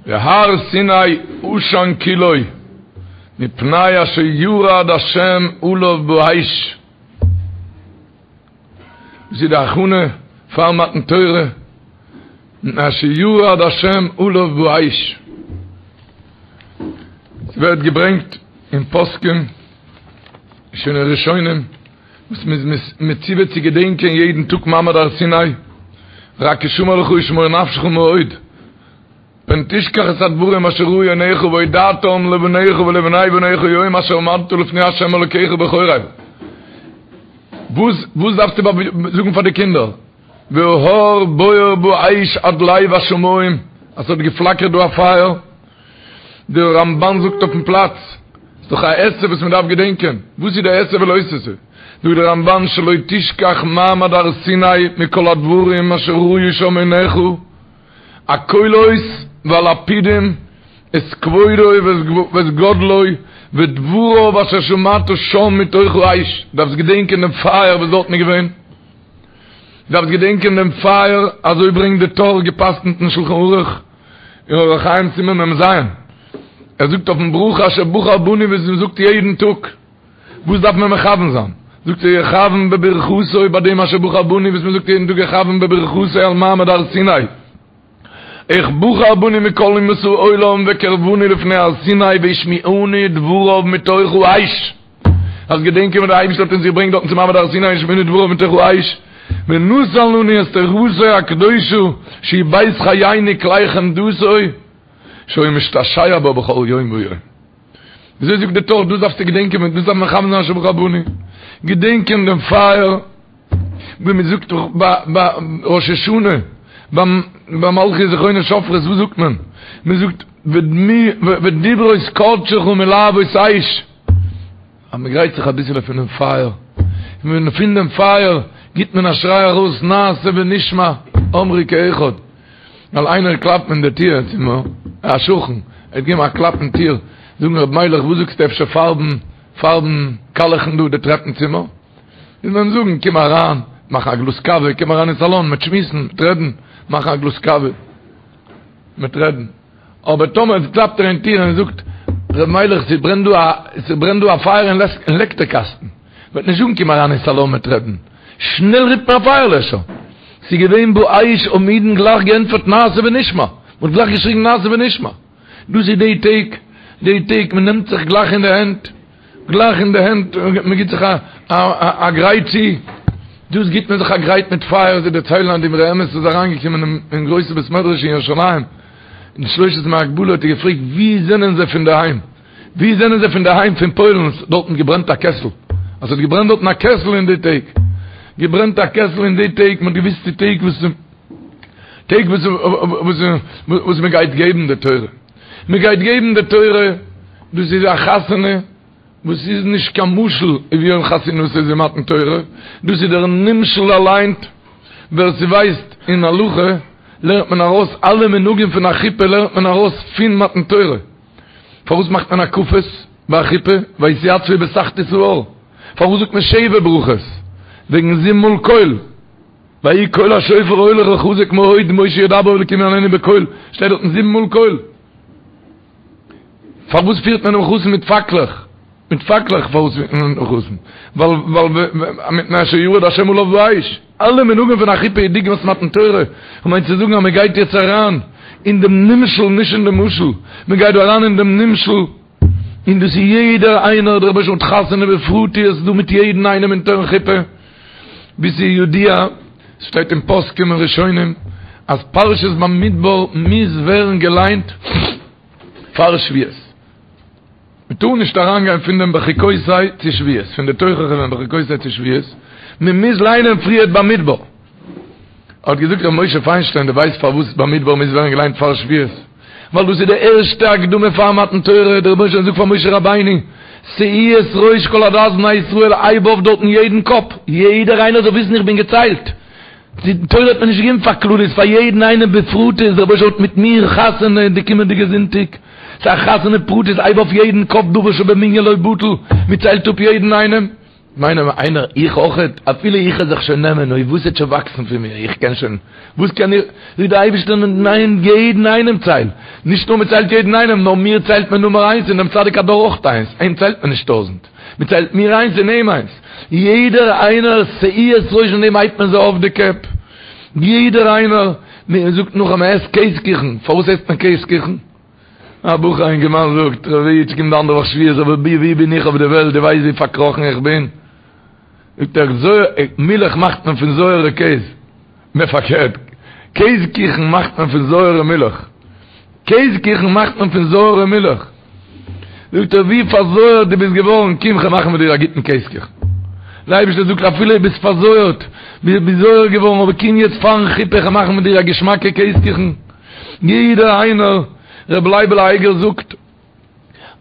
והר סיני עשן כולו מפני אשר ירד השם עליו באש. דאס איז די הכנה פאר מתן תורה, מפני אשר ירד השם עליו באש. ס'ווערט געברענגט אין פוסקים, שוין אין ראשונים, וואס מ'איז מצווה צו געדענקען יעדן טאג מעמד הר סיני, רק השמר לך ושמור נפשך מאוד, פן תשכח את הדברים אשר ראו עיניך והודעתם לבניך ולבני בניך יום אשר עמדת לפני ה' אלוקיך בחורב. וואס וואס דארפסטו זאגן פאר די קינדער? וההר בוער באש עד לב השמים, אז ס'האט געפלאקערט דא א פייער. דער רמבן זאגט אויפן פלאץ, ס'איז דאך א עשה וואס מ'דארף געדענקען, וואס איז די עשה ולא תעשה? זאגט דער רמבן שלא תשכח מעמד הר סיני מכל הדברים אשר ראו שם עיניך, הקולות והלפידים את כבודו ואת גודלו ודבריו אשר שמעת שם מתוך האש, דארפסט געדענקען דעם פייער וואס דארטן איז געווען, דארפסט געדענקען דעם פייער, אזוי ברענגט די טור געפסקנט אין שלחן ערוך אין אורח חיים סימן מ ז, ער זאגט אויפן ברכה אשר בחר בנו וואס מען זאגט יעדן טאג, וואס דארף מען מכוון זיין? זאגט ער יכוון בברכתו ביי דעם אשר בחר בנו וואס מען זאגט יעדן טאג יכוון בברכתו על מעמד הר סיני, איך בחר בנו מכל אומות העולם וקרבנו לפני הר סיני והשמיענו דבריו מתוך האש, אז געדענקען ווען דער אייבערשטער האט אונז געברענגט דארטן צו מעמד הר סיני והשמיענו דבריו מתוך האש, ונתן לנו את תורתו הקדושה שהיא בית חיינו כלי חמדתו שהיה משתעשע בה בכל יום ויום. וויאזוי זאגט די טור דאס דארפסטו געדענקען ווען דאס דארף מען מכוון זיין אשר בחר בנו, געדענקען דעם פייער, ווי מען זאגט ביי ראש השנה ביי מלכיות זכרונות שופרות וואס זאגט מען? מען זאגט ודברות קדשך מלהבות אש, אז מען גרייט זיך אביסעלע פונעם פייער, און פון דעם פייער גיט מען א שריי ארויס נעשה ונשמע אמרו כאחד. ווייל איינער קלאפט אין די טיר צו מיר, א שכן, ער האט געגעבן א קלאפ אין טיר, זאגן ר' מיילעך וואס זאגסטו אפשר פארבן, פארבן, קאלעכן דא די טרעפן צימער? מוז מען אים זאגן קום אריין, מאכן א גלאז קאווע, קום אריין אין סאלאן, מ'עט שמועסן, מ'עט רעדן, מאכן א גלאז קאווע, מ'עט רעדן. אבער טאמער קלאפט ער אין טיר און זאגט, ר' מיילעך ס'ברענט דא א, ס'ברענט דא א פייער אין לעקטער קאסטן, מ'וועט נישט זאגן קום אריין אין סאלאן מ'עט רעדן, שנעל רופט מען א פייערלעשער. ס'איז געווען באש האבן אידן גלייך געענטפערט נעשה ונשמע, מ'האט גלייך געשריגן נעשה ונשמע. דאס איז די טעג, די טעג, מ'נעמט זיך גלייך אין די הענט, גלייך אין די הענט, מ'גיט זיך א גרייט צו, דאס גיט מען זיך א גרייט מיט פייער, זיי דערציילן אז די אמרי אמת איז אריינגעקומען אין גרויסע בית מדרש אין ירושלים, אין שלושת ימי הגבלה האט ער געפרעגט ווי זענען זיי פון דערהיים? ווי זענען זיי פון דערהיים פון פוילן? ס'האט דארטן געברענט א קעסל, אז ס'האט געברענט דארטן א קעסל אין די טעג, געברענט א קעסל אין די טעג, מ'האט געוויסט די טעג וואס טעג וואס וואס וואס מ'גייט געבן די תורה, מ'גייט געבן די תורה, דאס איז א חתונה וואס איז נישט קיין משל ווי יום חתונתו איז מתן תורה, דאס איז דער נמשל אליין, ווער ס'ווייסט אין הלכה לערנט מען ארויס אלע מנהגים פון א חופה לערנט מען ארויס פון מתן תורה. פארוואס מאכט מען הקפות ביי א חופה? ויתיצבו בתחתית ההר. פארוואס זאגט מען שבע ברכות? וועגן זיבן מאל קול. ויהי קול השופר הולך וחזק מאוד משה ידבר והאלקים יעננו בקול. שטייט דארטן זיבן מאל קול. פארוואס פירט מען דעם חתן מיט פאקלעך? מיט פאקלעך פארוואס פירט מען דעם חתן? ווייל ווייל מפני אשר ירד השם עליו באש. אלע מנהגים פון א חופה איז דוגמת מתן תורה, כ'מיין צו זאגן אז מען גייט יעצט אריין אין דעם נמשל נישט אין דעם משל, מען גייט דא אריין אין דעם נמשל, און דאס איז יעדער איינער, דער רבוש"ע האט חתונה בפרטיות דא מיט יעדן איינעם אונטערן חופה, ווי ס'איז ידוע, ס'שטייט אין פוסקים און ראשונים, אז פרשת במדבר מוז ווערן געליינט פאר שבועות. מען טאר נישט אריינגיין פון דעם בחוקותי צו שבועות, פון די תוכחה פון בחוקותי צו שבועות, מען מוז ליינען פריערט במדבר. האט געזאגט ר' משה פיינשטיין, דו ווייסט פארוואס במדבר מוז ווערן געליינט פאר שבועות? ווייל דאס איז די ערשטע הקדמה פאר מתן תורה, דער רבונו של עולם זאגט פאר משה רבינו, שאו את ראש כל עדת בני ישראל, הייב אויף דארטן יעדן קאפ, יעדער איינער זאל וויסן איך בין געציילט, די תורה האט מען נישט געגעבן פאר כלליות, פאר יעדן איינעם בפרטיות, דער רבונו של עולם האט מיט מיר חתונה די קומענדיגע זונטאג, ס'איז א חתונה פרטית, הייב אויף יעדן קאפ דבר שבמנין לא בטל, מען ציילט אפ יעדן איינעם, מיינען איינער איך אויכעט, אפילו איך וועל זיך שוין נעמען, אוי וואס וועט שוין וואקסן פון מיר, איך קען שוין, וואס קען איך, זאגט דער אייבערשטער ניין יעדן איינעם צייל, נישט נאר מ'ציילט יעדן איינעם, נאר מיר ציילט מען נומער איינס און דעם צדיק הדור אויך איינס, אים ציילט מען נישט טויזענט, מ'ציילט מיר איינס און אים איינס, יעדער איינער שאו את ראש פון דעם הייבט מען זיי אויף די קעפ, יעדער איינער, מ'זאגט נאך אז מ'עסט קעז קוכן, פארוואס עסט מען קעז קוכן? א בחור א אינגערמאן זאגט, ר' איד ס'קומט די אנדערע וואך שבועות אבער ווי ווי בין איך אויף די וועלט, דו ווייסט ווי פארקראכן איך בין? זאגט ער, זויער, מילך מאכט מען פון זויערע קעז. נע פארקערט, קעז קיכן מאכט מען פון זויערע מילך. קעז קיכן מאכט מען פון זויערע מילך. זאגט ער, ווי פארזויערט דו ביסט געווארן, קום כ'וועל מאכן מיט דיר א גוטן קעז קיכן. דער אייבערשטער זאגט, אפילו דו ביסט פארזויערט, ביסט זויער געווארן, אבער קום יעצט פארן חופה, כ'וועל מאכן מיט דיר א געשמאקע קעז קיכן. יעדער איינער, ר' לייבל אייגער זאגט,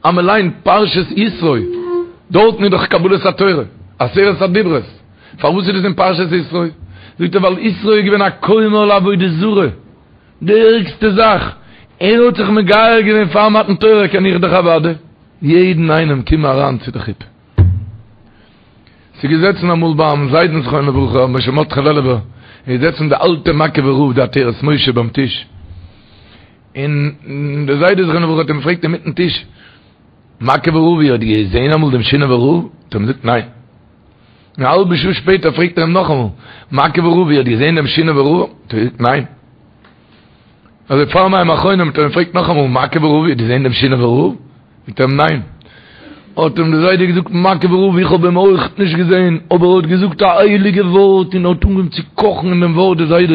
אז מען ליינט פרשת יתרו, דארטן איז דאך קבלת התורה, עשרת הדיברות, פארוואס איז דאס אין פרשת יתרו? זאגט ער ווייל יתרו איז געווען א כומר לעבודה זרה, די ערגסטע זאך, ער האט זיך מגייר געווען פאר מתן תורה, קען איך דאך אוודאי יעדן איינעם קום אריין צו די חופה. ס'איז געזעצן אמאל ביים זיידן זכרונו לברכה רבי משה מרדכי לעלובער, איז געזעצן די אלטע מאקעווער רב די עטרת משה ביים טיש, און דער זיידע זכרונו לברכה האט אים געפרעגט אינמיטן טיש, מאקעווער רב איר האט געזען אמאל דעם שינאווער רב? האט ער אים געזאגט ניין. א האלבע שעה שפעטער פרעגט ער אים נאכאמאל, מאקעווער רב איר האט געזען דעם שינאווער רב? האט ער געזאגט ניין. אזוי פאר מים אחרונים האט ער אים געפרעגט נאכאמאל, מאקעווער רב איר האט געזען דעם שינאווער רב? זאגט ער אים ניין. האט אים דער זיידע געזאגט, מאקעווער רב איך האב אים אויך נישט געזען, אבער ער האט געזאגט א הייליגע ווארט און ער האט אנגעהויבן צו קאכן אין דעם ווארט דער זיידע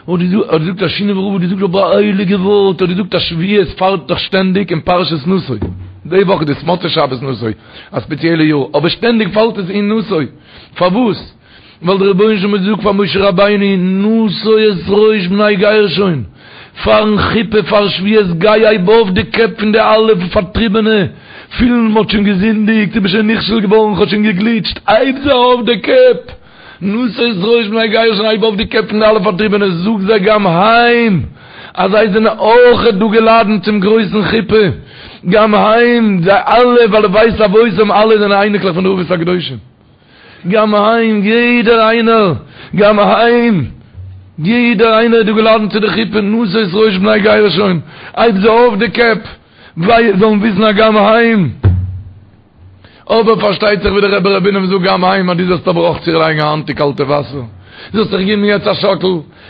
האט געזאגט אז שינאווער רב האט געזאגט אבער א הייליגע ווארט, האט געזאגט אז שבועות פאלט דאך שטענדיג אין פרשת נשא, די וואך איז דאס מוצאי שבת נשא, א ספעציעלע יאר, אבער שטענדיג פאלט עס אין נשא, פארוואס? ווייל דער רבונו של עולם האט געזאגט פאר משה רבינו נשא את ראש בני גרשון, פארן חופה פאר שבועות גיי הייב אויף די קעפ פון די אלע פארטריבענע, פילן מ'האט שוין געזינדיגט, איך בין שוין נכשל געווארן, כ'האב שוין געגליטשט, הייב זיי אויף די קעפ, נשא את ראש בני גרשון הייב אויף די קעפ פון די אלע פארטריבענע, זאג זיי גם הם אז זיי זענען אויכעט דא געלאדענט צום גרויסן חופה, גם הם, זיי אלע ווייל לבית אבותם אלע זענען אייניקלעך פון די אבות הקדושים. גם הם, יעדער איינער, גם הם, יעדער איינער איז דא געלאדענט צו די חופה, נשא את ראש בני גרשון, הייב זיי אויף די קעפ, זיי זאלן וויסן אז גם הם, אבער פארשטייט זיך ווי דער רבי ר' בונם זאגט גם הם, אז דו זאלסט אבער אויך צולייגן א האנט אין קאלטע וואסער, זאלסט זיך געבן יעצט א שאקל,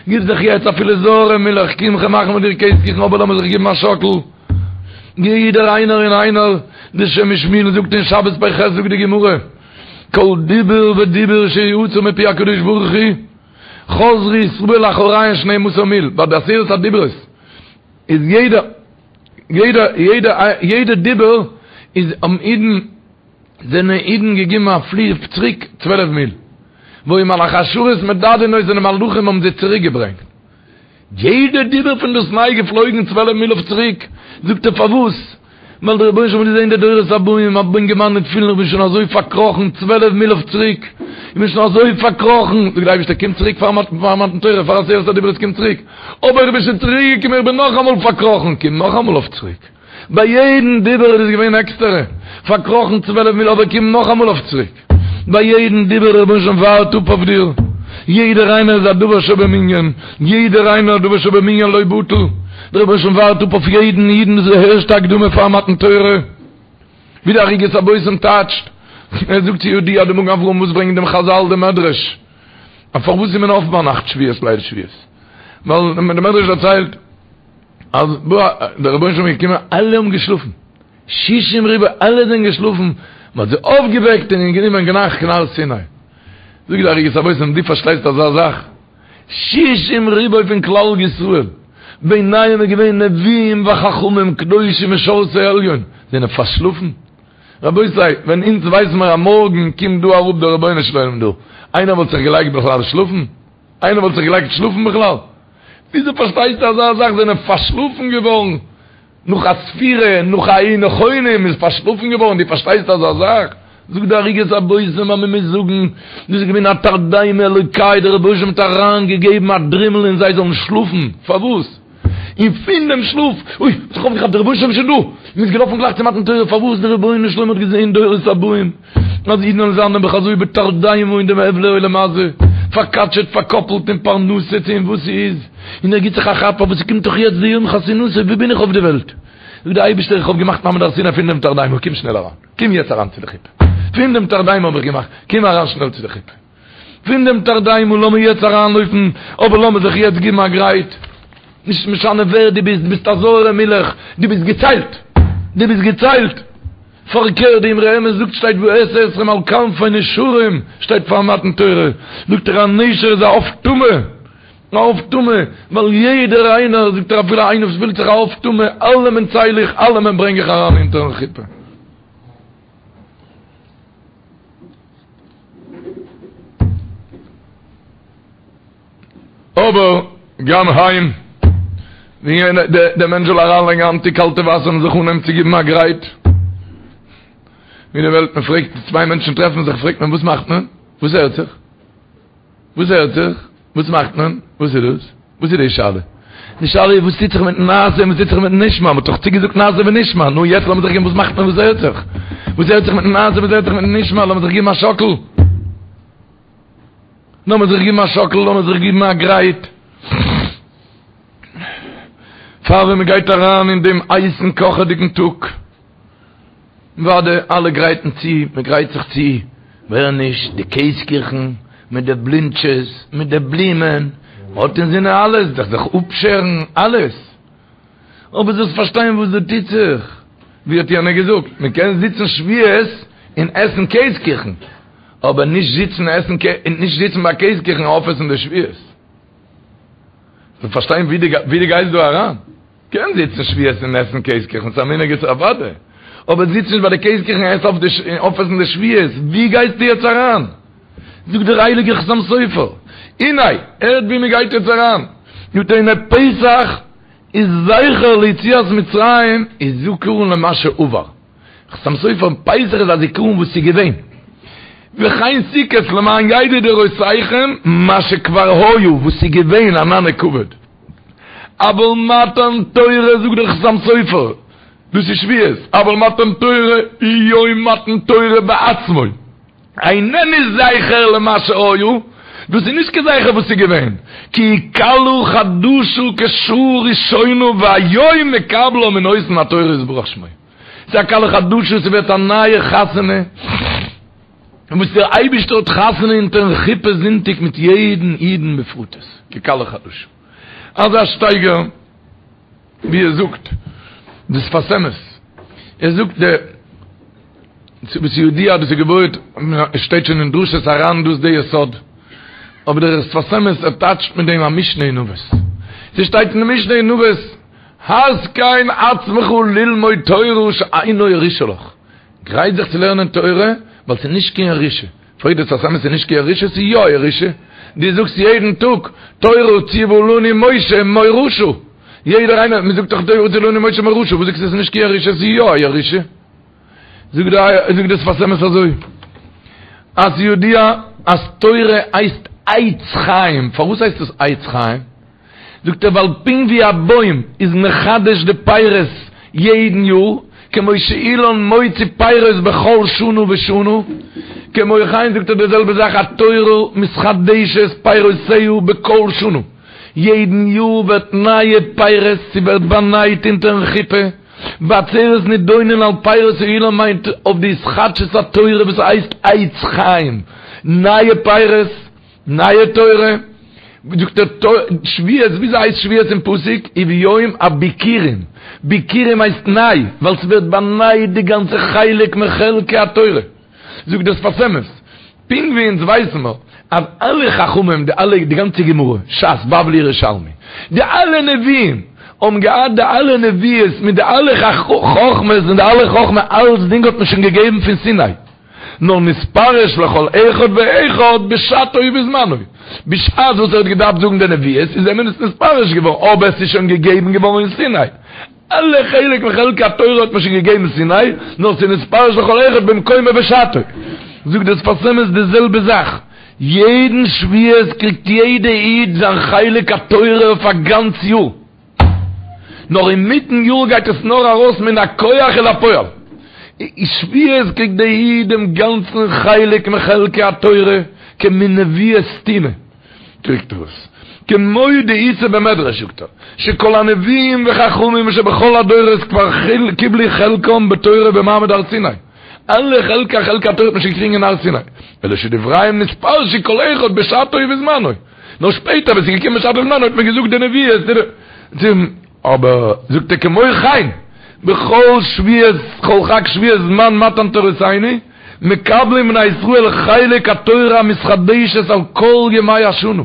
גיב זיך יעצט אפילו זויערע מילך, קום כ'וועל מאכן מיט דיר קעז קיכן, אבער לאמיר זיך געבן א שאקל. יעדער איינער און איינער, די שם משמואל זאגט אין שבת פ"ח זאגט די גמרא, כל דיבור ודיבור שיצא מפי הקדוש ברוך הוא, חזרו ישראל לאחוריהן שנים עשר מיל, ביי די עשרת הדיברות איז יעדע יעדע יעדע יעדע דיבור איז האבן אידן זענען אידן געגעבן א פלי צוריק צוועלף מיל, והיו מלאכי השרת מדדין אותן די מלאכים האבן זיי צוריק געברענגט. יעדע דיבור פון דאס ניי געפלויגן צוועלף מיל אויף צוריק, זאגט ער פארוואס? ווייל דער רבונו של עולם האט געזען די דורות הבאים, א אינגערמאן וועט פילן איך בין שוין אזוי פארקראכן צוועלף מיל אויף צוריק, איך בין שוין אזוי פארקראכן, זאגט דער אייבערשטער קום צוריק פאר מתן תורה, פאר עשרת הדיברות קום צוריק, אבער איך בין שוין צוריק געקומען איך בין נאכאמאל פארקראכן, קום נאכאמאל אויף צוריק. ביי יעדן דיבור איז עס געווען עקסטערע, פארקראכן צוועלף מיל אבער קום נאכאמאל אויף צוריק. ביי יעדן דיבור דער רבונו של עולם ווארט אפ אויף דיר. יעדער איינער איז א דבר שבמנין, יעדער איינער א דבר שבמנין לא בטל. דער רבונו של עולם ווארט אפ אויף יעדן אידן, דאס איז די ערשטע הקדמה פאר מתן תורה. ווי די ערוגת הבושם טייטשט, ער זאגט ס'ידוע די מגן אברהם וואס ברענגט דעם חזל די מדרש, אז פארוואס איז מען אויף ביינאכט שבועות ליל שבועות? ווייל די מדרש דערציילט, אז דער רבונו של עולם איז געקומען, אלע האבן געשלאפן, שישים ריבוא, אלע זענען געשלאפן, מען האט זיי אויפגעוועקט און גענומען גלייך קיין הר סיני. זאגט די ערוגת הבושם, דו פארשטייסט אזא זאך? שישים ריבוא פון כלל ישראל, ביניהם איז געווען נביאים וחכמים קדושים משרתי עליון, זענען פארשלאפן? רבותי, ווען אונז ווייסן מיר אז מארגן קומט דא אראפ דער רבונו של עולם דא, איינער וואלט זיך געלייגט בכלל שלאפן? איינער וואלט זיך געלייגט שלאפן בכלל? וויאזוי פארשטייסטו אזא זאך זענען פארשלאפן געווארן נאך א ספירה, נאך א היו נכונים איז פארשלאפן געווארן, דו פארשטייסט אזא זאך? זאגט די ערוגת הבושם אז מען מוז זאגן, דאס איז געווען א תרדמה אלוקי, דער רבונו של עולם האט אריין געגעבן א דרימל אין זיי זאלן שלאפן, פארוואס? און פון דעם שלאף, אוי, האט זיך אויפגעכאפט דער רבונו של עולם איז שוין דא, מען איז געלאפן גלייך צו מתן תורה, פארוואס? דער רבונו של עולם האט געזען דורות הבאים, אז אידן וועלן זיין נעבעך אזוי בתרדמה אין דעם הבלי עולם הזה, פארקאטשעט, פארקאפלט אין פרנסה צו אין וואס ס'איז. און ער גיט זיך א כאפ אבער ס'קומט דאך יעצט די יום חתונתו, וואו בין איך אויף די וועלט? זאגט דער אייבערשטער איך האב געמאכט מעמד הר סיני פון דעם תרדימה, קום שנעל אריין, קום יעצט אריין צו די חופה, פון דעם תרדימה האב איך געמאכט, קום אריין שנעל צו די חופה, פון דעם תרדימה לאמיר יעצט אריינלויפן, אבער לאמיר זיך יעצט גיבן א גרייט, נישט משנה ווער דו ביסט, דו ביסט א זויערע מילך, דו ביסט געציילט, דו ביסט געציילט. פארקערט די אמרי אמת זאגט שטייט ואשא אתכם על כנפי נשרים שטייט פאר מתן תורה זאגט ער א נשר איז א עוף טמא א עוף טמא ווייל יעדער איינער זאגט ער אפילו איינער וואס פילט זיך א עוף טמא אלעמען צייל איך אלעמען ברענג איך אריין אונטערן חופה. אבער גם הם, ווי דער מענטש זאל אריינלייגן א האנט אין קאלטע וואסער און זיך אנהייבן צו גיבן א גרייט, ווי די וועלט, מען פרעגט, צוויי מענטשן טרעפן זיך, פרעגט מען וואס מאכט מען? וואס הערט זיך? וואס הערט זיך? וואס מאכט מען? וואס איז דאס? וואס איז די שאלה? די שאלה איז וואס טוט זיך מיטן נעשה און וואס טוט זיך מיטן נשמע? מען האט דאך צוגעזאגט נעשה ונשמע, נו יעצט לאמיר זיך געבן וואס מאכט מען וואס הערט זיך? וואס הערט זיך מיטן נעשה וואס הערט זיך מיטן נשמע? לאמיר זיך געבן א שאקל. לאמיר זיך גיבן א שאקל, לאמיר זיך גיבן א גרייט, פאר ווען מען גייט אריין אין דעם הייסן קאכעדיגן טאג, אוודאי אלע גרייטן צו, מען גרייט זיך צו, ווער נישט, די קעז קיכן, מיט די בלינטשעס, מיט די בלומען, מען האט אינזינען אלעס, זיך זיך אפשערן, אלעס. אבער זאלסט פארשטיין וואס דא טוט זיך, ווי האט יענער געזאגט, מען קען זיצן שבועות און עסן קעז קיכן, אבער נישט זיצן עסן און נישט זיצן ביי קעז קיכן און אויפעסן די שבועות. זאלסט פארשטיין ווי דו גייסט דא אריין. קען זיצן שבועות און עסן קעז קיכן, ס'איז א מנהג איז אוודאי. אבער זיץ נישט ביי די קעז קיכן און עס אויף די און אויפעסן די שבועות, ווי גייסטו יעצט אריין? זאגט דער הייליגער חתם סופר, הנה, הערט ווי מען גייט יעצט אריין, זאגט ער הנה פסח איז זכר ליציאת מצרים איז זכרון למה שעבר. חתם סופר, פסח איז א זיכרון וואס איז געווען. וכן סוכות למען ידעו דורותיכם מה שכבר היה, וואס איז געווען ענני כבוד. אבל מתן תורה זאגט דער חתם סופר, דאס איז שבועות, אבל מתן תורה הוא יום מתן תורה בעצמו. איננו זכר למה שהיה, דאס איז נישט קיין זכר וואס איז געווען, כי היא כלה חדשה כשעה ראשונה והיום מקבלה מנותן התורה יתברך שמו. ס'איז א כלה חדשה, ס'ווערט א נייע חתונה, וואס דער אייבערשטער האט חתונה אונטערן חופה זונטאג מיט יעדן אידן בפרטות, ככלה חדשה. אזא שטייגער ווי ער זאגט די שפת אמת, ער זאגט די וואס ידוע דאס איז געבויעט עס שטייט שוין אין דרשות הר"ן דאס די יסוד, אבער דער שפת אמת ער טייטשט מיט דעם א משנה אין אבות, ס'שטייט אין די משנה אין אבות התקן עצמך ללמוד תורה שאינה ירושה לך, גרייט זיך צו לערנען תורה ווייל ס'איז נישט קיין ירושה, פרעגט דער שפת אמת ס'איז נישט קיין ירושה ס'איז יא ירושה, דו זאגסט יעדן טאג תורה ציוה לנו משה מורשה, יעדער איינער, מ'זאגט דאך תורה ציוה לנו משה מורשה, וואס זאגסטו ס'איז נישט קיין ירושה ס'איז יא א ירושה? זאגט דער שפת אמת אזוי, אז ידוע אז תורה הייסט עץ חיים, פארוואס הייסט עס עץ חיים? זאגט ער ווייל פונקט ווי א בוים איז מחדש די פירות יעדן יאר, כמו שאילן מוציא פירות בכל שנה ושנה, כמו כן זאגט ער די זעלבע זאך התורה מתחדשת פירותיה בכל שנה, יעדן יאר ווערט נייע פירות, ס'ווערט באנייט אונטערן חופה, בעצרת נידונין על פירות האילן מיינט אויף די התחדשות התורה וואס הייסט עץ חיים, נייע פירות, נייע תורה, זאגט ער שבועות, וויאזוי הייסט שבועות אין פסוק? וביום הביכורים, ביכורים הייסט ניי, ווייל ס'ווערט באנייט די גאנצע חלק מחלקי התורה, זאגט דער שפת אמת, פונקט ווי אונז ווייסן מיר אז אלע חכמים, די אלע, די גאנצע גמרא, ש"ס, בבלי, ירושלמי, די אלע נביאים, האבן געהאט די אלע נביאות מיט די אלע חכמות און די אלע חכמה, אלצדינג האט מען שוין געגעבן פון סיני. נאר נתפרש לכל אחד ואחד בשעתו ובזמנו, בשעת וואס ער האט געדארפט זאגן די נביאות איז אים עס נתפרש געווארן, אבער עס איז שוין געגעבן געווארן אין סיני. אלע חלק מחלקי התורה האט מען שוין געגעבן אין סיני, נאר ס'איז נתפרש לכל אחד במקומו ובשעתו. זאגט דער שפת אמת די זעלבע זאך, יעדן שבועות קריגט יעדע איד זיין חלק התורה אויף א גאנץ יאר. נאר אינמיטן יאר גייט עס נאר ארויס מן הכח אל הפועל. שבועות קריגט דער איד דעם גאנצן חלק מחלקי התורה כמין נביאות סתומה קריגט ער עס. כמו דאיתא במדרש זאגט ער, שכל הנביאים וחכמים שבכל הדורות כבר קיבלו חלקם בתורה במעמד הר סיני, אלע חלקי חלק התורה האט מען שוין געקריגן אין הר סיני, אלא שדבריהם נתפרשו כל אחד בשעתו ובזמנו, נאר שפעטער ווען ס'איז געקומען בשעתו ובזמנו האט מען געזאגט די נביאות, אבער זאגט ער כמו כן בכל שבועות כל חג שבועות זמן מתן תורתינו מקבלים בני ישראל חלק התורה המתחדשת על כל ימי השנה,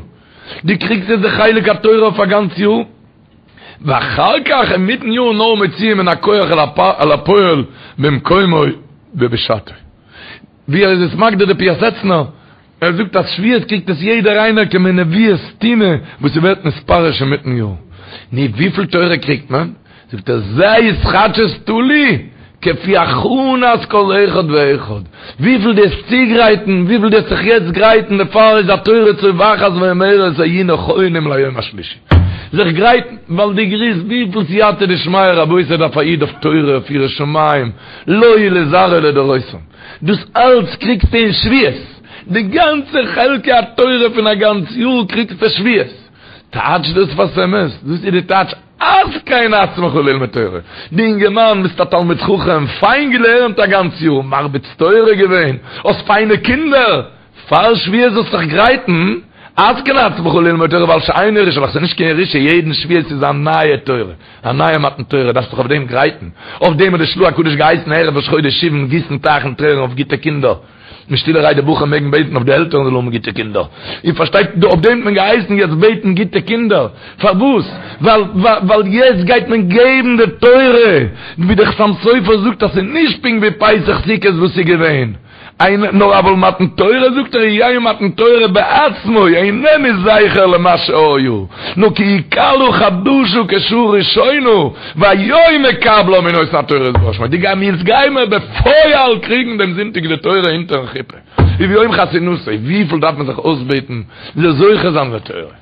דו קריגסט יעצט די חלק התורה אויף א גאנץ יאר, ואחר כך אינמיטן יאר נאר מוציאים מן הכח אל הפועל במקומו ובשעתו. ווי ער איז עס מגדיר די פיאסעצנער, ער זאגט אז שבועות קריגט עס יעדער איינער כמין נבואה סתומה וואס ס'ווערט נתפרש אינמיטן יאר. נו וויפיל תורה קריגט מען? זאגט ער זה התחדשות תלוי כפי הכנת כל אחד ואחד, וויפיל דו וועסט צוגרייטן, וויפיל דו וועסט זיך יעצט גרייטן, דערפאר איז התורה צווחת ואומרת היו נכונים ליום השלישי. זיך גרייטן, ווייל דו גריסט וויפיל סייעתא דשמיא רבותי דארף א איד אויף תורה אויף יראת שמים, לו ולזרעו לדורותם. דאס אלץ קריגסטו אין שבועות, די גאנצע חלקי התורה פון א גאנץ יאר קריגסטו שבועות. טייטש דאס שפת אמת, דאס איז די טייטש התקן עצמך ללמוד תורה. דו אינגערמאן ביסט א תלמיד חכם, פיין געלערנט א גאנץ יאר, מרביץ תורה געווען, האסט פיינע קינדער, פאר שבועות זאלסט זיך גרייטן, התקן עצמך ללמוד תורה ווייל שאין ירושה לך, ס'איז נישט קיין ירושה, יעדן שבועות איז א נייע תורה, א נייע מתן תורה, דארפסט זיך אויף דעם גרייטן, אויף דעם האט די של"ה הקדוש געהייסן ערב ראש חודש סיוון גיסן טייכן טרערן אויף גוטע קינדער, און שטילערהייט די בחורים מעגן בעטן אויף די עלטערן זאלן האבן גוטע קינדער, איר פארשטייט, אויף דעם האט מען געהייסן יעצט בעטן גוטע קינדער, פארוואס? ווייל ווייל יעצט גייט מען געבן די תורה, ווי דער חתם סופר זאגט אז ס'איז נישט פונקט ווי פסח סוכות וואס איז געווען. איין נאר אבל מתן תורה זאגט ער יהא מתן תורה בעצמו איננו זכר למה שהיה נאר כי היא כלה חדשה כשעה ראשונה והיום מקבלה מנותן התורה יתברך שמו די גיימיר יעצט גיימער בפועל קריגן דעם זונטאג די תורה אונטערן חופה וביום חתונתו וויפיל דארף מען זיך אויסבעטן זאל זוכה זיין לתורה.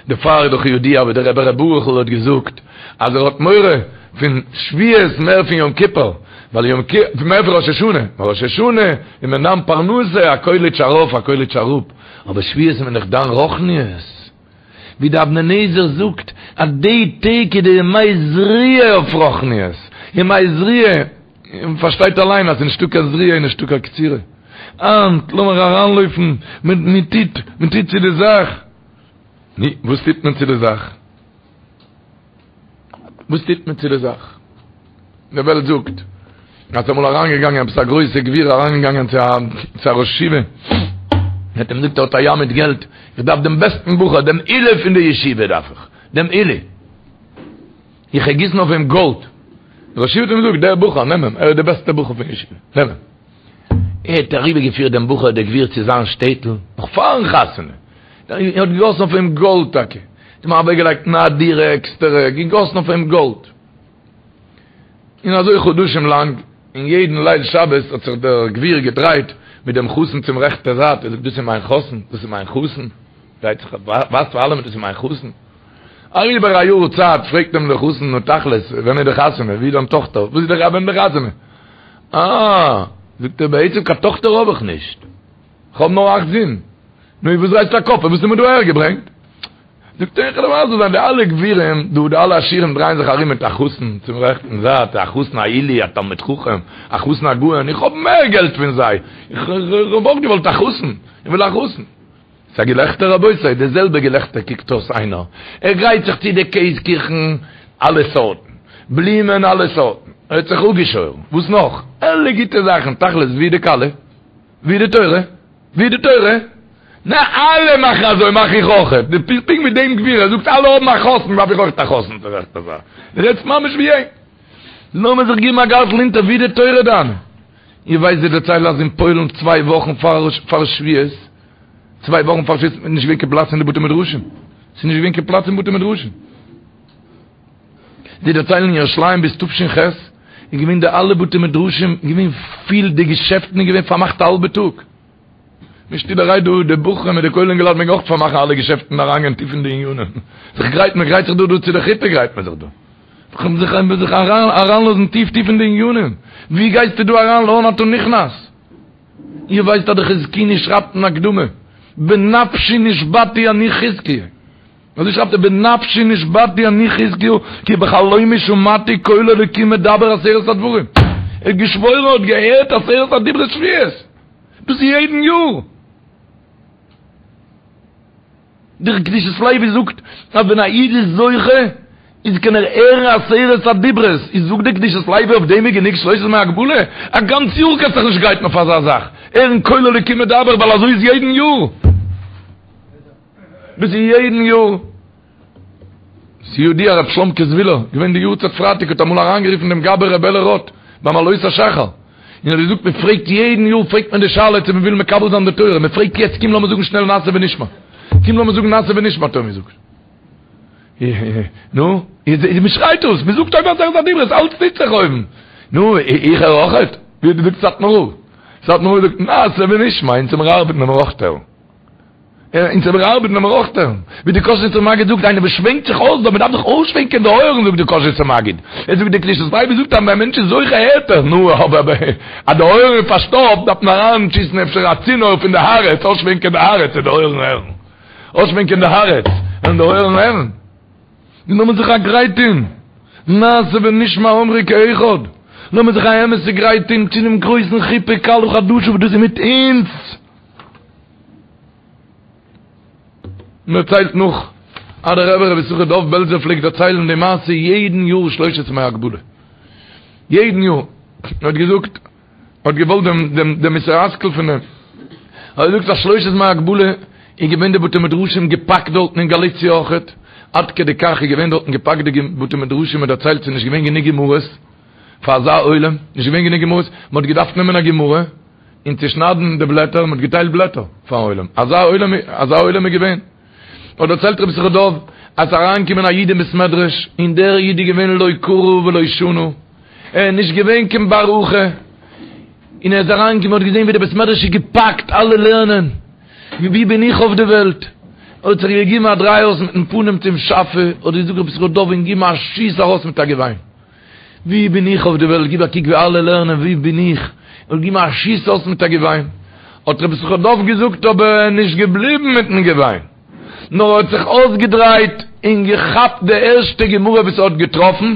דערפאר איז דאך ידוע ווי דער רבי ר' ברוכ'ל האט געזאגט אז ער האט מורא פון שבועות מער פון יום כיפור, ווייל יום כיפור מער פון ראש השנה, ווייל ראש השנה איז מען דן פרנסה, א קויליטש ארויף א קויליטש אראפ, אבער שבועות איז מען דאך דן רוחניות, ווי די אבני נזר זאגט אז די טעג איז די ימי זריעה אויף רוחניות, ימי זריעה, און פארשטייט אליין אז ס'איז נישטא קיין זריעה איז נישטא קיין קצירה. היינט לאמיר אריינלויפן, מען טוט, מען טוט צו די זאך. נו, וואס טוט מען צו די זאך? וואס טוט מען צו די זאך? די וועלט זאגט אז אמאל אריינגעגאנגען עפעס א גרויסע גביר אריינגעגאנגען צו א צו א ראש ישיבה, האט אים געזאגט ער האט א ים מיט געלט, איך דארף דעם בעסטן בחור, דעם עילוי פון די ישיבה דארף איך, דעם עילוי. איך וועל גיסן אויף אים גאלד. דער ראש ישיבה האט אים געזאגט, דער בחור, נעם אים, ער איז דער בעסטער בחור פון ישיבה, נעם אים. ער האט אריבערגעפירט דעם בחור דער גביר צו זיין שטעטל, נאך פארן חתונה. ער האט געגאסן אויף אים גאלד טאקע. האט אים אוועקגעלייגט אין א דירה עקסטערע, געגאסן אויף אים גאלד. און אזוי חדשים לאנג, און יעדן ליל שבת האט זיך דער גביר געדרייט מיט דעם חתן צום רעכטע זייט, ער זאגט, דאס איז מיין חתן, דאס איז מיין חתן. דרייט זיך, ווייזט פאר אלעמען, דאס איז מיין חתן. אריבער א יאר צייט פרעגט אים דער חתן, נו תכלית, ווען איז די חתונה? ווי איז דיין טאכטער? וואס איז די ווען איז די חתונה? אה, זאגט ער, בעצם קיין טאכטער האב איך נישט, איך האב נאר אכט זין. נו, וואס דרייסטו א קאפ, וואס האסטו מיר דא אהערגעברענגט? זאגט ער, איך וועל דיר מסביר זיין, די אלע גבירים דא, די אלע עשירים דרייען זיך ארום מיט א חתן צום רעכטן זייט, א חתן א עילוי, א תלמיד חכם, א חתן א גאון, איך האב מער געלט פון זיי, איך האב אויך געוואלט א חתן, איך וויל א חתן. ס'איז א געלעכטער רבותי, די זעלבע געלעכטער קוקט אויס איינער, ער גרייט זיך צו די קעז קיכן אלע סארטן, בלומען אלע סארטן, ער האט זיך אפגעשוירן, וואס נאך? אלע גוטע זאכן, תכלית ווי די כלה? ווי די תורה? ווי די תורה? נע אלע מאכן אזוי מאך איך אויכעט, דו ביסט פונקט ווי דעם גביר, ער זאגט אלע האבן א חתן דארף איך אויכעט א חתן, דו רעדסט ממש ווי אים, לאמיר זיך געבן א גארטל אונטער ווי די תורה דיינע? איר ווייסט זיי דערציילן אז אין פוילן צוויי וואכן פאר שבועות, צוויי וואכן פאר שבועות איז נישט געווען קיין פלאץ אין די בתי מדרשים, ס'איז נישט געווען קיין פלאץ אין בתי מדרשים. זיי דערציילן אין ירושלים ביז תש"ח איז געווען די אלע בתי מדרשים געווען פיל, די געשעפטן איז געווען פארמאכט א האלבע טאג. נישט שטילערהייט דא די בחורים מיט די כולל אינגעלייט מעגן אויך פארמאכן אלע געשעפטן און אריינגיין טיף אין די עניינים. זיך גרייטן, מען גרייט זיך דא דא צו די חופה גרייט מען זיך דא. זיך זיך אריינלאזן טיף טיף אין די עניינים. ווי גייסטו דא אריין לאן אתה נכנס? איר ווייסט אז די חזקוני שרייבט אין הקדמה. בנפשי נשבעתי אני חזקיה. אזוי שרייבט ער בנפשי נשבעתי אני חזקיהו כי בחלומי שמעתי קול אלוקים מדבר עשרת הדברים. ער האט געשוואוירן ער האט געהערט עשרת הדיברות שבועות. דאס איז יעדן יאר. דער קדושת לוי זאגט אז ווען א איד איז זוכה איז קען ער הערן עשרת הדיברות, איז זאגט דער קדושת לוי אויף דעם איז גענוג שלושת ימי הגבלה? א גאנץ יאר קענסט דיך נישט גרייטן אויף אזא זאך, הערן קול אלוקים מדבר ווייל אזוי איז יעדן יאר. דאס איז יעדן יאר. ס'ידוע רב שלומקע זווילער, געווען די יארצייט פרייטאג האט אמאל אריינגערופן דעם גבאי ר' אלי' רוט ביים עלות השחר, און האט געזאגט מען פרעגט יעדן יאר פרעגט מען די שאלה צו מען וויל מקבל זיין די תורה, מען פרעגט יעצט קום לאמיר זאגן שנעל נעשה ונשמע, קום לאמיר זאגן נעשה ונשמע האט ער געזאגט. נו, מען שרייט אויס, מען זאגט אויבן עשרת הדיברות, אלץ טוט זיך אויבן. נו, איך הער אויכעט? ווי האט געזאגט סאטמאר רב? סאטמאר רב זאגט נעשה ונשמע, אונז מיר ארבעטן וועלן מיר אויך הערן. אונז מיר ארבעטן וועלן מיר אויך הערן. ווי די קאזשניצער מגיד זאגט, איינער וואס שווענקט זיך אויס דא, מען דארף זיך אויסשווענקען די אויערן זאגט די קאזשניצער מגיד. ער זאגט די קדושת לוי זאגט אז ווען א מענטש איז זוכה הערט ער, נו אבער אז די אויערן איז פארשטאפט דארף מען אריינשיסן אפשר א צינור פון די הארץ, אויסשווענקען די הארץ און די אויערן הערן. אויסשווענקען די הארץ און די אויערן הערן. און לאמיר זיך א גרייט טון, נעשה ונשמע אמרו כאחד, לאמיר זיך א אמת'ע גרייט טון צו דעם גרויסן חופה כלה חדשה וואס דאס איז מיט אונז. מען דערציילט נאך אז דער רבי רבי יששכר דוב בעלזער פלעגט דערציילן די מעשה יעדן יאר שלושת ימי הגבלה, יעדן יאר, ער האט געזאגט, ער האט געוואלט דעם דעם דעם מוסר השכל פון דעם, ער האט געזאגט אז שלושת ימי הגבלה איז געווען די בתי מדרשים געפאקט דארטן אין גאליציע אויכעט, עד כדי כך איז געווען דארטן געפאקט די בתי מדרשים, מען דערציילט ס'איז נישט געווען גענוג גמרות פאר אזא עולם, נישט געווען גענוג גמרות, מען האט געדארפט נעמען א גמרא, און צושניידן די בלעטער, מען האט געטיילט בלעטער פארן עולם, אזא עולם, אזא עולם איז געווען. האט דערציילט רבי יששכר דוב, אז ס'איז אריינגעקומען א איד אין בית מדרש, און דער איד איז געווען לא קרא ולא שנה, ער איז נישט געווען קיין בר הכי, און ער איז אריינגעקומען האט געזען ווי די בית מדרש איז געפאקט, אלע לערנען, ווי בין איך אויף די וועלט? האט זיך געגעבן א דריי אויס מיטן פנים צום שאפע, האט געזאגט רבי יששכר דוב און געגעבן א שיס ארויס מיט א געוויין. ווי בין איך אויף די וועלט, גיב א קוק ווי אלע לערנען, ווי בין איך, און גיב א שיס אויס מיט א געוויין. האט רבי יששכר דוב געזאגט, אבער ער איז נישט געבליבן מיטן געוויין, נאר ער האט זיך אויסגעדרייט און געכאפט די ערשטע גמרא וואס ער האט געטראפן,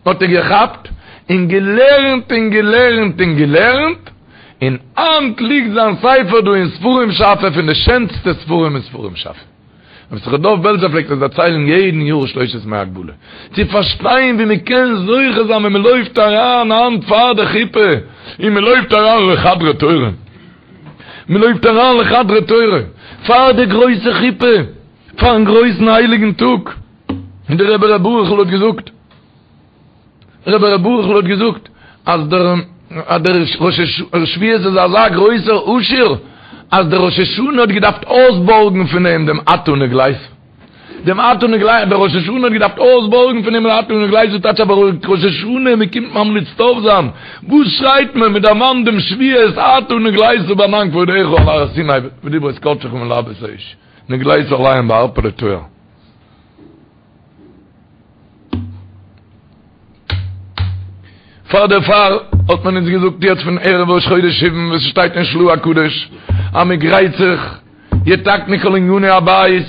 האט ער געכאפט און געלערנט און געלערנט און געלערנט, און היינט ליגט זיין ספר דא אין ספרים שאפע פון די שענסטע ספרים אין ספרים שאפע. רבי יששכר דוב בעלזער פלעגט עס דערציילן יעדן יאר שלושת ימי הגבלה, צו פארשטיין ווי מען קען זוכה זיין ווען מען לויפט אריין היינט פאר די חופה, און מען לויפט אריין לחדרי תורה, מען לויפט אריין לחדרי תורה, פאר די גרויסע חופה, פארן גרויסן הייליגן טאג, און דער רבי ר' ברוכ'ל האט געזאגט. רבי ר' ברוכ'ל האט געזאגט אז דער אז דער ראש שבועות איז אזא גרויסער עשיר אז דער ראש השנה האט געדארפט אויסבארגן פון אים דעם אתה נגלית דעם אתה נגלית דער ראש השנה האט געדארפט אויסבארגן פון אים דעם אתה נגלית טייטש אבער ראש השנה מען קומט ממליץ טוב זיין וואס שרייט מען מען דערמאנט דעם שבועות אתה נגלית בענן כבודך על הר סיני בדברות קדשך מלהבות אש נגלית עליהם בערפלי טוהר. פאר דערפאר האט מען אונז געזאגט יעצט פון ערב ראש חודש סיוון וואס שטייט אין של"ה הקדוש אז מען גרייט זיך יתקנו כל עניני הבית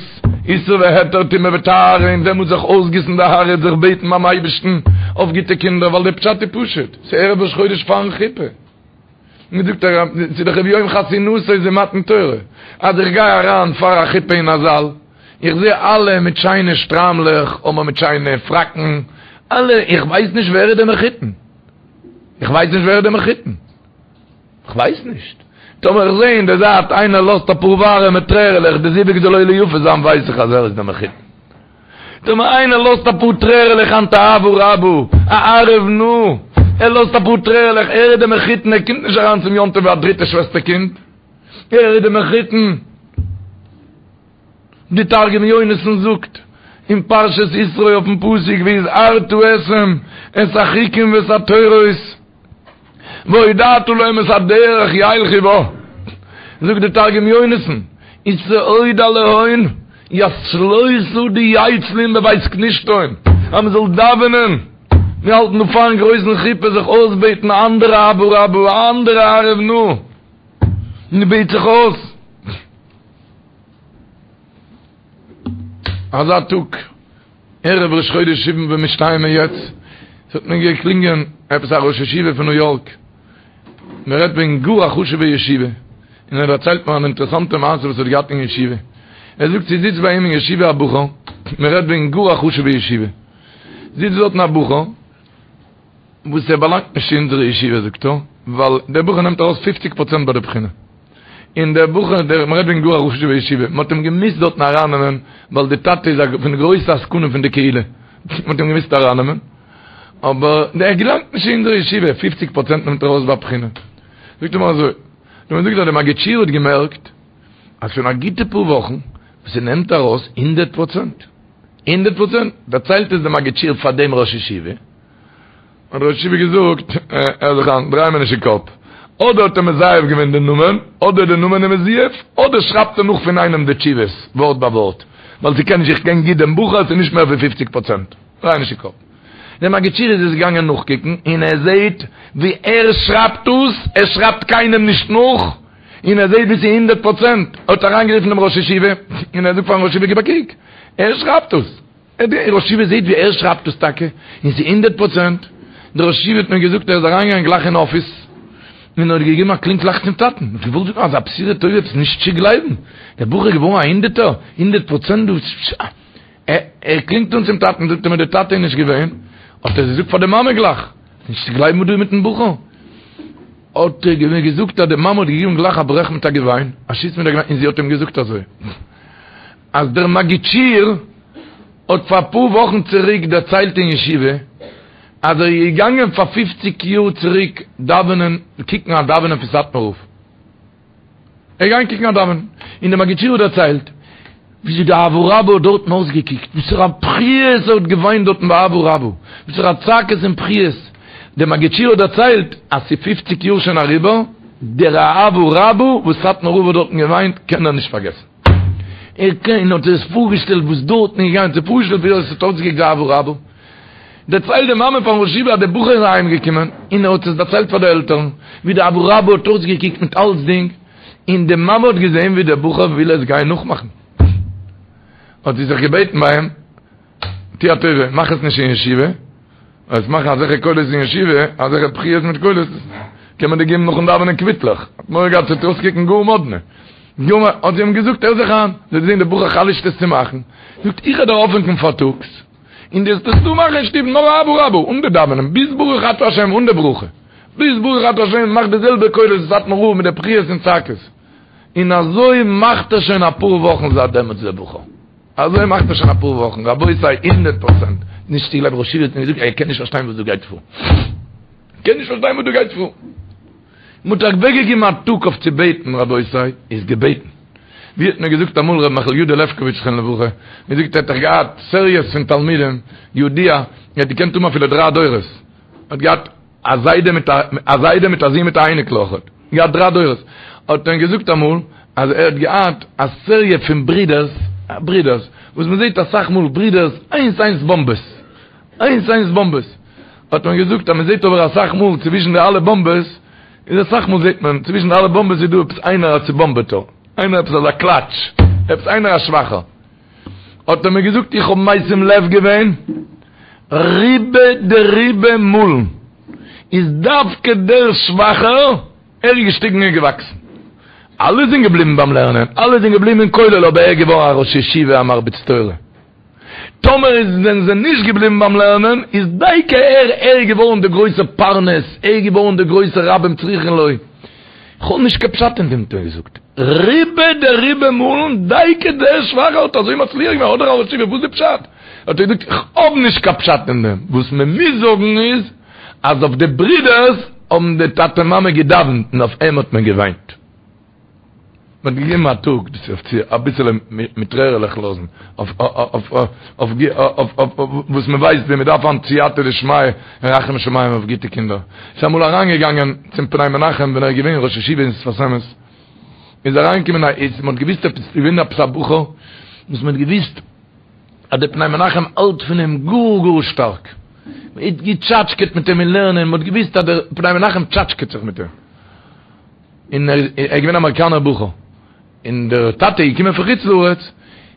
איסור והיתר טומאה וטהרה און דעמאלטס זיך אויסגיסן די הארץ זיך בעטן ביים אייבערשטן אויף גוטע קינדער ווייל די פשט איז פשוט ס'איז ערב ראש חודש פארן חופה. מיר זאגט ער ס'איז דאך וביום חתונתו זה מתן תורה אז איך גיי אריין פאר א חופה אין א זאל איך זע אלע מיט שיינע שטריימלעך אדער מיט שיינע פראקן אלע איך ווייס נישט ווער איז דער מחותן איך ווייס נישט ווער איז דער מחותן איך ווייס נישט טאמער איך זע אין די זייט איינער לאזט אפאר ווארעמע טרערעלעך די זיווג זאל עולה יפה זיין ווייס איך אז ער איז דער מחותן טאמער איינער לאזט אפאר טרערעלעך היינט אהבה רבה, א ערב נא, ער לאזט אפאר טרערעלעך, ער איז די מחותן, ער קומט נישט אריין צום יום טוב ווי א דריטע שוועסטער קינד, ער איז די מחותן. די תרגום יונתן זאגט אין פרשת יתרו אויפן פסוק והזהרת אתהם את החוקים ואת התורות, והודעת להם את הדרך ילכו בה, זאגט די תרגום יונתן, ותהודי להון ית צלותא דיצלון בבית כנישתהון, אז מען זאל דאווענען, מיר האלטן דא פארן גרויסן חופה זיך אויסבעטן א אנדערע אהבה רבה, א אנדערע ערב נא, מען בעט זיך אויס. אזא טאג, ערב ראש חודש סיון ווען מיר שטייען מיר יעצט, ס'האט מיר געקלינגען עפעס א ראש ישיבה פון ניו יארק, מען רעדט וועגן גאר א חשוב'ע ישיבה, און ער דערציילט מיר אן אינטערעסאנטע מעשה וואס ער האט געהאט אין ישיבה, ער זאגט ס'זיצט ביי אים אין ישיבה א בחור, מען רעדט וועגן גאר א חשוב'ע ישיבה, זיצט דארטן א בחור, וואס ער באלאנגט נישט צו אונזערע ישיבה זאגט ער, ווייל דער בחור נעמט ארויס פופציג פראצענט ביי די בחינה. און דער בחור, דער, מ'רעדט וועגן גאר א חשוב'ע ישיבה, מ'האט אים געמוזט דארטן ארייננעמען, ווייל די טאטע איז א פון די גרויסע עסקנים פון די קהילה, מ'האט אים געמוזט ארייננעמען, אבער ער געלאנגט נישט אין אונזערע ישיבה, פופציג פראצענט נעמט ער ארויס ביי בחינה. זאגט ער מיר אזוי, האט ער מיר געזאגט אז דער מגיד שיעור האט געמערקט, אז שוין א גוטע פאר וואכן, וואס ער נעמט ארויס הונדערט פראצענט, הונדערט פראצענט, דערציילט עס דער מגיד שיעור פאר דעם ראש ישיבה, האט דער ראש ישיבה געזאגט, הער זיך איין, דריי מיר נישט אין קאפ, אדער האט ער מזייף געווען די נאמען, אדער די נאמען איז מזויף, אדער שרייבט ער נאך פון איינעם די תשובות, ווארט ביי ווארט, ווייל ס'קען נישט, איך קען גוט דעם בחור, ס'איז נישט מער ווי פופציג פראצענט, דריי נישט אין קאפ. דער מגיד שיעור איז עס געגאנגען נאכקוקן, און ער זעט ווי ער שרייבט דאס, ער שרייבט קיינעם נישט נאך, און ער זעט ווי ס'איז הונדערט פראצענט, ער האט אריינגערופן דעם ראש ישיבה, און ער זאגט פארן ראש ישיבה גיב א קוק, ער שרייבט דאס. דער ראש ישיבה זעהט ווי ער שרייבט עס טאקע, און ס'איז הונדערט פראצענט. דער ראש ישיבה האט מיר געזאגט ער איז אריינגעגאנגען גלייך אין אפיס, און האט געגעבן א קלינג גלייך צום טאטן, האט געוואלט זאגן אזא בשורה טובה עפעס נישט צו גלייבן, דער בחור איז געווארן א הונדערטער, הונדערט פראצענט דא, ער קלינגט אן צום טאטן, זאגט ער מיר דער טאטע איז נישט געווען, האט ער געזאגט פאר די מאמע גלייך, נישט צו גלייבן וואס דא איז מיטן בחור. האט ער מיר געזאגט אז די מאמע האט געגעבן גלייך א ברעך מיט א געוויין, א שיס מיט א געוויין, און זי האט אים געזאגט אזוי. אז דער מגיד שיעור האט פאר אפאר וואכן צוריק דערציילט אין ישיבה אז ער איז געגאנגען פאר פופציג יאר צוריק דאווענען קוקן א דאווענען פון סאטמאר רב, ער איז געגאנגען קוקן א דאווענען און דער מגיד שיעור האט דערציילט וויאזוי די אהבה רבה האט דארטן אויסגעקוקט, וואסערע בכיות ער האט געוויינט דארטן ביי אהבה רבה, וואסערע צעקות און בכיות, דער מגיד שיעור האט דערציילט אז ס'איז פופציג יאר שוין אריבער, דער אהבה רבה וואס סאטמאר רב האט דארטן געוויינט קען ער נישט פארגעסן. ער קען, האט ער עס פארגעשטעלט וואס דארטן איז געגאנגען, זיך פארגעשטעלט ווי עס האט אויסגעקוקט די אהבה רבה. דערציילט די מאמע פארן ראש ישיבה אז דער בחור איז אהיים געקומען און ער האט עס דערציילט פאר די עלטערן ווי די אהבה רבה האט אויסגעקוקט מיט אלצדינג, און די מאמע האט געזען ווי דער בחור וויל עס גיין נאכמאכן. האט זי זיך געבעטן ביי אים, טו א טובה, מאך עס נישט אין ישיבה, וועסט מאכן אזעלכע קולות אין ישיבה, אזעלכע בכיות מיט קולות, קען מען דיר געבן נאכן דאווענען קוויטלעך. האט מורא געהאט ס'וועט אויסקוקן גאר מאדנע. גאר מאדנע. האט זי אים געזאגט, הער זיך איין, זי האט געזען דער בחור חלש'ט עס צו מאכן, זאגט, איך וועל דיר אויפוועקן פארטאגס, און דו וועסט עס דא מאכן אין שטוב, נאר אהבה רבה, אן די דאווענען, ביז ברוך אתה השם, אן די ברכה. ביז ברוך אתה השם, מאך די זעלבע קולות ווי סאטמאר רב מיט די בכיות און צעקות. און אזוי מאכט ער שוין אפאר וואכן זייט דעמאלטס דער בחור. אזוי מאכט ער שוין אפאר וואכן, רבותי הונדערט פראצענט נישט צו גלייבן, ראש ישיבה האט מיר געזאגט ער קען נישט פארשטיין וואס דא גייט פאר, קען נישט פארשטיין וואס דא גייט פאר, מען האט אוועקגעגעבן א טאג אויף צו בעטן, רבותי איז געבעטן, ווי האט מיר געזאגט אמאל ר' מיכל יודא לעפקאוויטש זכרונו לברכה, מיר זאגט ער האט דאך געהאט סעריעס פון תלמידים, ידוע, ער האט געקענט האבן אפילו דריי דורות, ער האט געהאט א זיידע מיט א א זיידע מיט א זון מיט א אייניקל אויכעט, געהאט דריי דורות, האט ער געזאגט אמאל אז ער האט געהאט א סעריע פון ברידערס, ברידערס, וואס מען זעט אסאך מאל ברידערס איינס איינס באמבעס, איינס איינס באמבעס, האט מען געזאגט אז מען זעט אבער אסאך מאל צווישן די אלע באמבעס, איז אסאך מאל זעט מען צווישן די אלע באמבעס איז דא עפעס איינער א צובאמבעטער, איינער עפעס אזא קלאטש, עפעס איינער א שוואכער. האט ער מיר געזאגט איך האב משים לב געווען רובא דרובא מאלן איז דווקא דער שוואכער ער איז געשטיגן און געוואקסן אלע זענען געבליבן ביים לערנען אלע זענען געבליבן אין כולל אבער ער איז געווארן א ראש ישיבה א מרביץ תורה טאמער איז זענען זיי נישט געבליבן ביים לערנען איז דייקא ער ער איז געווארן דער גרויסער פרנס ער איז געווארן דער גרויסער רבים צריכין לו. כ'האב נישט קיין פשט אין דעם האט ער געזאגט. רובא דרובא מאלן דייקא דער שוואכער האט אזוי מצליח געווען אדער א ראש ישיבה וואס איז די פשט? האט ער געזאגט איך האב נישט קיין פשט אין דעם, וואס מען מוז זאגן איז אז אויף די ברידערס האבן די טאטע מאמע געדאווענט און אויף אים האט מען געוויינט. מען האט געגעבן א טאג דאס אויף צו אביסעלע מיט טרערעלעך לאזן אויף אויף אויף וואס מען ווייסט ווי מען דארף היינט סייעתא דשמיא און רחמי שמים אויף גוטע קינדער. איז אמאל אריינגעגאנגען צום פני מנחם ווען ער איז געווען ראש ישיבה אין שפת אמת, איז אריינגעקומען א איד, מען האט געוויסט עפעס איז געווען עפעס א בחור וואס מען האט געוויסט אז דער פני מנחם האלט פון אים גאר גאר שטארק, מען האט געטשאטשקעט מיט אים אין לערנען, מען האט געוויסט אז דער פני מנחם טשאטשקעט זיך מיט אים. און ער איז געווען א אמעריקאנער בחור, און דער טאטע איז געקומען פון חוץ לארץ,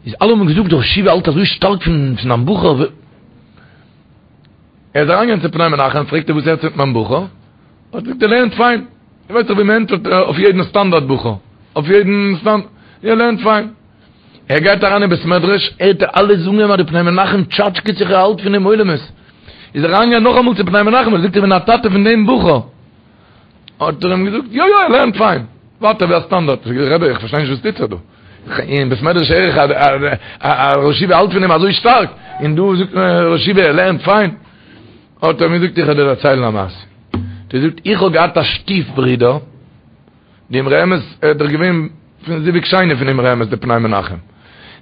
איז אלע האבן געזאגט דער ראש ישיבה האלט אזוי שטארק פון זיין בחור. ער איז אריינגעגאנגען צו פני מנחם, פרעגט ער וואס הערט זיך מיט מיין בחור? האט געזאגט ער לערנט פיין. איר ווייסט דאך ווי מען ענטפערט אויף יעדן סטאנדארט בחור, אויף יעדן סטאנדארט, ער לערנט פיין. ער גייט אריין אין בית מדרש, הערט ער אלע זאגן אים אז די פני מנחם טשאטשקעט זיך ער האלט פון אים עולמות. איז ער אריינגעגאנגען נאכאמאל צו פני מנחם, ער זאגט איך בין א טאטע פון דעם בחור. האט ער אים געזאגט, יא יא ער לערנט פיין, ווייטער ווי א סטאנדארט. זאגט ער, רבי איך פארשטיי נישט וואס טוט זיך דא, אין בית מדרש הער איך אז א ראש ישיבה האלט פון אים אזוי שטארק, און דא זאגט מען ראש ישיבה ער לערנט פיין. האט ער אים געזאגט, איך וועל דיר דערציילן א מעשה. האט ער געזאגט, איך האב געהאט א שטיף ברודער, די אמרי אמת, ער איז דאך געווען פון זיווג שני פון אמרי אמת די פני מנחם,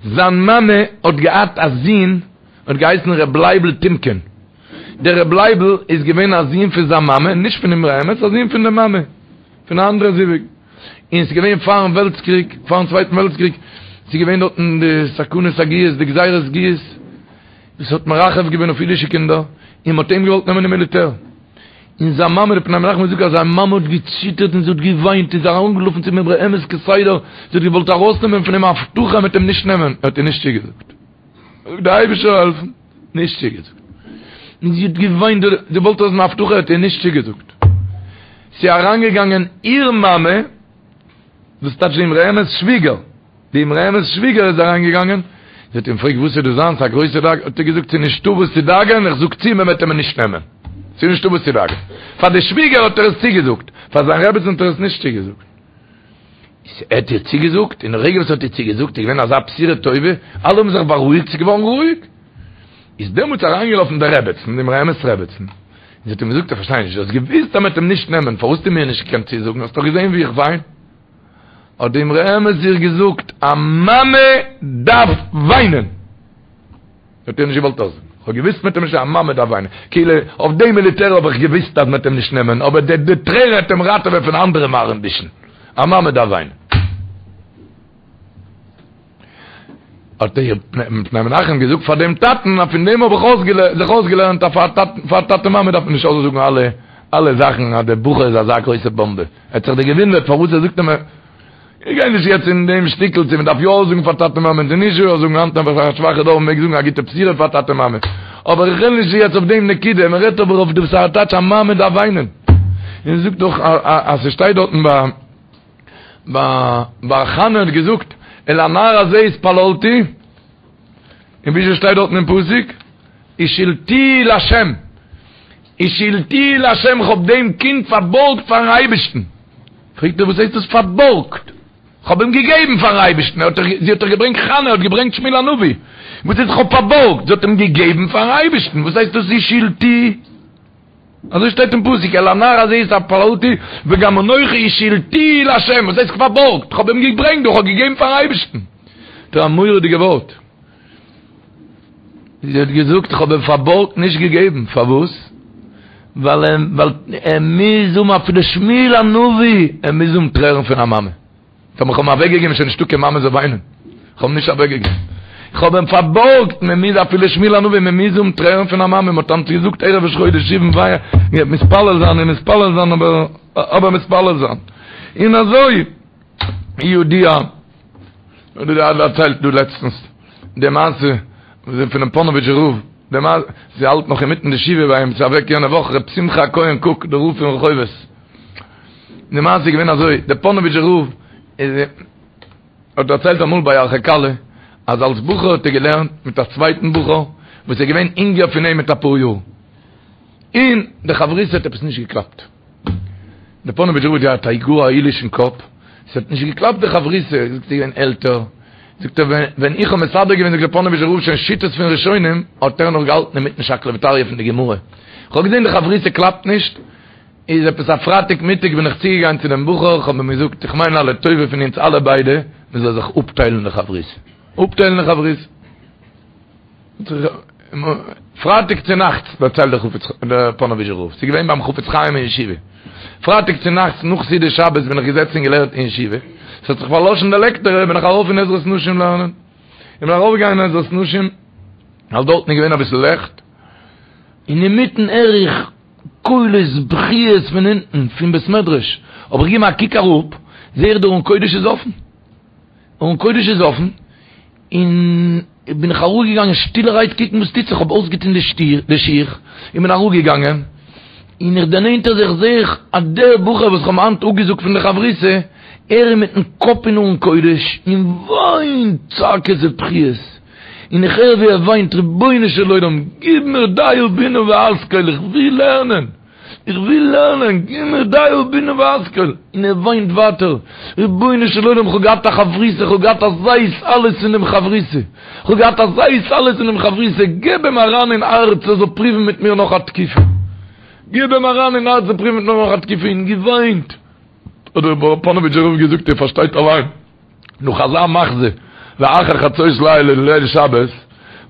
זיין מאמע האט געהאט א זון האט געהייסן ר' לייבל טימקין, דער ר' לייבל איז געווען א זון פון זיין מאמע, נישט פון אמרי אמת, א זון פון די מאמע, פון א אנדערע זיווג, און ס'איז געווען פארן וועלטס קריג, פארן צווייטן וועלטס קריג, ס'איז געווען דארטן די סכנת הגיוס, די גזירת גיוס, וואס האט מרחף געווען אויף אידישע קינדער, און מ'האט אים געוואלט נעמען אין מיליטער. און זיין מאמע, די פני מנחם האט געזאגט אז זיין מאמע האט געציטערט און זי האט געוויינט און זי איז ארומגעלאפן צום אמרי אמת כסדר, זי האט געוואלט ארויסנעמען פון אים א הבטחה מ'וועט אים נישט נעמען, ער האט איר נישט צוגעזאגט. זאגט דער אייבערשטער זאל העלפן, נישט צוגעזאגט. און זי האט געוויינט, זי וואלט אויס אן הבטחה, האט איר נישט צוגעזאגט. ס'איז אריינגעגאנגען איר מאמע, דאס טייטש די אמרי אמת'ס שוויגער, די אמרי אמת'ס שוויגער איז אריינגעגאנגען, זי האט אים געפרעגט וואס איז דא זיין, ס'איז א גרויסע דאגה, האט ער געזאגט ס'איז נישטא וואס צו דאגה'ן, איך זאג צו מען וועט אים נישט נעמען, ס'איז נישטא וואס צו דאגה'ן. פאר די שוויגער האט ער עס צוגעזאגט, פאר זיין רעבעצן האט ער עס נישט צוגעזאגט. ער האט איר צוגעזאגט, און די רגע וואס ער האט איר צוגעזאגט איז געווען אזא בשורה טובה, אלע האבן זיך בארואיגט, ס'איז געווארן רואיג. איז דעמאלטס אריינגעלאפן די רעבעצן, די אמרי אמת'ס רעבעצן, און זי האט אים געזאגט, איך פארשטיי נישט, דו האסט געוואוסט אז מ'וועט אים נישט נעמען, פארוואס האסטו מיר נישט געקענט צוזאגן, האסט דאך געזען ווי איך וויין. האט די אמרי אמת איר געזאגט, א מאמע דארף וויינען! האט איר נישט געוואלט אויסזאגן. כ'האב געוואוסט מ'וועט אים נישט, א מאמע דארף וויינען. כאילו, אויף די מיליטער האב איך געוואוסט אז מ'וועט אים נישט נעמען, אבער די די טרער העט אים ראטעווען פון אנדערע מרעין בישין. א מאמע דארף וויינען. האט דער פני מנחם געזאגט פאר דעם טאטן אז פון דעם האב איך זיך אויסגעלערנט אז פאר טאטע מאמע דארף מען נישט אויסזאגן אלע אלע זאכן אז דער בחור איז אזא גרויסע באמבע. ער האט זיך דאך געוואונדערט פארוואס ער זאגט אים. איך גיי נישט יעצט אין דעם שטיקל צו מען דארף יא זאגן פאר טאטע מאמע צו נישט יא זאגן, היינט נעבעך א שוואכע דור מען מעג זאגן א גוטע בשורה פאר טאטע מאמע, אבער איך רעד נישט יעצט אויף דעם נקודה, מען רעדט אבער אויף דעם ס'טייטש א מאמע דארף וויינען, און זאגט דאך אז ס'שטייט דארטן ביי ביי ביי חנה האט געזאגט אל הנער הזה התפללתי, און וויאזוי שטייט דארטן אין פסוק השאלתיהו לה', השאלתיהו לה' כ'האב דעם קינד פארבארגט פארן אייבערשטן. פרעגט ער וואס הייסט דאס פארבארגט? כ'האב אים געגעבן פארן אייבערשטן, ער האט דאך, זי האט דאך געברענגט חנה האט געברענגט שמואל הנביא, וואס הייסט כ'האב פארבארגט? זי האט אים געגעבן פארן אייבערשטן, וואס הייסט דאס השאלתיהו? אזוי שטייט אין פסוק, אל הנער הזה התפללתי וגם אנכי השאלתיהו לה', וואס הייסט פארבארגט? כ'האב אים געברענגט דא, כ'האב געגעבן פארן אייבערשטן. דא א מורא'דיגע ווארט. זי האט געזאגט איך האב אים פארבארגט נישט געגעבן, פארוואס? ווייל ווייל ער מוז האבן אפילו שמואל הנביא, ער מוז האבן טרערן פון א מאמע. טאמער איך האב אים אוועקגעגעבן איז שוין נישטא קיין מאמע זאל וויינען. איך האב אים נישט אוועקגעגעבן. איך האב אים פארבארגט, מען מוז אפילו שמואל הנביא, מען מוז האבן טרערן פון א מאמע. מען האט היינט געזאגט ערב ראש חודש סיון וויי, מתפלל זיין און מתפלל זיין אבער אבער מתפלל זיין. און אזוי ידוע. האט ער דערציילט דא לעצטנס די מעשה פונעם פאנאוויטשער רב, די מעשה, ס'האלט נאך אינמיטן די שבעה ביי אים, ס'איז אוועק יענע וואך ר' שמחה הכהן קוק דער רב פון רחובות, די מעשה איז געווען אזוי, דער פאנאוויטשער רב איז האט דערציילט אמאל ביי ירחי כלה אז אלס בחור האט ער געלערנט מיט א צווייטן בחור וואס איז געווען אינגער פון אים מיט אפאר יאר, און די חברותא האט עפעס נישט געקלאפט. דער פאנאוויטשער רב האט געהאט א גאר א עילוישן קאפ, עס האט נישט געקלאפט די חברותא, זאגט ער איז געווען עלטער, זאגט ער ווען איך האב מסדר געווען זאגט דער פאנאוויטשער רב שוין שיטות פון ראשונים, האט ער נאך געהאלטן אינמיטן שקלא וטריא פון די גמרא, איך האב געזען די חברותא קלאפט נישט, איז עפעס א פרייטאג מיטאג בין איך צוגעגאנגען צו דעם בחור, איך האב אים געזאגט איך מיין א לטובה פון אונז אלע ביידע, מען זאל זיך אפטיילן די חברותא, אפטיילן די חברותא. פרייטאג צו נאכטס דערציילט דער חפץ דער פאנאוויזשער רב, ס'איז געווען ביים חפץ חיים אין ישיבה, פרייטאג צו נאכטס נאך סעודת שבת בין איך געזעצן און געלערנט אין ישיבה, ס'האט זיך פארלאשן די לעקטער בין איך ארויף אין עזרת נשים לערנען, איך בין ארויף געגאנגען אין עזרת נשים, ווייל דארטן איז געווען אביסל לעכט, און אינמיטן הער איך קולות בכיות פון אונטן פון בית מדרש, האב איך געגעבן א קוק אראפ, זעה איך דער ארון קודש איז אפן, ארון קודש איז אפן. און בין איך אראפגעגאנגען שטילערהייט קוקן וואס טוט זיך, כ'האב אויסגעטון די שיך און בין אראפגעגאנגען, און איך דערנענטער זיך זעה איך אז דער בחור וואס כ'האב היינט אפגעזאגט פון די חברותא, ער איז מיטן קאפ אין ארון קודש און וויינט צעקות ובכיות, און איך הער ווי ער וויינט, רבונו של עולם גיב מיר דעה בינה והשכל, איך וויל לערנען! איך וויל לערנען, גיב מיר דעה בינה והשכל, און ער וויינט ווייטער, רבונו של עולם כ'האב געהאט א חברותא, כ'האב געהאט אזא התעלות פון דעם חברותא, כ'האב געהאט אזא התעלות פון דעם חברותא, געב אים אריין אין הארץ ער זאל פריוון מיט מיר נאך א תקופה, געב אים אריין אין הארץ זאל פריוון מיט מיר נאך א תקופה, און געוויינט, האט דער פאנאוויטשער רב געזאגט איר פארשטייט אליין. נאך אזא מחזה, לאחר חצות לילה ליל שבת,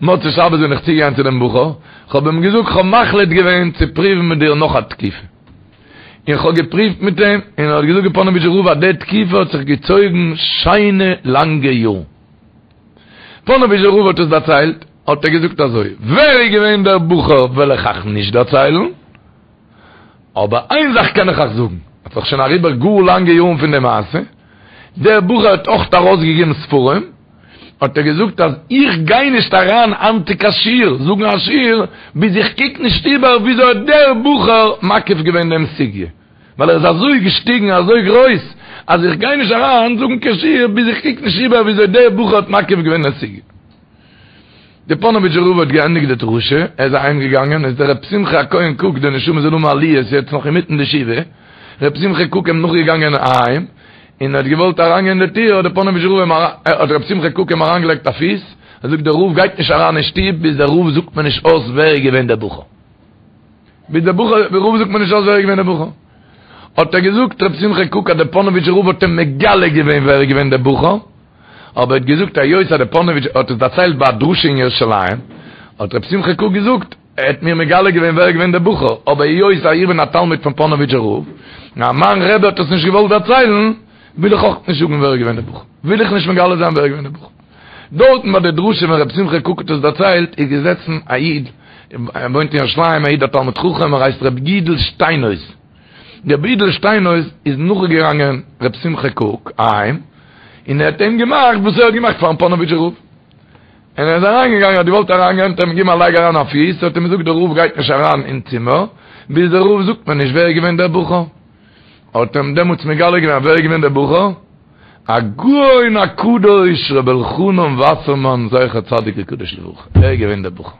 מוצאי שבת בין איך צוגעגאנגען צו דעם בחור, כ'האב אים געזאגט כ'האב מחליט געווען צו פרואוון מיט דיר נאך א תקופה. און כ'האב געפרואווט מיט אים, און ער האט געזאגט דער פאנאוויטשער רב אז די תקופה האט זיך געצויגן שיינע לאנגע יארן. פאנאוויטשער רב האט עס דערציילט, האט ער געזאגט אזוי, ווער איז געווען דער בחור וועל איך אייך נישט דערציילן, אבער איין זאך קען איך אייך זאגן, ס'איז דאך שוין אריבער גאר לאנגע יארן פון די מעשה, דער בחור האט אויך ארויסגעגעבן ספרים, האט ער געזאגט אז איך גיי נישט אריין היינט צו קיין שיעור, זאגן א שיעור, ביז איך קוק נישט איבער וויאזוי האט דער בחור מקיף געווען דעם סוגיא, ווייל ער איז אזוי געשטיגן אזוי גרויס, אז איך גיי נישט אריין זאגן קיין שיעור ביז איך קוק נישט איבער וויאזוי דער בחור האט מקיף געווען דעם סוגיא. דער פאנאוויטשער רב האט געענדיגט די דרשה, ער איז אהיים געגאנגען, איז דער רב שמחה הכהן קוק, די נשמה זאל האבן עליות, יעצט נאך אינמיטן די שבעה, רב שמחה קוק אים נאכגעגאנגען אהיים, און האט געוואלט אריינגיין אין די טיר, האט דער פאנאוויטשער רב אים, האט רב שמחה קוק אים אריינגעלייגט א פיס, ער זאגט דער רב גייט נישט אריין אין שטוב ביז דער רב זאגט מיר נישט אויס ווער איז געווען דער בחור. ביז דער בחור, דער רב זאגט מיר נישט אויס ווער איז געווען דער בחור. האט ער געזאגט רב שמחה קוק אז דער פאנאוויטשער רב האט אים מגלה געווען ווער איז געווען דער בחור, אבער ער האט געזאגט היות אז דער פאנאוויטש האט עס דערציילט ביי א דרשה אין ירושלים, האט רב שמחה קוק געזאגט, ער האט מיר מגלה געווען ווער איז געווען דער בחור, אבער היות אז איך בין א תלמיד פון פאנאוויטשער רב, און מיין רבי האט עס נישט געוואלט דערציילן, וויל איך אויך נישט זאגן ווער איז געווען דער בחור, וויל איך נישט מגלה זיין ווער איז געווען דער בחור. דארטן ביי די דרשה ווען רב שמחה קוק האט עס דערציילט, איז געזעצן א איד, ער וואוינט אין ירושלים, א איד א תלמיד חכם, ער הייסט ר' יודל שטיינהויז. ר' יודל שטיינהויז איז נאכגעגאנגען ר' שמחה קוק אהיים, און ער האט אים געמאכט וואס ער האט געמאכט פארן פאנאוויטשער רב. און ער איז אריינגעגאנגען, האט געוואלט אריינגיין, האט ער אים געגעבן א לייג אריין א פיס, האט אים געזאגט דער רב גייט נישט אריין אין צימער, ביז דער רב זאגט מיר נישט ווער איז געווען דער בחור. האט אים דעמאלטס מגלה געווען ווער איז געווען דער בחור, הגאון הקדוש ר' אלחנן וואסערמאן זכר צדיק וקדוש לברכה, ער איז געווען דער בחור.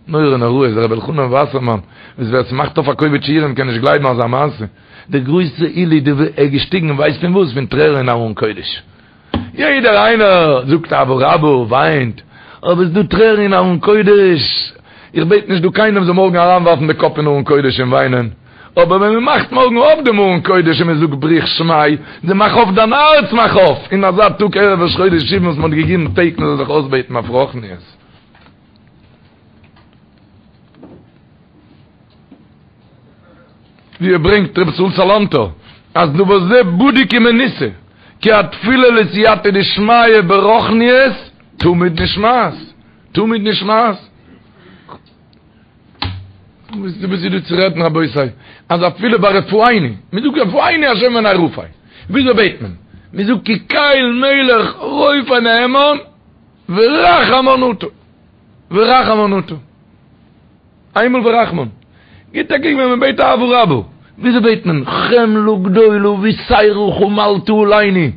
נורא נוראות, ר' אלחנן וואסערמאן, וואס ווער ס'מאכט אויף א קובץ שיעורים קען נישט גלייבן אזא מעשה, דער גרויסע עילוי די ער איז געשטיגן ווייסט פון וואס? פון טרערן אין ארון קודש. יעדער איינער זאגט אהבה רבה, וויינט, אבער ס'דא טרערן אין ארון קודש, איך בעט נישט דא קיינעם זאל מארגן אריינווארפן די קאפ אין ארון קודש און וויינען, אבער ווען מען מאכט מארגן אויף דעם ארון קודש און מען זאגט בריך שמיה, די מאך אויף דיין הארץ מאך אויף, אין אזא טאג ערב ראש חודש סיון וואס מען האט געגעבן טעג מען זאל זיך אויסבעטן אויף רוחניות. ווי ער ברענגט רבי ישראל סאלאנטער אז דבר זה בדוק ומנוסה כי התפילה לסייעתא דשמיא ברוחניות תמיד נשמעת תמיד נשמעת וואס איז דא צו רעדן רבותי אז אפילו ביי רפאנו מען זאגט רפאנו השם ונרפא וויאזוי בעט מען? מען זאגט כי קל מלך רופא נאמן ורחמן אתה ורחמן אתה איינמאל ורחמן. גיט א קוק ווען מען בעט אהבה רבה. וויאזוי בעט מען? חמלה גדולה ויתירה חמלת עלינו.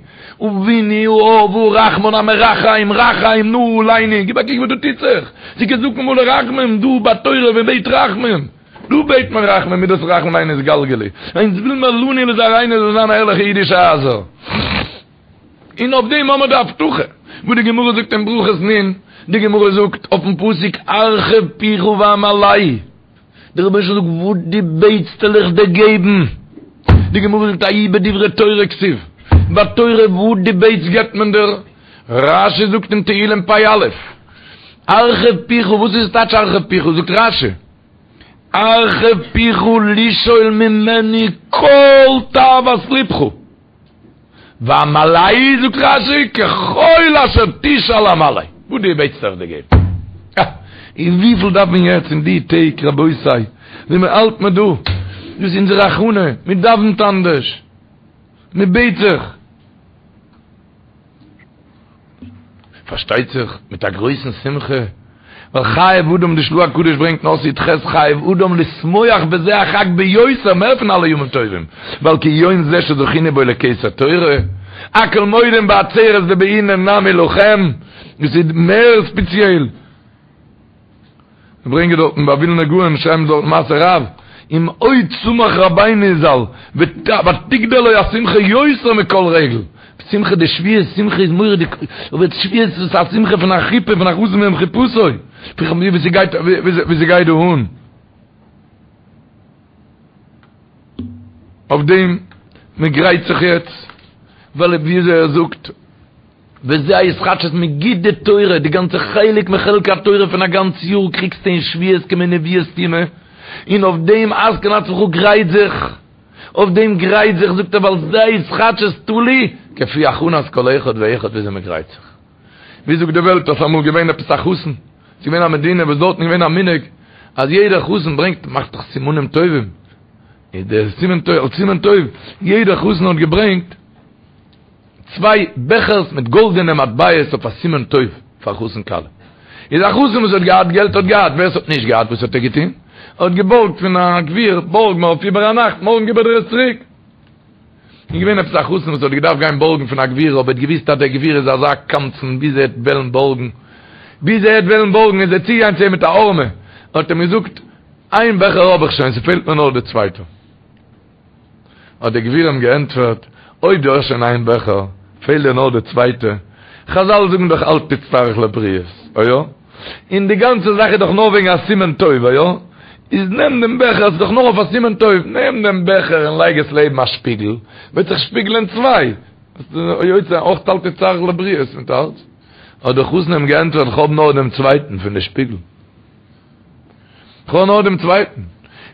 אבינו האב הרחמן המרחם רחם נא עלינו. גיב א קוק וואס דא טוט זיך. ס'איז כזקן מלא רחמים דא ביי תורה ווען מ'בעט רחמים. דא בעט מען רחמים מידת רחמים עלינו יתגלגלו. אונז וויל מיר לנו ולזרעינו זאל זיין ערליכע אידישע הייזער. און אויף דעם האמער די הבטחה וואס די גמרא זאגט אין ברכות נ', די גמרא זאגט אויפן פסוק הרחב פיך ואמלאהו, דער רבונו של עולם זאגט וואס דו בעטסט וועל איך דיר געבן, די גמרא זאגט ההוא בדברי תורה כתיב, ביי תורה וואס דו בעטסט געבט מען דיר, רשי זאגט אין תהלים פ"א, הרחב פיך, וואס איז טייטש הרחב פיך, זאגט רשי, הרחב פיך לשאול ממני כל תאוות לבך. ואמלאהו זאגט רשי ככל אשר תשאל אמלא, וואס דו בעטסט וועל איך דיר געבן. אה! און וויפיל דארף מען יעצט אין די טעג רבותי, ווי מען האלט מען דא, דאס איז אונזער הכנה, מען דאווענט אנדערש, מען בעט זיך. פארשטייט זיך מיט א גרויסן שמחה, ווייל חייב אדם די של"ה הקדוש ברענגט אין אות י"ח חייב אדם לשמוח בזה החג ביותר מער פון אלע ימים טובים, ווייל כי יום זה שזכינו בו לכתר תורה, הכל מודים בעצרת דבעינן נמי לכם, דאס איז מער ספעציעל. זיי ברענגען דארטן ביי ווילנא גאון שרייבן זיי דארט מעשה רב, ומאוד שמח רבינו ז"ל ותגדל לו השמחה יותר מכל רגל, שמחה די שבועות שמחה איז מורא'דיג, אבער שבועות איז א שמחה פון א חופה פון א חתן ביום חופתו, ווי ס'גייט ווי ס'גייט דא אן. אויף דעם מ'גרייט זיך יעצט, ווייל וויאזוי ער זאגט. וזה ההתחדשות מ'גיט די תורה, די גאנצע חלק מחלקי התורה פון א גאנץ יאר קריגסטו אין שבועות כמין נבואה סתומה, און אויף דעם התקן עצמך גרייט זיך, אויף דעם גרייט זיך זאגט ער ווייל זה ההתחדשות תלוי כפי הכנת כל אחד ואחד וויאזוי מען גרייט זיך. ווי זאגט די וועלט אז ס'אמאל געווען עפעס א חתן, ס'איז געווען א מדינה וואס דארטן איז געווען א מנהג אז יעדער חתן ברענגט מאכט דאך סימנים טובים, איז דער סימן טוב אלס סימן טוב יעדער חתן האט געברענגט צוויי בעכערס מיט גאלדענע מטבעות אויף א סימן טוב פאר חתן כלה. איז א חתן וואס האט געהאט געלט האט געהאט, ווער עס האט נישט געהאט וואס האט ער געטון? ער האט געבארגט פון א גביר, בארג מיר אויף איבער א נאכט, מארגן גיב איך דיר עס צוריק. איז געווען עפעס א חתן וואס האט געדארפט גיין בארגן פון א גביר, אבער האט געוואוסט אז דער גביר איז אזא קמצן ביז ער וועט וועלן בארגן, ביז ער וועט וועלן בארגן איז ער צוגעגאנגען צו אים מיט א הערמה, האט אים געזאגט, איין בעכער האב איך שוין, ס'פעלט מיר נאר די צווייטע. האט דער גביר אים געענטפערט, אויב דו האסט שוין איין בעכער, פעלט דיר נאר די צווייטע, חזל זאגן דאך אל תצטרך לבריות, איא? און די גאנצע זאך איז דאך נאר וועגן א סימן טוב, איא? איז נעם דעם בעכער, עס איז דאך נאר אויף א סימן טוב, נעם דעם בעכער און לייג עס לעבן א שפיגל, וועט זיך שפיגלען צוויי, ביסטו יוצא אויך אל תצטרך לבריות מיט אלץ. האט דער חתן אים געענטפערט, כ'האב נאר דעם צווייטן פון די שפיגל. כ'האב נאר דעם צווייטן.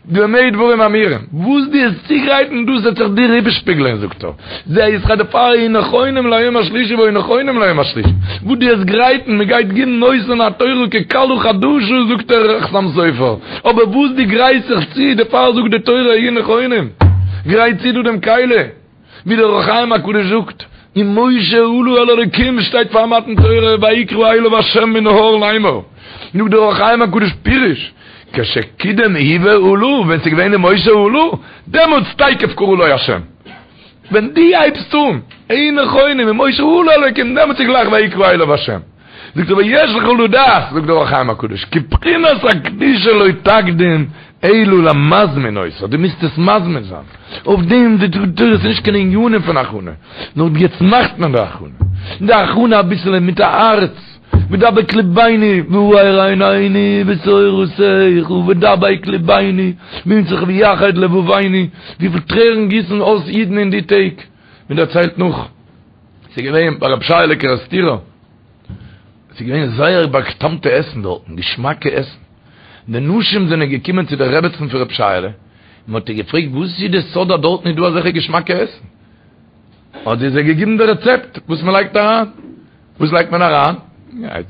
במה דברים אמורים? וואס דו וועסט צוגרייטן דאס וועט זיך דיר איבערשפיגלען, זאגט ער. זה ישכר דערפאר היו נכונים ליום השלישי והיו נכונים ליום השלישי. וואס דו וועסט גרייטן, מען גייט גיבן נותן התורה ככלה חדשה, זאגט דער חתם סופר. אבער וואס דו גרייסט זיך צו, דערפאר זאגט די תורה היו נכונים. גרייט צו דו דעם כלי. ווי דער אור החיים הקדוש זאגט, ומשה עלה אל האלקים שטייט פאר מתן תורה ויקרא אליו ה' מן ההר לאמור, זאגט דער אור החיים הקדוש פירוש, כשקידם הוא ועלה, ווען ס'איז געווען ומשה עלה, דעמאלטס תיכף קרא לו ה'. ווען דו הייבסט אן, היו נכונים, ומשה עלה אל האלקים, דעמאלטס איז גלייך ויקרא אליו ה'. זאגט ער ויש לך לדעת, זאגט דער אור החיים הקדוש, כי בחינת הקדושה לא תקדים אלא למזמין אותה, דו מוזט עס מזמין זיין, אויף דעם די תורה איז נישט קיין ענינים פון הכנה, נאר יעצט מאכט מען די הכנה, די הכנה אביסעלע מיט א הארץ, ודבק לבנו והאר עינינו בתורתך, ודבק לבנו במצותיך ויחד לבבנו, וויפיל טרערן גיסן אויס אידן אין די טעג, מען דערציילט נאך. ס'איז געווען ביי רבי שייעלע קערעסטירער, ס'איז געווען זייער בא'טעמ'טע עסן דארטן, געשמאקע עסן. די נשים זענען געקומען צו די רעבעצן פון רבי שייעלע, און מ'האט איר געפרעגט וואס איז די סוד אז דארטן איז דא אזעלכע געשמאקע עסן? האט זי זיי געגעבן די רעצעפט וואס מ'לייגט אריין. וואס לייגט מען אריין?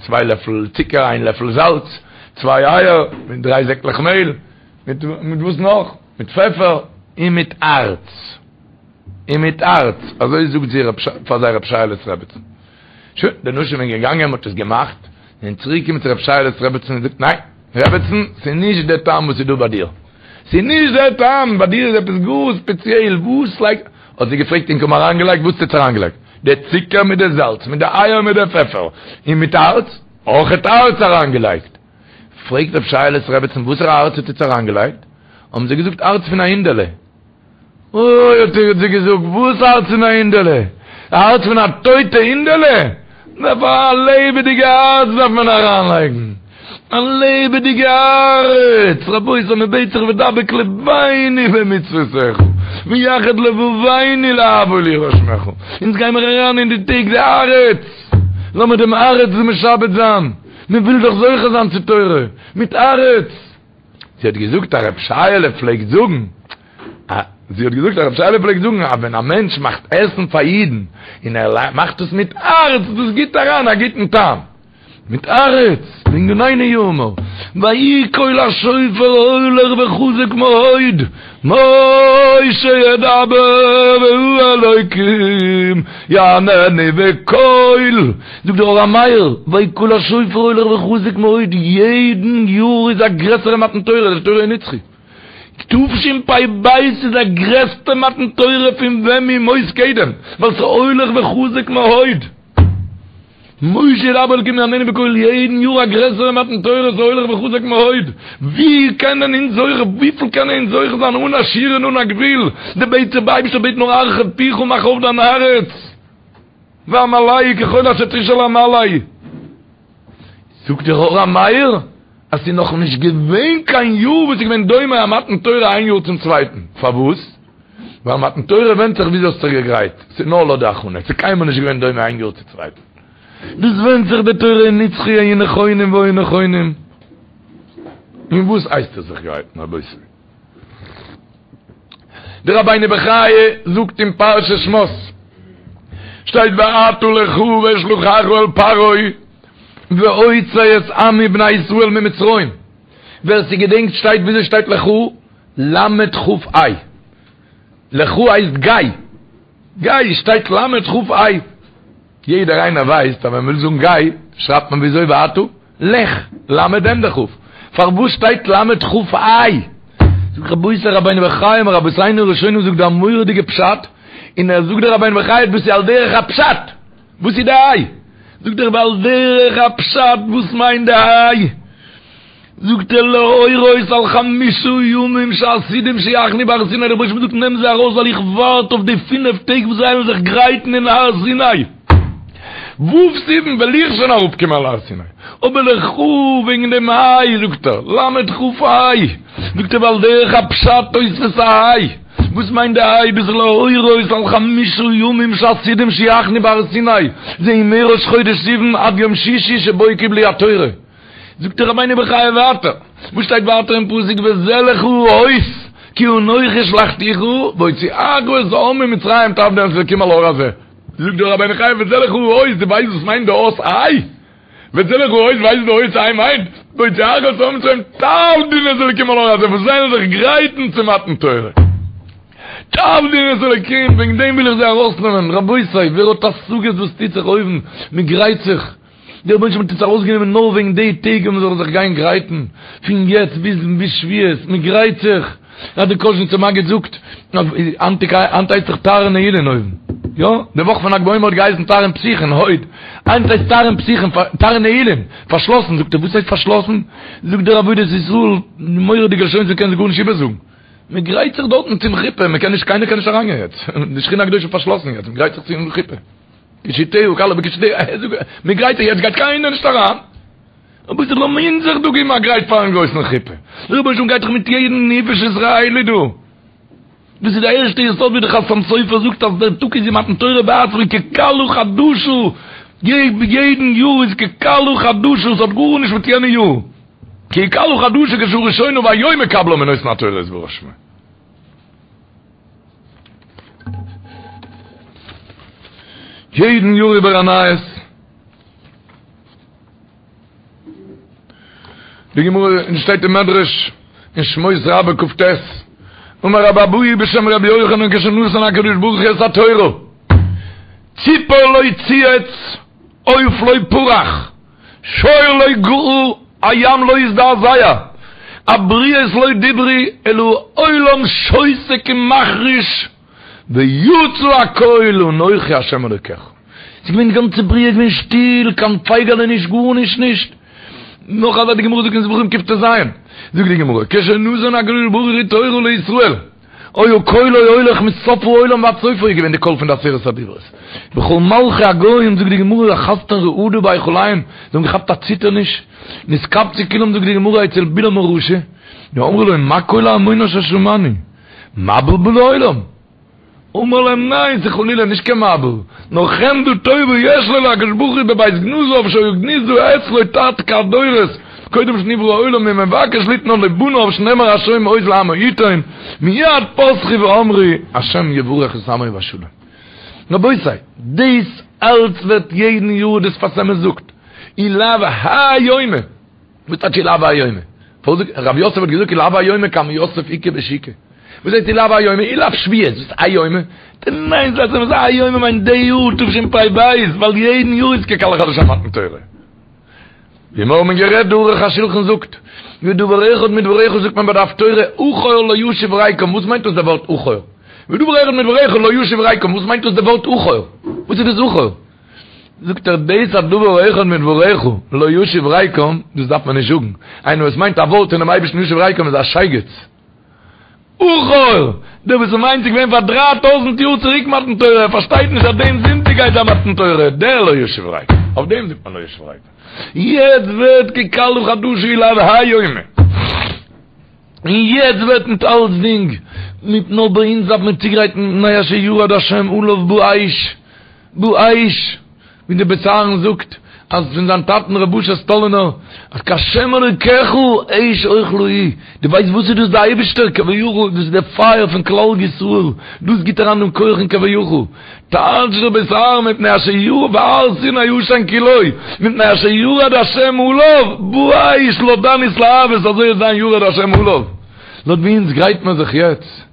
צוויי לעפל צוקער, איין לעפל זאלץ, צוויי אייער, מיט דריי זעקלעך מעהל, מיט מיט וואס נאך? מיט פעפער, און מיט הארץ. און מיט הארץ, אזוי זאגט זי פאר זיי רב שייעלעס רעבעצן. שוין, די נשים זענען געגאנגען, מ'האט עס געמאכט, און צוריק געקומען צו רב שייעלעס רעבעצן און זאגט, ניין, רעבעצן, ס'איז נישט דער טעם וואס איז דא ביי דיר. ס'איז נישט דער טעם, ביי דיר איז עפעס גאר ספעציעל, וואס לייגט, האט זי געפרעגט, ענק האבן אריינגעלייגט, וואס האט עטס אריינגעלייגט? די צוקער מיט די זאלץ, מיט די אייער מיט די פעפער, און מיט הארץ? אויכעט הארץ אריינגעלייגט. פרעגט רב שייעלעס רעבעצן, וואסערע הארץ האט עטס אריינגעלייגט? האבן זיי געזאגט, הארץ פון א הינדעלע. אוי, האט זי געזאגט, וואס הארץ פון א הינדעלע? א הארץ פון א טויטע הינדעלע? דארף א לעבעדיגע הארץ דארף מען אריינלייגן, א לעבעדיגע הארץ! רבותי, מען בעט זיך ודבק לבנו במצוותיך, ויחד לבבנו לאהבה וליראה שמך, אונז גיימער אריין אין די טעג די הארץ, לאמיר דעם הארץ משעבד זיין, מען וויל דאך זוכה זיין צו תורה, מיט הארץ! זי האט געזאגט אז רב שייעלע פלעגט זאגן, זי האט געזאגט אז רב שייעלע פלעגט זאגן אז ווען א מענטש מאכט עסן פאר אידן און ער מאכט עס מיט הארץ, דאס גיבט אריין א גוטן טעם. מיט הארץ, לענינינו יאמר, ויהי קול השופר הולך וחזק מאוד, משה ידבר והאלוקים יעננו בקול, זאגט דער אור המאיר, ויהי קול השופר הולך וחזק מאוד, יעדן יאר איז א גרעסערע מתן תורה, די תורה איז נצחי. תשפ"ב איז א גרעסטע מתן תורה פון ווען מימות קדם, ווייל ס'איז הולך וחזק מאוד. משה ידבר האלקים יעננו בקול יעדן יאר א גרעסערע מתן תורה ס'איז הולך וחזק מאוד, ווי קענען אונז זוכה, וויפיל קענען אונז זוכה זיין אן א שיעור און אן א גבול, די בעט דער אייבערשטער בעט נאר הרחב פיך מאך אויף דיין הארץ ואמלאהו ככל אשר תשאל אמלא. זאגט דער אור המאיר אז ס'איז נאך נישט געווען קיין יאר וואס איז געווען דומה א מתן תורה איין יאר צום צווייטן, פארוואס? ווייל מתן תורה ווענדט זיך וויאזוי האסט זיך געגרייט, ס'איז נאר לויט די הכנה, ס'איז קיינמאל נישט געווען דומה איין יאר צום צווייטן. דאס ווענדט זיך די תורה איז נצחי היו נכונים והיו נכונים. אין וואס הייסט עס זיך גרייטן רבותי? די רבינו בחיי זאגט אין פרשת שמות שטייט ועתה לכה ואשלחך אל פרעה והוצא את עמי בני ישראל ממצרים ווער ס'געדענקט שטייט וויאזוי שטייט לכה למד כף ה' לכה הייסט גיי גיי שטייט למד כף ה' יעדער איינער ווייסט אז ווען מ'וויל זאגן גיי שרייבט מען וויאזוי ועתה לך, למד ענדע כ'. פארוואס שטייט למד כף ה'? זאגט רבותי רבינו בחיי מרבותינו הראשונים זאגט דא א מורא'דיגע פשט, און ער זאגט דער רבינו בחיי דאס איז על דרך הפשט, וואס איז די ה'? זאגט ער ועל דרך הפשט וואס מיינט די ה'? זאגט ער להורות על חמשה ימים שעתידים שיחנו בהר סיני, דער רבוש"ע זאגט נעם זיי ארויס ווייל איך ווארט אויף די פינף טעג וואס זיי וועלן זיך גרייטן אין הר סיני, ו' סיוון וועל איך שוין אראפ קומען על הר סיני, אבער לכה וועגן דעם ה' זאגט ער, למד כף ה', זאגט ער ועל דרך הפשט תוספת ה', וואס מיינט די ה' דאס איז להורות על חמשה ימים שעתידים שיחנו בהר סיני, זה מראש חודש סיוון עד יום שישי שבו קיבלו התורה. זאגט דער רבינו בחיי ווייטער, וואס שטייט ווייטער אין פסוק וזה לך האות כי אנכי שלחתיך בהוציאך את העם ממצרים תעבדון את האלקים על ההר הזה, זאגט דער רבינו בחיי וזה לך האות, דו ווייסט וואס מיינט די אות ה'? וזה לך האות ווייסט וואס די אות ה' מיינט? בהוציאך את העם ממצרים תעבדון את האלקים על ההר הזה, וואס זיי זאלן זיך גרייטן צו מתן תורה. תעבדון את האלקים, וועגן דעם וויל איך זיי ארויסנעמען, רבותי ווער האט השגות וואס טוט זיך אויבן, מען גרייט זיך. דער רבונו של עולם האט אונז ארויסגענומען נאר וועגן די טעג ווען מען זאל זיך גיין גרייטן, פון יעצט ביז ביז שבועות, מען גרייט זיך, אז דער קאזשניצער מגיד זאגט, היינט הייסט דאך תרעין נעילין אויבן, יא, די וואך פון ל"ג בעומר האט געהייסן תרעין פתיחין, הוד, היינט הייסט תרעין פתיחין, תרעין נעילין, פארשלאסן, זאגט ער, וואס הייסט פארשלאסן? זאגט דער עבודת ישראל, מורא'דיגע לשונות מען קען זיך גארנישט איבערזאגן, מען גרייט זיך דארטן צום חופה, מען קען נישט, קיינער קען נישט אריינגיין יעצט, די שכינה הקדושה איז פארשלאסן יעצט, מען גרייט זיך צום חופה. קישוטיה כלה בקישוטיה, מען גרייט זיך יעצט גייט קיינער נישט אריין, רבותי לאמיר זיך דא געבן א גרייט פארן גרויסן חופה, דער רבונו של עולם גייט דאך מיט יעדן נפש ישראלי דא, דאס איז די ערשטע יסוד ווי דער חתם סופר זאגט אז דער טאג איז ווי מתן תורה בעצמו ככלה חדשה, יעדן יאר איז ככלה חדשה, עס האט גארנישט מיט יענע יאר, ככלה חדשה כשעה ראשונה והיום מקבלה מנותן התורה יתברך שמו. יעדן יאר איבער א נייעס. די גמרא און שטייט אין מדרש אין שמות רבה כ"ט אמר רבי אבהו בשם רבי יוחנן כשנתן הקדוש ברוך הוא את התורה ציפור לא צייץ עוף לא פרח שור לא געה הים לא הזדעזע הבריות לא דיברו אלא העולם שותק ומחריש ויצא הקול אנכי השם אלוקיך. ס'איז געווען די גאנצע בריאה איז געווען שטיל, קיין פייגעלע נישט גארנישט נישט. נאך אזא די גמרא זאגט אין זבחים קט"ז, זאגט די גמרא, כשנתן הקדוש ברוך הוא תורה לישראל, היה קולו הולך מסוף העולם ועד סופו איז געווען די קול פון די עשרת הדיברות. וכל מלכי הגוים זאגט די גמרא אחזתן רעדה בהיכליהם, זיי האבן געכאפט א ציטערניש, נתקבצו כולם זאגט די גמרא אצל בלעם הרשע, ואמרו לו מה קול ההמון אשר שמענו? מבול בא לעולם? אמר להם ניין ס'איז חלילה נישט קיין מבול, נאר חמדה טובה יש לו להקדוש ברוך הוא בבית גנזיו שהיו גנוזה אצלו תתקע"ד דורות קודם שנברא העולם ומבקש ליתנה לבניו שנאמר השם עוז לעמו יתן מיד פתחו ואמרו השם יברך את עמו בשלום. רבותי, דאס אלץ ווערט יעדן יאר דער שפת אמת זאגט. אי לאו האי יומא. וואס טייטש אי לאו האי יומא? רב יוסף האט געזאגט אי לאו האי יומא כמה יוסף איכא בשוקא. וואס הייסט אי לאו האי יומא? אי לאו שבועות, וואס איז האי יומא? ניין, זאגט ער האי יומא מיינט די יאר תשפ"ב, ווייל יעדן יאר איז ככלה חדשה מתן תורה. ווי מיר האבן גערעדט די ערוך השולחן זאגט, ודבר אחד מדבריך זאגט מען ביי די הפטורה, אחור לא ישיב ריקם, וואס מיינט דאס דער ווארט אחור? ודבר אחד מדבריך לא ישיב ריקם, וואס מיינט דאס דער ווארט אחור? וואס איז דאס אחור? זאגט ער דאס אז דבר אחד מדבריך לא ישיב ריקם, דאס דארף מען נישט זאגן, איינער וואס מיינט א ווארט פונעם אייבערשטן ישיב ריקם איז א שייגעץ. אחור! דער וואס מיינט ס'איז געווען פאר דריי טויזענט יאר צוריק מתן תורה, ער פארשטייט נישט אז דעם זונטאג גייט זיין מתן תורה, דער לא ישיב ריקם, אויף דעם זאגט מען לא ישיב ריקם. יעצט ווערט ככלה חדשה אי לאו האי יומא. און יעצט ווערט מיט אלצדינג, מיט נאר ביי אונז דארף מען צוגרייטן מפני אשר ירד השם עליו באש, באש, ווי דער בית אהרן זאגט אז פון זיין טאטן ר' אשר סטאלינער אז כהשם אלוקיך אש אוכלה הוא, דו ווייסט וואס איז דאס די אייבישטער כביכול דאס איז די פייער פון כלל ישראל, דאס גיט אריין דעם כח אין כביכול, טייטשט דער בית אהרן מפני אשר ירד והר סיני עשן כולו, מפני אשר ירד השם עליו באש לויט דיין התלהבות אזוי וועט זיין ירד השם עליו, לויט ווי אונז גרייט מען זיך יעצט.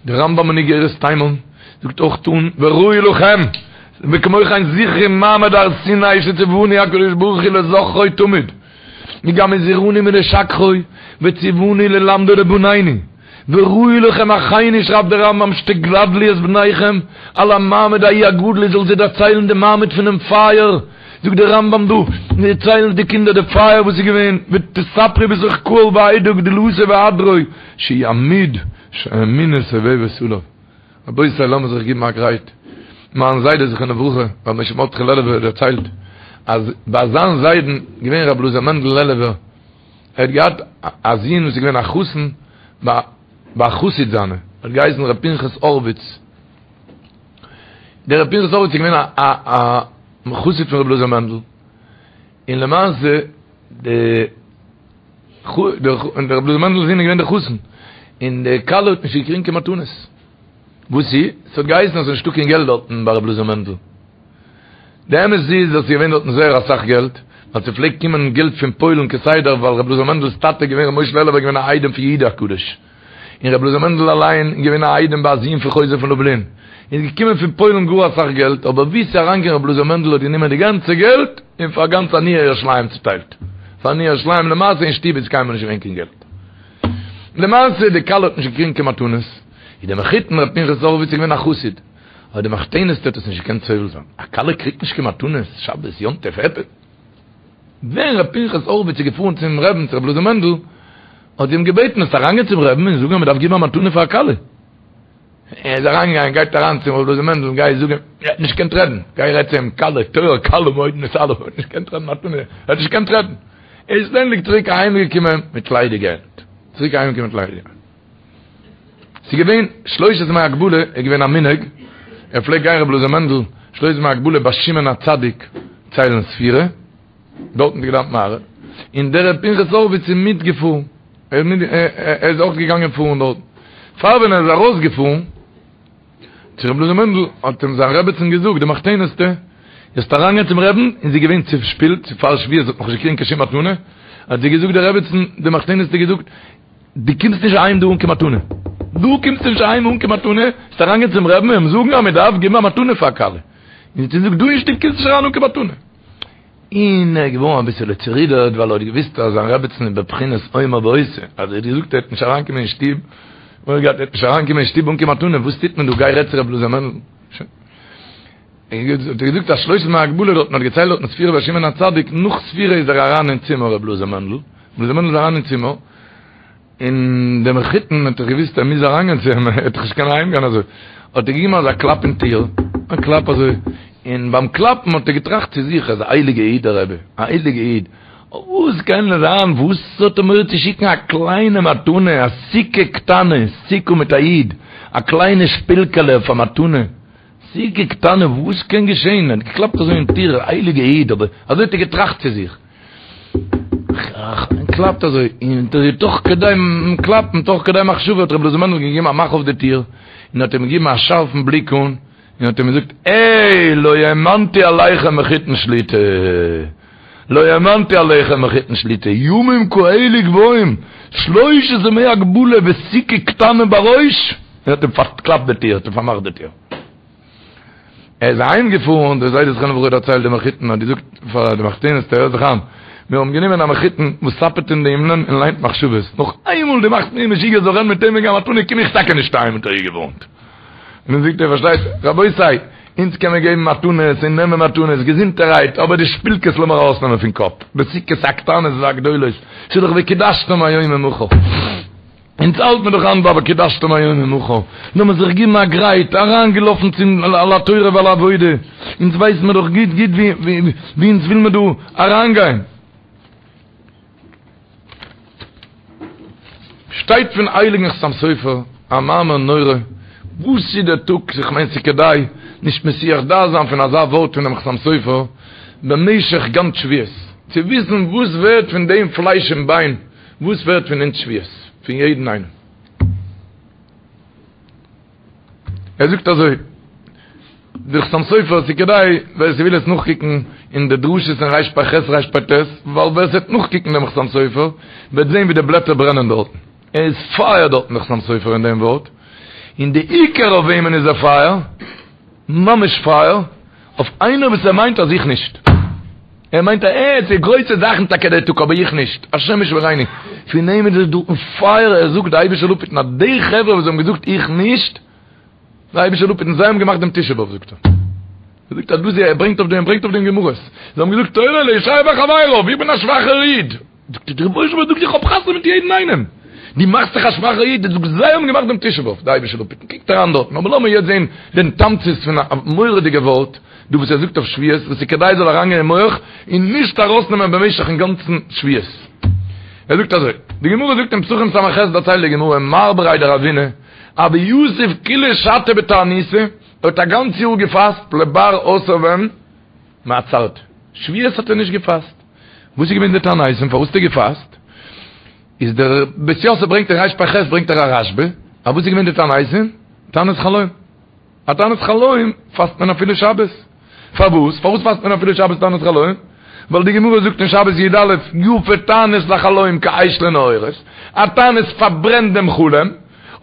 דער רמב"ם אין איגרת תימן זאגט אויך אן וראוי לכם וכמו כן זכרו מעמד הר סיני שציוונו הקדוש ברוך הוא לזכרו תמיד וגם הזהירנו מלשכחו וציוונו ללמדו לבנינו וראוי לכם אחינו שרייבט דער רמב"ם שתגדלו את בניכם על המעמד ההוא הגדול איר זאלט זיי דערציילן די מעמד פונעם פייער זאגט דער רמב"ם דא, דערציילן די קינדער די פייער וואס איז געווען, ותספרו בתוך קהל ועדה גדולתו והדרו, שהוא עמוד שהאמונה סובבת עליו. רבותי לאמיר זיך גיבן א גרייט, מיין זיידע זכרונו לברכה, רבי משה מרדכי לעלובער האט דערציילט, אז ביי זיין זיידן געווען רבי אלעזר מענדל לעלובער, ער האט געהאט א זון וואס איז געווען א חתן ביי א חסיד זיינע, האט געהייסן ר' פנחס הורוויץ, דער ר' פנחס הורוויץ איז געווען א א חסיד פון ר' אלעזר מענדל, און למעשה די דער ר' אלעזר מענדל'ס זון איז געווען דער חתן, און די כלה האט נישט געקריגן קיין מתנות. וואס איז? ס'האט געהייסן אז ס'איז נישטא קיין געלט דארטן ביי ר' אלעזר מענדל. די אמת איז אז ס'איז געווען דארטן זייער אסאך געלט, ווייל ס'פלעגט קומען געלט פון פוילן כסדר, ווייל ר' אלעזר מענדל'ס טאטע איז געווען ר' משה לעלובער איז געווען א איידעם פון יהודה הקדוש. און רבי אלעזר מענדל אליין איז געווען א איידעם ביי א זון פון חוזה פון לובלין, איז געקומען פון פוילן גאר אסאך געלט, אבער ווי ס'איז אריינגעקומען רבי אלעזר מענדל האט גענומען די גאנצע געלט און פאר גאנץ עניי ירושלים צוטיילט, פאר עניי ירושלים, למעשה אין שטוב איז קיינמאל נישט געווען קיין געלט. למעשה די כלה האט נישט געקריגן קיין מתנות, איז דער מחותן רבי פנחס הורוויץ איז געווען א חסיד, אבער די מחותנת'טע האט עס נישט געקענט סובל זיין, א כלה קריגט נישט קיין מתנות, שבת, יום טוב, עפעס. ווען ר' פנחס הורוויץ איז געפארן צום רעבן צו ר' אלעזר מענדל, האט זי אים געבעטן זאלסט אריינגיין צום רעבן און זאגן אז מען דארף געבן א מתנה פאר א כלה. ער איז אריינגעגאנגען, גייט אריין צום ר' אלעזר מענדל, גיי זאג אים, ער האט נישט געקענט רעדן, גיי רעד צו אים, כלה, תורה קלה מאוד נתעלה, ער האט נישט געקענט רעדן מתנה, ער האט נישט געקענט רעדן. ער איז שטענדיג צוריק אהיימגעקומען מיט ליידיגע הענט, צוריק אהיימגעקומען מיט ליידיגע הענט. ס'איז געווען שלושת ימי הגבלה איז געווען א מנהג, ער פלעגט גיין רבי אלעזר מענדל שלושת ימי הגבלה ביי שמעון הצדיק ציילן ספירה, דארטן האט ער געדאווענט מעריב, און דער ר' פנחס הורוויץ איז מיטגעפארן, ער איז אויך געגאנגען פארן דארטן, פאר ווען ער איז ארויסגעפארן צו רבי אלעזר מענדל האט אים זיין רעבעצין געזאגט די מחותנת'טע, זאלסט אריינגיין צום רעבן, און זי איז געווען צושפילט, צו פאר שבועות האט נאך נישט געקריגן קיין שום מתנה, האט זי געזאגט די רעבעצין, די מחותנת'טע געזאגט, דו קומסט נישט אהיים דא אן קיין מתנה. דו קומסט נישט אהיים אן קיין מתנה, זאלסט אריינגיין צום רעבן און אים זאגן אז מען דארף געבן א מתנה פאר א כלה. און זי זאגט, דא אין שטוב קומסט נישט אריין אן קיין מתנה. און ער איז געווארן אביסעלע צערודערט, ווייל ער האט געוואוסט אז זיין רעבעצן איז בבחינת אומר ועושה. אז ער האט געזאגט ער וועט נישט אריינקומען אין שטוב, מורא געהאט ער וועט נישט אריינקומען אין שטוב אן קיין מתנה, וואס טוט מען דא, גיי רעד צו רבי אלעזר מענדל. שוין. האט ער געזאגט אז שלושת ימי הגבלה דארטן האט געציילט דארטן ספירה ביי שמעון הצדיק, נאך ספירה איז ער אריין אין צימער רבי אלעזר מענדל, רבי אלעזר מענדל איז אריין אין צימער, און דער מחותן האט דאך געוואוסט ער מוז אריינגיין צו אים, ער וועט דאך נישט קענען אהיימגיין אזוי, האט ער געגעבן אזא קלאפ אין טיר, א קלאפ אזוי, און ביים קלאפן האט ער געטראכט צו זיך, ער איז א הייליגע איד דער רבי, א הייליגע איד, וואס קען זיין, וואס האט ער מורא צו שיקן א קליינע מתנה, א סיכה קטנה, סיכה מיט א יוד, א קליינע שפילקעלע אויף א מתנה, סיכה קטנה, וואס קען געשען? ער האט געקלאפט אזוי אין טיר, הייליגע איד, אבער אזוי האט ער געטראכט צו זיך. קלאפט אזוי, און תוך כדי קלאפן, תוך כדי מחשבה האט רבי אלעזר מענדל געגעבן א מאך אויף די טיר, און און האט אים געגעבן א שארפן בליק אן, און האט אים געזאגט, העי, לא האמנתי עליכם מחותן שליט"א, לא האמנתי עליכם מחותן שליט"א, ימים כאלה גבוהים, שלושת ימי הגבלה וסוכה קטנה בראש, און האט אים פארקלאפט די טיר, האט אים פארמאכט די טיר. ער איז אהיים געפארן, דער זיידע זכרונו לברכה דערציילט די מחותן האט געזאגט פאר די מחותנת'טע, הער זיך איין, מיר האבן גענומען א מחותן וואס סאפעט אין די הימלען און ליינט מחשבות, נאך איינמאל דו מאכסט מיר משוגע זאל רעדן מיט אים וועגן א מתנה קום איך טאקע נישט אהיים האט ער איר געווארנט. און דאן זאגט ער פארשטייט רבותי, אונז קען מען געבן מתנות און נעמען מתנות געזונטערהייט, אבער די שפילקעס לאמיר ארויסנעמען פון קאפ, די סוכות הקטנות והגדולות, ס'איז דאך וקידשתם היום ומחר. אונז האלט מיר דאך היינט ביי וקידשתם היום ומחר, לאמיר זיך גיבן א גרייט, אריינגעלאפן צום על התורה ועל העבודה, אונז ווייסן מיר דאך גוט גוט ווי אונז וויל מיר דא אריינגיין. שטייט פון הייליגן חתם סופר א מאמר נורא, וואס איז דער טאג, איך מיין ס'איז כדאי נישט מסיח דעת זיין פון אזא ווארט פונעם חתם סופר במשך גאנץ שבועות, צו וויסן וואס ווערט פון דעם פלייש און ביין, וואס ווערט פון אונז שבועות? פון יעדן איינעם. ער זאגט אזוי, דער חתם סופר, ס'איז כדאי ווער ס'וויל עס נאכקוקן אין די דרשות אין רפ"ח רפ"ט, ווייל ווער ס'וועט נאכקוקן דעם חתם סופר וועט זען ווי די בלעטער ברענען דארטן. ער איז פייער דארטן דער חתם סופר אין דעם ווארט. און די עיקר אויף וועמען איז ער פייער? ממש פייער, אויף איינער וואס ער מיינט אז איך נישט. ער מיינט אז ער האט גרויסע זאכן טאקע דער טאג אבער איך נישט, השם ישמרינו, פון אים איז עס דא פייער, ער זאגט די אייבישטער זאל אפהיטן אז די חברה וואס האבן געזאגט איך נישט, די אייבישטער זאל אפהיטן זיי האבן געמאכט דעם תשעה באב זאגט ער, ער זאגט אז דאס ער ברענגט אויף דעם ער ברענגט אויף דעם גמרות, זיי האבן געזאגט תורה לישעיה וחבריו, איך בין א שוואכער איד, זאגט ער דער רבונו של עולם זאגט איך האב חתונה מיט יעדן איינעם, דו מאכסט זיך א שוואכער איד, דו זאגסט זיי האבן געמאכט דעם תשעה באב, די אייבישטער זאל אפהיטן, קוקט אריין דארטן, אבער לאמיר יעצט זען דעם תמצית פון א מורא'דיגע ווארט דא וואס ער זאגט אויף שבועות, וואס איז כדאי זאל אריינגיין אין מח און נישט ארויסנעמען במשך'ן גאנצן שבועות. ער זאגט אזוי, די גמרא זאגט אין פסחים ס"ח דערציילט די גמרא, מר בריה דרבינא, הוה יתיב כולא שתא בתעניתא, ער האט א גאנץ יאר געפאסט לבר עשר ווען? מעצרתא. שבועות האט ער נישט געפאסט. וואס איז געווען די תענית און פארוואס האט ער געפאסט? איז דער בית יוסף ברענגט אין רפ"ח ברענגט ער א רשב"א, א וואס איז געווען די תעניתים? תענית חלום. א תענית חלום פאסט מען אפילו שבת. פארוואס? פארוואס פאסט מען אפילו שבת תענית חלום? ווייל די גמרא זאגט אין שבת י"א, יפה תענית לחלום כאש לנעורת, א תענית פארברענט דעם חלום,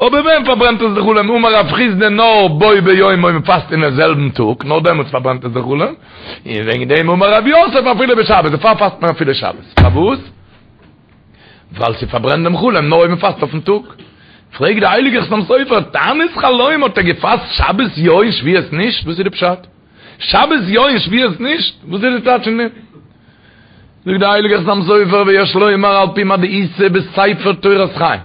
אבער ווען פארברענט עס די חלום? אמר רב חסדא נאר בו ביום אויב מ'פאסט אינעם זעלבן טאג, נאר דעמאלטס פארברענט עס די חלום, און וועגן דעם אמר רב יוסף אפילו בשבת, דערפאר פאסט מען אפילו שבת. פארוואס? ווייל ס'פארברענט דעם חלום נאר אויב מ'פאסט אויפן טאג. פרעגט די הייליגע חתם סופר, תענית חלום האט ער געפאסט שבת יא און שבועות נישט? וואס איז די פשט? שבת יא און שבועות נישט? וואס איז די טייטש פון דעם? זאגט די הייליגע חתם סופר ויש לומר על פי מה דאיתא בספר תורת חיים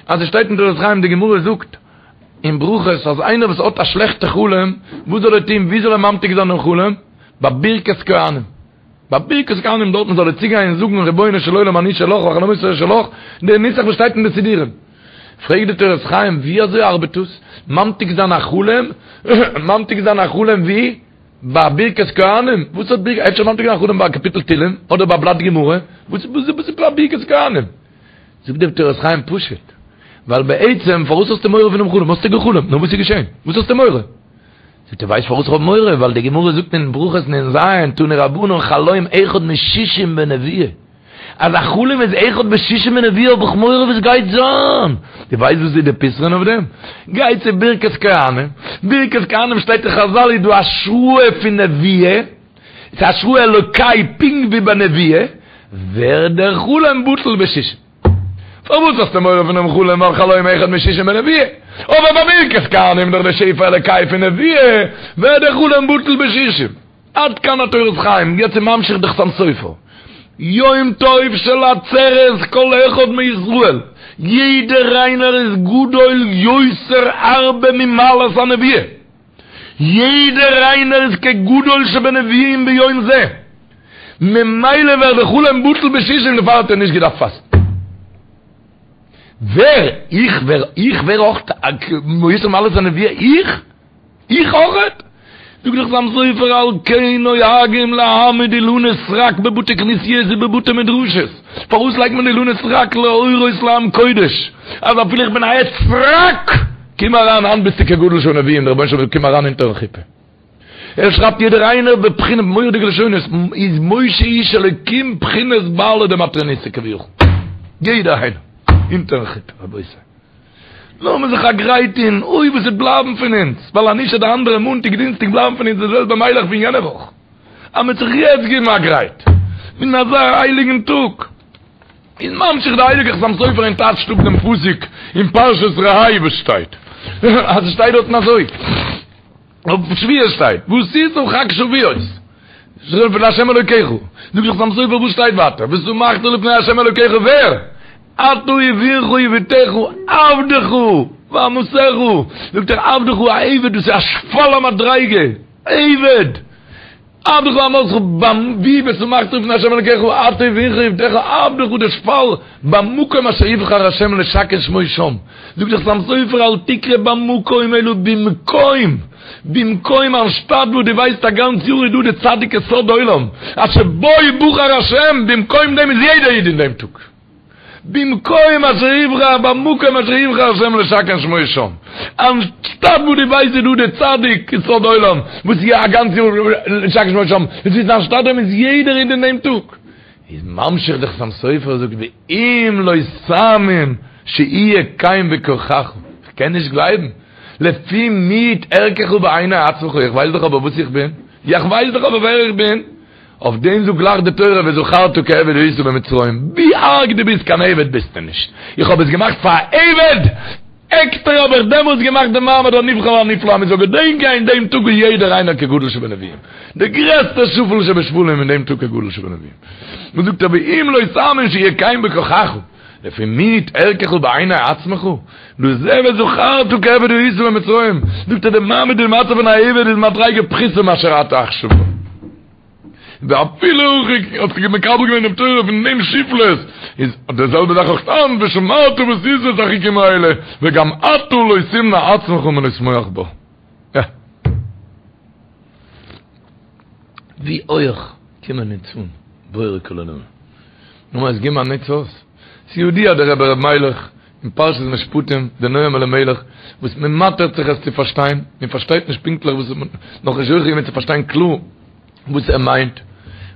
אז עס שטייט אין תורת חיים די גמרא זאגט אין ברכות אז איינער וואס האט א שלעכטע חלום וואס זאל ער טון ווי זאל ער ממתיק זיין דעם חלום? ביי ברכת כהנים ביי ברכת כהנים דארטן זאל ער צוגיין און זאגן רבונו של עולם אני שלך וחלומותי שלך די נוסח וואס שטייט אין די סידורים פרעגט די תורת חיים ווי אזוי ארבעט דאס ממתיק זיין א חלום ממתיק זיין א חלום ווי? ביי ברכת כהנים? וואס האט ברכת אפשר ממתיק זיין א חלום ביי א קאפיטל תהילים אדער ביי א בלאט גמרא וואס איז ביי ברכת כהנים? זאגט דער תורת חיים פשוט ווייל בעצם פארוואס האסטו מורא פונעם חלום האסטו געחלומט נו וואס איז געשען וואס האסטו מורא? זאגט ער ווייסט פארוואס איך האב מורא ווייל די גמרא זאגט אין ברכות נ"ז תנו רבנן חלום אחד משישים בנבואה אז א חלום איז אחד בשישים בנבואה האב איך מורא וואס גייט זיין דו ווייסט וואס איז די פתרון אויף דעם? גיי צו ברכת כהנים ברכת כהנים שטייט אין חזל איז דא השראה פון נבואה ס'איז השראה אלוקי פונקט ווי ביי נבואה ווערט דער חלום בטל בשישים. פארוואס האסטו מורא פונעם חלום ווייל חלום אחד משישים בנבואה? אבער ביי ברכת כהנים דורך די שפע אלוקי פון נבואה ווערט דער חלום בטל בשישים. עד כאן התורת חיים, יעצט איז ממשיך די חתם סופר. יום טוב של עצרת כל אחד מישראל, יעדער איינער איז גדול יותר הרבה ממעלת הנבואה. יעדער איינער איז כגדול שבנביאים ביום זה, ממילא ווערט די חלום בטל בשישים דערפאר האט ער נישט געדארפט פאסטן. ווער? איך ווער? איך ווער אויך יותר ממעלת הנבואה? איך? איך אויכעט? זאגט דער חתם סופר על כן נוהגים להעמיד אילנות סרק בבתי כנסיות ובבתי מדרשות, פארוואס לייגט מען אילנות סרק להורות לעם קודש אז אפילו איך בין א עץ סרק? קום אריין היינט ביסטו כגדול שבנביאים, דער רבונו של עולם זאגט קום אריין אונטערן חופה. ער שרייבט יעדער איינער בבחינה מורא'דיגע לשונות, איז משה איש אלוקים בחינת בעלה דמטרוניתא כביכול. יעדער איינער אונטערן חופה רבותי. לאמיר זיך א גרייט טון, אוי וואס וועט בלייבן פון אונז, ווייל אז נישט וועט די אנדערע מאנטאג דינסטאג בלייבן פון אונז די זעלבע מיילעך פון יענע וואך. אז מ'וועט זיך יעצט געבן א גרייט, אין אזא הייליגן טאג. איז ממשיך די הייליגע חתם סופר און טייטשט אפ דעם פסוק אין פרשת ראה וואס שטייט, אז עס שטייט דארטן אזוי, אויף שבועות שטייט, ועשית חג שבועות, לה' אלוקיך, זאגט דער חתם סופר וואס שטייט ווייטער, ושמחת לפני ה' אלוקיך ווער? אתה ובנך ובתך עבדך ואמתך, זאגט ער עבדך א עבד דאס איז א שפל המדריגה, עבד! עבדך ואמתך ביים ווי ושמחת לפני ה' אלקיך אתה ובנך ובתך עבדך דער שפל במקום אשר יבחר ה' לשכן שמו שם זאגט דער חתם סופר אל תקרא במקום אלא במקום במקום אנשטאט וואו דו ווייסט א גאנץ יאר איז דא די צדיק יסוד עולם אשר בו בחר ה' במקום דעם איז יעדער איד אין דעם טאג. במקום אשר יבחר, במקום אשר יבחר השם לשכן שמו שם. אנשטאט וואו דו ווייסט איז דא די צדיק יסוד עולם, וואס איז א גאנץ יאר לשכן שמו שם, עס איז אנשטאט דעם איז יעדער איד אין דעם טאג. איז ממשיך דער חתם סופר זאגט ואם לא תאמין שיהיה כן בכוחך, איך קען נישט גלייבן, לפי מיעוט ערכך בעיני עצמך, איך ווייס דאך אבער וואס איך בין, איך ווייס דאך אבער ווער איך בין, אויף דעם זאגט גלייך די תורה וזכרת כי עבד היית במצרים, ווי ארג דו ביסט קיין עבד ביסטו נישט, איך האב עס געמאכט פאר א עבד, עקסטער האב איך דעמאלטס געמאכט די מעמד הנבחר והנפלא אז מען זאל געדענקען אין דעם טאג איז יעדער איינער כגדול שבנביאים, דער גרעסטער שפל שבשפלים אין דעם טאג כגדול שבנביאים. מען זאגט אבער אם לא תאמין שיהיה כן בכוחך, לפי מיעוט ערכך בעיני עצמך, לזה וזכרת כי עבד היית במצרים, זאגט ער די מעמד און מצב פון א עבד איז מדריגה פחותה מאשר אתה עכשיו בו. ואפילו הכי האט זיך מקבל געווען דעם תורה פון דעם שפלות, איז די זעלבע זאך אויך היינט ושמרת ועשית את החוקים האלה, וגם אתה לא תמנע עצמך מלשמוח בו. יא. ווי הויך קומען אונז אן בורא כל עולמים. נו אז גיב מיר א נוץ אויס. ס'ידוע דער רבי ר' מיילעך אין פרשת משפטים, דער נועם אלימלך, וואס מען מאטערט זיך עס צו פארשטיין, מען פארשטייט נישט פונקטליך וואס, נאכנישט זוכה געווען צו פארשטיין קלאר וואס ער מיינט,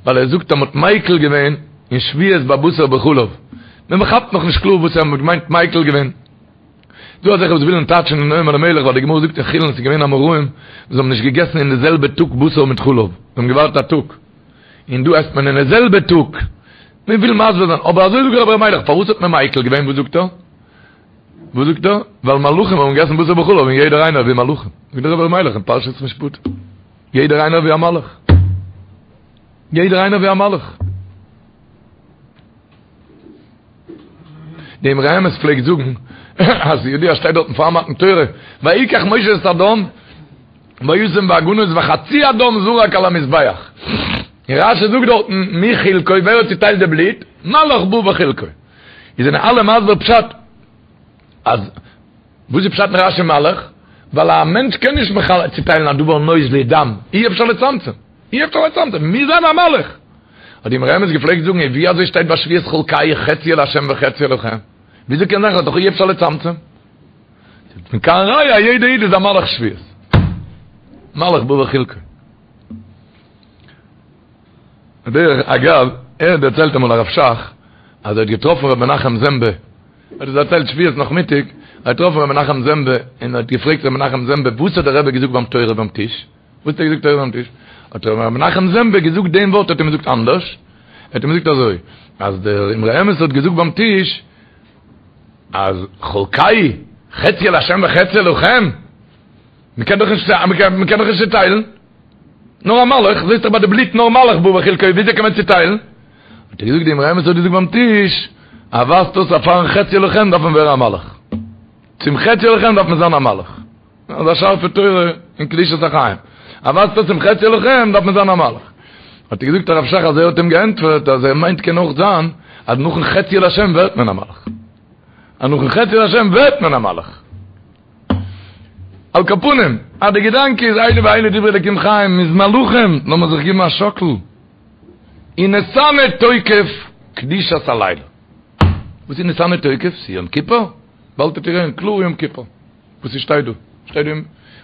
ווייל ער זאגט אז מען האט מיקל געווען אין שבועות ביי בשר בחלב, מען כאפט נאכנישט קלאר וואס ער האט געמיינט מיקל געווען. דא אזעלכע וואס ווילן טייטשן אין נועם אלימלך ווייל די גמרא זאגט אין חולין ס'איז געווען אמוראים וואס האבן נישט געגעסן אין די זעלבע טאג בשר מיט חלב, זיי האבן געווארט א טאג, און דא עסט מען אין די זעלבע טאג. מען וויל מסביר זיין, אבער אזוי זאגט רבי ר' מיילעך, פארוואס האט מען מיקל געווען, וואס זאגט ער? וואס זאגט ער? ווייל מלאכים האבן געגעסן בשר בחלב און יעדער איינער ווי מלאכים. זאגט דער רבי ר' מיילעך אין פרשת משפטים, יעדער איינער ווי א מלאך. יעדער איינער ווי א מלאך. די אמרי אמת פלעגט זאגן, אז ידוע שטייט דארטן פאר מתן תורה, ויקח משה את הדם, וישם באגנות וחצי הדם זרק על המזבח. און רשי זאגט דארטן מי חילקו, ווער האט צוטיילט די בלוט? מלאך בא וחילקו. איז זענען אלע מסביר פשט אז וואס איז פשט אין רשי מלאך? ווייל א מענטש קען נישט מחלק צוטיילן א דבר נוזלי דם, אי אפשר לצמצם, אי אפשר לצמצם, מוז זיין א מלאך. האט די אמרי אמת געפלעגט זאגן, און ווי אזוי שטייט ביי שבועות חלקהו חציו לה' וחציו לכם? וויאזוי קען זיין ס'איז דאך אי אפשר לצמצם? מכאן ראיה יעדע איד איז א מלאך שבועות. מלאך בא וחילקו. דרך אגב, ער האט דערציילט אמאל הרב שך, אז ער האט געטראפן ר' מנחם זעמבע, ער האט עס דערציילט שבועות נאכמיטאג, ער האט געטראפן ר' מנחם זעמבע, און ער האט געפרעגט ר' מנחם זעמבע, וואס האט דער רבי געזאגט ביים תורה ביים טיש? וואס האט ער געזאגט תורה ביים טיש? האט ר' מנחם זעמבע געזאגט דעם ווארט האט אים געזאגט אנדערש, ער האט אים געזאגט אזוי, אז דער אמרי אמת האט געזאגט ביים טיש, אז חלקהו חציו לה' וחציו לכם, מ'קען דאך נישט, מ'קען דאך נישט צוטיילן, נאר א מלאך, זעסט דאך ביי די בלוט נאר מלאך בא וחילקו, וויאזוי קען מען צוטיילן? האט ער געזאגט די אמרי אמת האט געזאגט ביים טיש, אז ווייזט אויס אז פארן חציו לכם דארף מען ווערן א מלאך, צום חציו לכם דארף מען זיין א מלאך, אזא שארפע תורה אין קדושת החיים, אז ווייזט אויס צום חציו לכם דארף מען זיין א מלאך. האט ער געזאגט הרב שך אז ער האט אים געענטפערט אז ער מיינט קען אויך זיין אז נאכן חציו להשם ווערט מען א מלאך. אז נאכן חציו להשם ווערט מען א מלאך. על כל פנים, אז די געדאנק איז אלו ואלו דברי אלוקים חיים מ'איז מלאכים, לאמיר זיך גיבן א שאקל. ונתנה תוקף קדושת הלילה. וואס איז ונתנה תוקף? ס'איז יום כיפור? באלד וועט איר הערן קלאר יום כיפור. וואס ס'שטייט דא, שטייט דא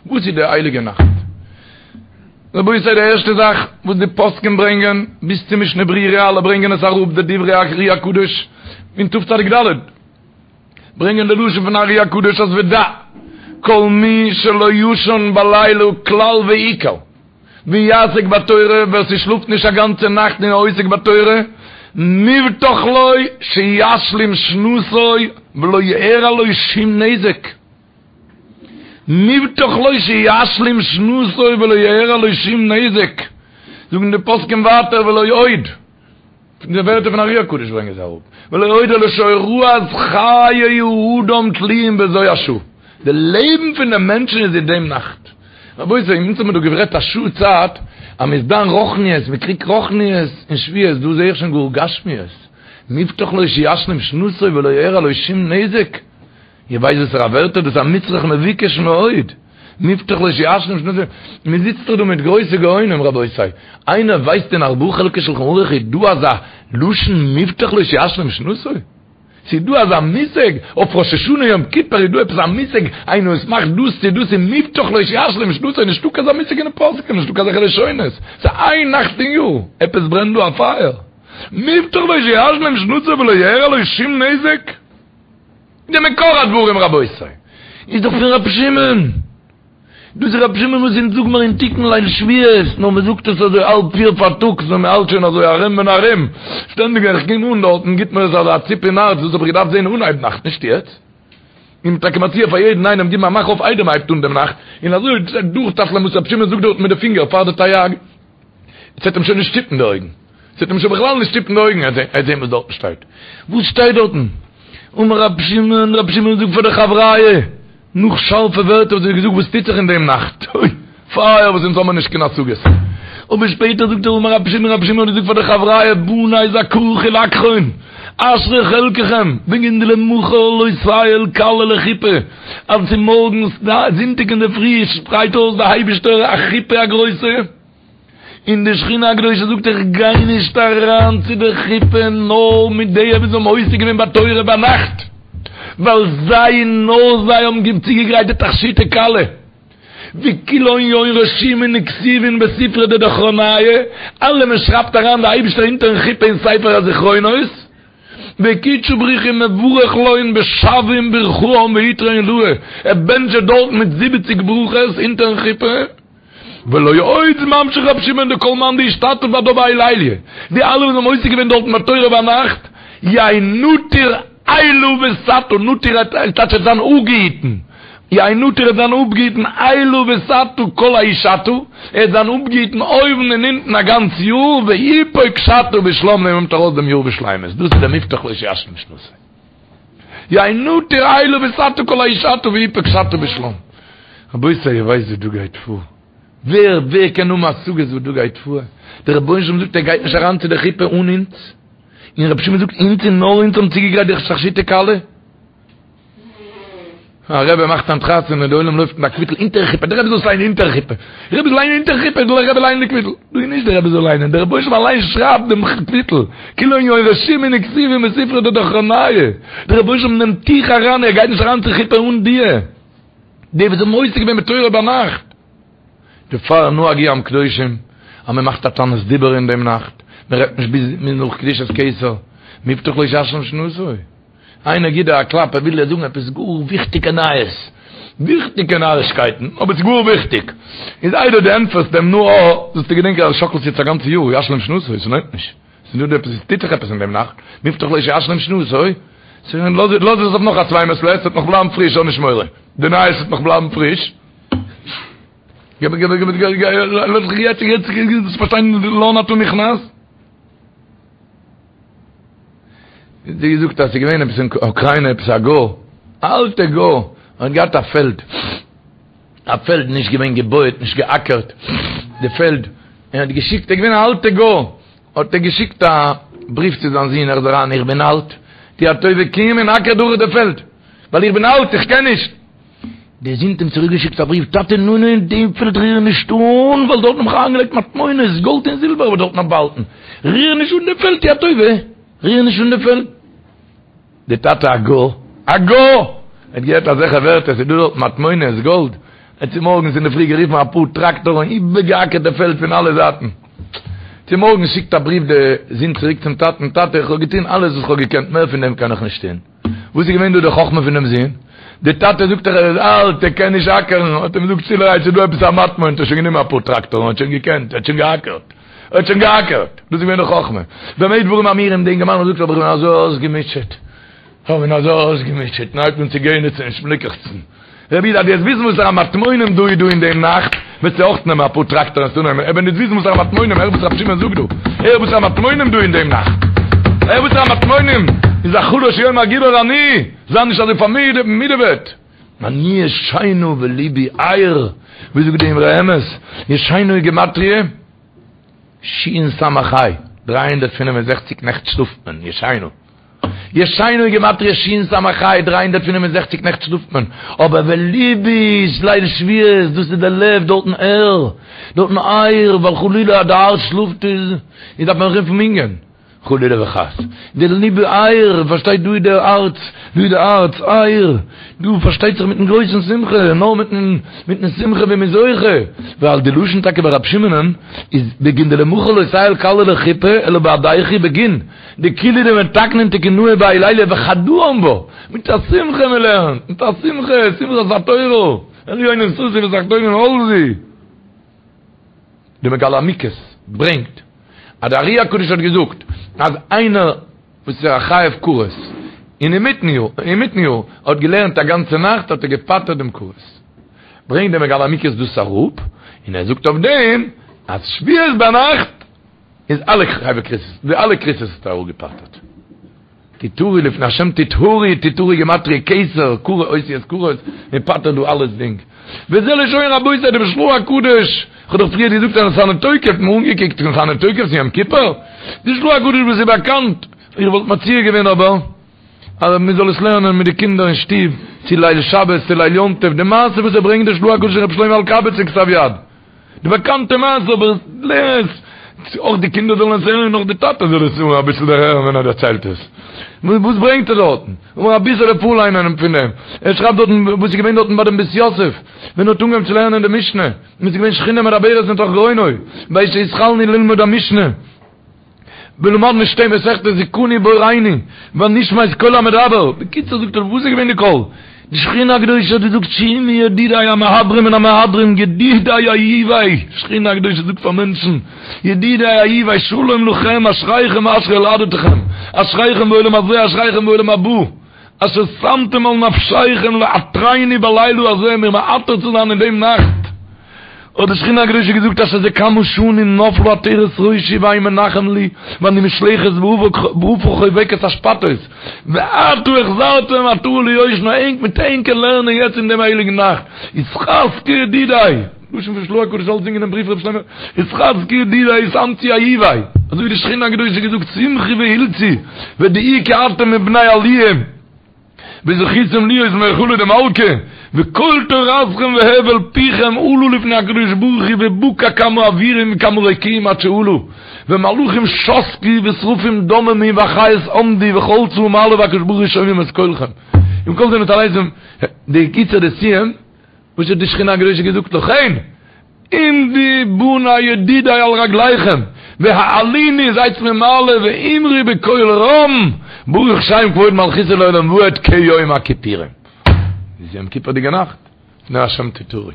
וואס איז די הייליגע נאכט? רבותי די ערשטע זאך וואס די פוסקים ברענגען, ביז צו משנה ברורה אלע ברענגען עס אראפ די דברי הארי הקדוש אין תצ"ד, ברענגען די לשון פון ארי הקדוש אז ודע כל מי שלא ישן בלילה כלל ועיקר ויעסוק בתורה ווער ס'שלאפט נישט א גאנצע נאכט און עוסק בתורה מובטח לו שישלים שנתו ולא יארע לו שום נזק מובטח לו שישלים שנתו ולא יארע לו שום נזק זאגן די פוסקים ווייטער ולא עוד פון די ווערטער פון ארי הקדוש ברענגען זיי אראפ, ולא עוד אלא שהוראת חיי האדם תלויים בזו השעה, די לעבן פון די מענטשן איז אין דעם נאכט. רבותי, אונז האבן מיר דא גערעדט א שעה צייט אז מען איז דן רוחניות, מען קריגט רוחניות אין שבועות, דא זעה איך שוין גאר גשמיות, מובטח לו שישלים שנתו ולא יארע לו שום נזק. איר ווייסט וואסערע ווערטער דאס איז א מצרך מבוקש מאוד, מובטח לו שישלים שנתו, מען זיצט דאך דא מיט גרויסע גאונים רבותי, איינער ווייסט אין ארבעה חלקי שלחן ערוך איז דא אזא לשון מובטח לו שישלים שנתו? ס'איז דא אזא מושג? אויף ראש השנה יום כיפור איז דא עפעס א מושג איינער וואס מאכט דאס צו דאס איז מובטח לו שישלים שנתו, נישטא קיין אזא מושג אין די פוסקים, נישטא קיין אזעלכע לשונות, ס'איז איין נאכט אין יאר, עפעס ברענט דא א פייער, מובטח לו שישלים שנתו ולא יארע לו שום נזק? די מקור הדברים רבותי איז דאך פון רבי שמעון, דאס איז רבי שמעון וואס אונז זאג מיר אין תיקון ליל שבועות, נאר מען זאגט עס אזוי האלב פיר פארטאגס ווען מען האלט שוין אזוי ארום און ארום, שטענדיג ווען איך קום אן דארטן גיבט מיר עס אזא ציפ אין הארץ, דאס האב איך געדארפט זען אנהייב נאכט נישט יעצט, און טאקע מציע פאר יעדן איינעם גיבן א מאך אויף איידער מען הייבט אן דעם נאכט, און אזוי דורכטאפלען וואס רבי שמעון זאגט דארטן מיט די פינגער פאר די תרי"ג. עס וועט אים שוין נישט שטופן די אויגן, עס וועט אים שוין בכלל נישט שטופן די אויגן, ער וועט זען וואס דארטן שטייט. וואס שטייט דארטן? אמר רבי שמעון, רבי שמעון זאגט פאר די חבריא, נאך שארפע ווערטער וואס ער האט געזאגט וואס טוט זיך אין דעם נאכט, אוי, פייער וואס אונז האבן נישט קיין השגות. אבער שפעטער זאגט ער אמר רבי שמעון, רבי שמעון האט געזאגט פאר די חבריא, בני זכאה חולקכון, אשרי חלקכם, בגין דלמחר לא תיעול כלה לחופה, אז צומארגנס זונטאג אינדערפרי שפרייט אויס די אייבישטער א חופה א גרויסע, און די שכינה הקדושה זאגט איך גיי נישט אריין צו די חופה נאר מיט די וואס האבן עוסק געווען בתורה ביינאכט, ווייל זיי און נאר זיי האבן צוגעגרייט די תכשיטי כלה, וכולהון יהון רשימין וכתיבין בספרא דדכרניא, אלעמען שרייבט אריין די אייבישטער אונטערן חופה אין ספר הזכרונות, וקודשא בריך הוא מברך לון בשבעין ברכאן בעיטרא עילאה, ער בענטשט זיי דארט מיט זיבעציג ברכות אונטערן חופה. ולא עוד איז ממשיך רבי שמעון דכל מאן דאשתתף בהדה בהאי ליליא, די אלע וואס האבן עוסק געווען דארטן בתורה ביינאכט, יהא נטיר עילא ותתא, נטיר איז טייטש ער וועט זיין אפגעהיטן, יהא נטיר ער וועט זיין אפגעהיטן עילא ותתא כל ההיא שתא, ער וועט זיין אפגעהיטן אויבן און אונטן א גאנץ יאר, ויפוק שתא בשלם און נעמט ארויס דעם יאר בשלימות, דאס איז דער מובטח לו שישלים שנתו. יהא נטיר עילא ותתא כל ההיא שתא ויפוק שתא בשלם. רבותי איר ווייסט וואס דא גייט פאר? ווער ווער קען האבן השגות וואס דא גייט פאר? דער רבונו של עולם זאגט ער גייט נישט אריין צו די חופה אן אונז, און רבי שמעון זאגט אונז און נאר אונז האבן צוגעגרייט די תכשיטי כלה. א רבי מאכט היינט חתונה די עולם לויפט מיט א קוויטל אונטערן חופה, די רבי זאל עס ליינען אונטערן חופה, די רבי זאל ליינען אונטערן חופה, זאל דער רבי ליינען די קוויטל, דא איז נישט די רבי זאל ליינען, דער רבונו של עולם אליין שרייבט דעם קוויטל, כולהון יהון רשימין וכתיבין בספרא דדכרניא, דער רבונו של עולם נעמט דיך אריין, ער גייט נישט אריין צו חופה אן דיר, די וואס האבן עוסק געווען בתורה ביינאכט. דערפאר נהגו עם קדושים אז מען מאכט א תענית דיבור אין דעם נאכט, מען רעדט נישט ביז נאך קדושת כתר, מובטח לו שישלים שנתו. איינער גיט דיר א קלאפ ער וויל דיר זאגן עפעס גאר וויכטיגע נייעס, וויכטיגע נארישקייטן, אבער ס'איז גאר וויכטיג, איז איידער דו ענטפערסט אים נו אה, זאלסטו געדענקען אז שאקלסט יעצט א גאנצע יאר, ישלים שנתו, ס'לוינט נישט, ס'איז דא עפעס, ס'טוט זיך עפעס אין דעם נאכט, מובטח לו שישלים שנתו, לאז עס אויף נאך א צוויי מעת לעת, ס'וועט נאך בלייבן פריש, האב נישט מורא, די נייעס וועט נאך בלייבן פריש. געב געב געב געב לאז זיך יעצט יעצט יעצט פארשטיין לאן אתה נכנס. זי געזאגט אז ס'איז געווען עפעס אין אוקריינע עפעס א גוי, א אלטע גוי, האט געהאט א פעלד, א פעלד נישט געווען געבויעט נישט געאקערט די פעלד, און האט געשיקט, ער איז געווען א אלטע גוי, האט ער געשיקט א בריוו צו זיין זון, הער זיך איין איך בין אלט, טו א טובה קום און אקער דורך די פעלד, ווייל איך בין אלט איך קען נישט. דער זון האט אים צוריק געשיקט א בריוו, טאטע נו נו דעם פעלד ריר נישט אן, ווייל דארטן האב איך אריינגעלייגט מטמונות, גאלד און זילבער האב איך דארטן באהאלטן, ריר נישט אן דעם פעלד טו א טובה, ריר נישט אן דעם פעלד. דער טאטע א גוי, א גוי! האט געהערט אזעלכע ווערטער, ס'איז דא דארט מטמונות, גאלד, ער האט צומארגנס אינדערפרי גערופן אפאר טראקטארן און איבערגעאקערט די פעלד פון אלע זייטן. צומארגנס שיקט א בריוו די זון צוריק צום טאטן, טאטע איך האב געטון אלעס וואס איך האב געקענט, מער פון דעם קען איך נישט טון. וואס איז געווען דא די חכמה פונעם זון? די טאטע זאגט דאך ער איז אלט ער קען נישט אקערן, האט אים געזאגט שטילערהייט ס'איז דא עפעס א מטמון, האט ער שוין גענומען אפאר טראקטארן האט שוין געקענט, ער האט שוין געאקערט, ער האט שוין געאקערט, דאס איז געווען די חכמה. במה דברים אמורים, די אינגערמאן האט געזאגט אבער איך בין אזוי אויסגעמוטשעט, איך בין אזוי אויסגעמוטשעט, און הייבט אן צו גענעצן און שמליקעכצן. רבי איד אז דו וועסט וויסן וואסערע מטמונים דא איז דא אין דעם נאכט, וועסטו אויך נעמען אפאר טראקטארן און צונעמען, אבער נישט וויסן וואסערע מטמונים, הער וואס רבי שמעון זאגט דא, הער וואסערע מטמונים דא אין דעם נאכט, הער וואסערע מטמונים, איז החלש יאמר גיבור אני, זיי נישט אזוי פארמידעוועט. אני ישנה ולבי ער, ווי זאגט די אמרי אמת, ישנה איז גימטריא שין סמך ה', 365 נעכט שלאפט מען, ישנה. ישנה איז גימטריא שין סמך ה', 365 נעכט שלאפט מען, אבער ולבי איז ליל שבועות, דאס איז די לב דארטן ער, דארטן ער, ווייל חלילה אז די הארץ שלאפט איז איז דארף מען רופן מנין, חלילה וחס, די לבי ער, פארשטייט דא איז די הארץ, דא איז די הארץ ער, דא פארשטייט זיך מיטן גרויסן שמחה, נאר מיטן מיטן שמחה ווי מ'איז זוכה, ווייל די לשון טאקע ביי רבי שמעונ'ן איז בגין דלמחר לא תיעול כלה לחופה אלא בהדייכו בגין. דכולהו דמתקנין תקונהא בהאי ליליא וחדאן בה, מיט א שמחה מען לערנט, מיט א שמחה, שמחת התורה, עליונים ששו ותחתונים עלזו. די מגלה עמוקות ברענגט אז די ארי הקדוש האט געזאגט אז איינער וואס איז א חייב כרת און אינמיטן יאר אינמיטן יאר האט געלערנט א גאנצע נאכט האט ער געפטר'ט דעם כרת. ברענגט די מגלה עמוקות דאס אראפ און ער זאגט אויף דעם אז שבועות ביינאכט איז אלע חייבי כריתות, די אלע כריתות האט ער אפגעפטר'ט. תטהרו לפני השם תטהרו, תטהרו גימטריא כתר, כרת אותיות כרת, מען פטר'ט דא אלעס דינג. וזה לשון רבותי דעם של"ה הקדוש, כ'האב דאך פריער געזאגט אז ונתנה תוקף, מיר אנגעקוקט ונתנה תוקף צו יום כיפור, די של"ה הקדוש וואס איז באקאנט, איך וואלט מציע געווען אבער אז מען זאל עס לערנען מיט די קינדער אין שטוב, צו ליל שבת צו ליל יום טוב, די מעשה וואס ער ברענגט די של"ה הקדוש אין רבי שלמה אלקבץ אין כתב יד. די באקאנטע מעשה אבער לערן עס, אויך די קינדער זאלן עס הערן און אויך די טאטע זאל עס אביסל דערהערן ווען ער דערציילט עס. וואס ברענגט ער דארטן? לאמיר אביסעלע פארליינען פון דעם. ער שרייבט דארטן וואס איז געווען דארטן ביי דעם בית יוסף, ווען ער האט אנגעהויבן צו לערנען די משנה, און עס איז געווען שכינה מדברת מתוך גרונו, בעת שהתחלנו ללמוד המשנה. ולמדנו שתי מסכתות זכני בוראנו ונשמע את קול המדבר, בקיצור זאגט ער וואס איז געווען די קול? די שכינה הקדושה האט געזאגט שמעו ידידי המהדרים מן המהדרים ידידי אהובי, שכינה הקדושה זאגט פאר מענטשן ידידי אהובי שלום לכם אשריכם ואשרי יולדתכם אשריכם בעולם הזה אשריכם בעולם הבא אשר שמתם על נפשיכם לעטרני בלילה הזה מיר מעטר צו זיין אין דעם נאכט האט די שכינה הקדושה געזאגט אשר זה כמה שנים נפלה עטרת ראשי ואין מנחם לי ואני מושלכת ועפר חובקת אשפתות ועתה החזרתם עטרה ליושנה ענק מיט ענקער לערנען יעצט אין דעם הייליגן נאכט התחזקו ידידי לשון פון של"ה הקדוש אלץ אין דעם בריוו רבי שלמה התחזקו ידידי התאמצו אהובי אזוי ווי די שכינה הקדושה געזאגט שמחו והלצו ודעו כי אתם מבני עליה וזכיתם להיות מהיכלא דמלכא, וכל תורתכם והבל פיכם עלו לפני הקדוש ברוך הוא ובקע כמה אווירים וכמה רקיעים עד שעלו, ומלאכים שתקו ושרפים דוממו והחיות עמדו וכל צבא מעלה והקדוש ברוך הוא שומעים את קולכם. עם כל זה נתעלזם, די קיצור די סיום, וואס האט די שכינה הקדושה געזאגט לכן? עמדו בני ידידי על רגליכם, והעלוני זייטס מיר מעלה ואמרו בקול רם, ברוך שם כבוד מלכותו לעולם ועד כיום הכיפורים. איז יום כיפור'דיגע נאכט, לפני השם תטהרו.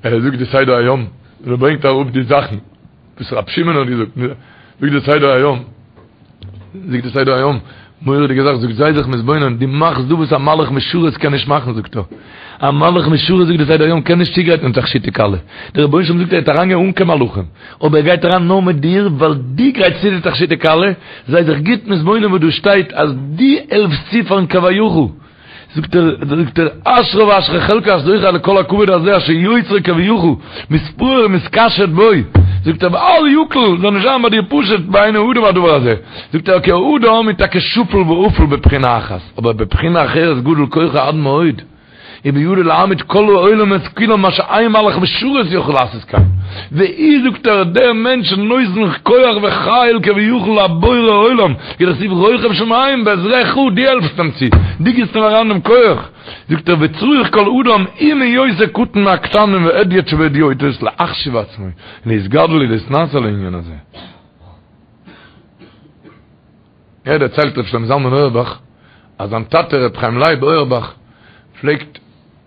ער זאגט די סדר היום, און ער ברענגט אראפ די זאכן וואס רבי שמעון האט געזאגט, זאגט די סדר היום, זאגט די סדר היום, מורא'דיגע זאך, זאגט זיי זיך מתבונן, דו מאכסט דא וואס א מלאך משרת קען נישט מאכן, זאגט ער, א מלאך משרת זאגט די סדר היום קען נישט צוגרייטן תכשיטי כלה, דער רבונו של עולם זאגט ער וועט אריינגיין אן קיין מלאכים, אבער ער גייט אריין נאר מיט דיר, ווייל דו גרייטסט צו די תכשיטי כלה, זיי זיך גוט מתבונן וואס דא שטייט אז דו העלפסט צו פארן כביכול. זאגט ער, זאגט ער, אשריו ואשרי חלקו אשר זוכה לכל הכבוד הזה אשר יוצרו כביכול, מתפאר ומתקשט בו, זאגט ער, ואל יקל, זאל נישט זיין ביי דיר פשוט בעיני האדם הדבר הזה, זאגט ער, כי האדם איז טאקע שפל ועפל בבחינה אחת, אבער בבחינה אחרת גדול כוחו עד מאוד. ובידו להעמיד כל העולמות כולם מה שאין מלאך משרת יכול לעשות כן. והוא זאגט ער דער מענטש נותן כח וחיל כביכול לבורא עולם, כדכתיב רוכב שמים בעזרך דו העלפסט אים צו, דו גיבסט אים אריין דעם כח. זאגט ער וצריך כל אדם אם הוא יותר קטן מהקטנים והדיוט שבהדיוטות להחשיב עצמו להתגדל ולהתנשא לעניין הזה. ער דערציילט ר' שלמה זלמן אויערבאך אז זיין טאטע ר' חיים לייב אויערבאך פלעגט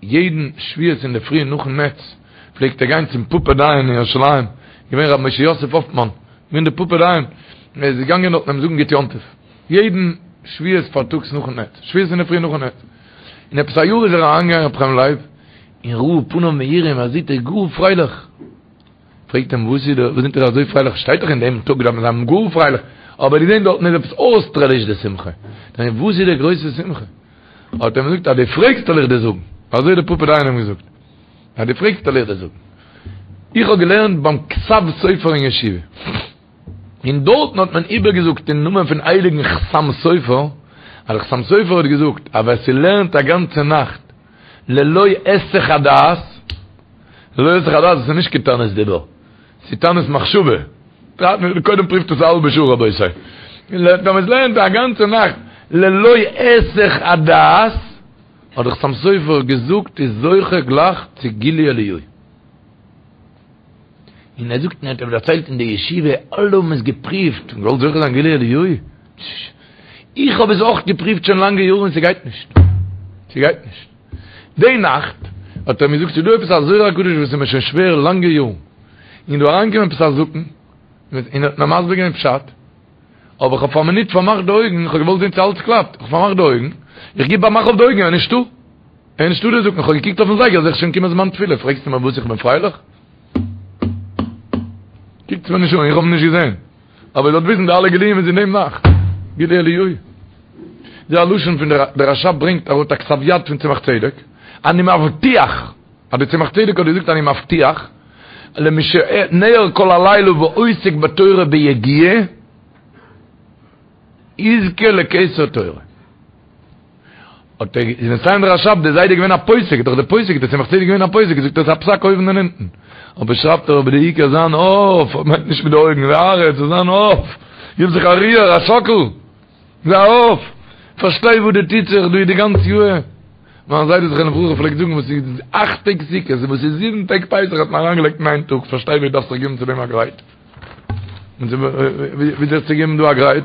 יעדן שבועות אינדערפרי נאכן נץ פלעגט ער גיין צום פאפא דיין אין ירושלים, געווען ר' משה יוסף האפמאן, געווען דער פאפא דיין, ער איז געגאנגען דארטן אים זאגן גוט יום טוב, יעדן שבועות פארטאגס נאכן נץ, שבועות אינדערפרי נאכן נץ, און עפעס א יאר איז ער אריינגעגאנגען ר' חיים לייב און ראה פניו מאירים ער זעט ער איז גאר פרייליך. פרעגט אים וואס איז דא, וואס זענט איר אזוי פרייליך, שטייט דאך אין דעם טאג דארף מען זיין גאר פרייליך, אבער געזען דארטן איז עפעס אויסטערליש די שמחה, דען וואס איז די גרויסע שמחה? האט ער אים געזאגט אז דו פרעגסט וועל איך דיר זאגן, אזוי האט דער פאפא דיין אים געזאגט, אז דו פרעגסט וועל איך דיר זאגן, איך האב געלערנט ביים כתב סופר אין ישיבה, און דארטן האט מען איבערגעזאגט אין נאמען פון הייליגן חתם סופר, אז דער חתם סופר האט געזאגט אז ווער ס'לערנט א גאנצע נאכט ללא היסח הדעת, ללא היסח הדעת איז נישט קיין תענית דיבור, ס'איז תענית מחשבה. קודם פריווט עס א האלבע שעה רבותי. ווען מען לערנט א גאנצע נאכט ללא היסח הדעת, האט דער חתם סופר געזאגט איז זוכה גלייך צו גילוי אליהו. און ער זאגט און ער האט דערציילט אין די ישיבה אלע האבן עס געפריווט און געוואלט זוכה זיין גילוי אליהו. איך האב עס אויך געפריווט שוין לאנגע יארן און ס'גייט נישט. ס'גייט נישט. די נאכט האט ער מיר געזאגט ס'איז דא עפעס א זוהר הקדוש וואס איז מיר שוין שווער לאנגע יארן, און דא אריינגעקומען עפעס א זקן און האט מיר מסביר געווען פשט, אבער איך האב פאר א מינוט פארמאכט די אויגן, איך האב געוואלט זען צו אלץ קלאפט, איך האב פארמאכט די אויגן, איך גיב א מאך אויף די אויגן, ער איז נישטא, ער איז נישטא דער זקן, איך האב געקוקט אויפן זייגער זעה איך שוין קומען זמן תפילה, פרעגסטו מיר וואס איך בין פרייליך? קוקטס מיר נישט אן, איך האב אים נישט געזען. אבער איר זאלט וויסן די אלע גילויים איז אין דעם נאכט. גילוי אליהו. די א לשון פון דער רש"ב ברענגט אראפ א כתב יד פון צמח צדק, אני מבטיח, אז די צמח צדק האט געזאגט אני מבטיח, למי שניעור כל הלילה ועוסק בתורה ביגיעה, יזכה לכתר תורה. האט ער איז מסיים דער רש"ב דער זיידע געווען א פוסק דאך דער פוסק דער צמח צדק געווען א פוסק זאגט ער איז א פסק אויבן און אונטן אבער שרייבט ער אבער די עיקר זיין אויף מיינט נישט מיט די אויגן די הארץ זאל זיין אויף גיב זיך א ריר א שאקל זיי אויף פארשטיי וואס דא טוט זיך דא די גאנצע יאר מיין זיידע זכרונו לברכה פלעגט זאגן וואס איז אכט טעג סוכות און וואס איז זיבן טעג פסח האט מען אריינגעלייגט אין איין טאג פארשטיי ווי דארפסט זיך געבן צו דעם א גרייט ווי זיך צו געבן דא א גרייט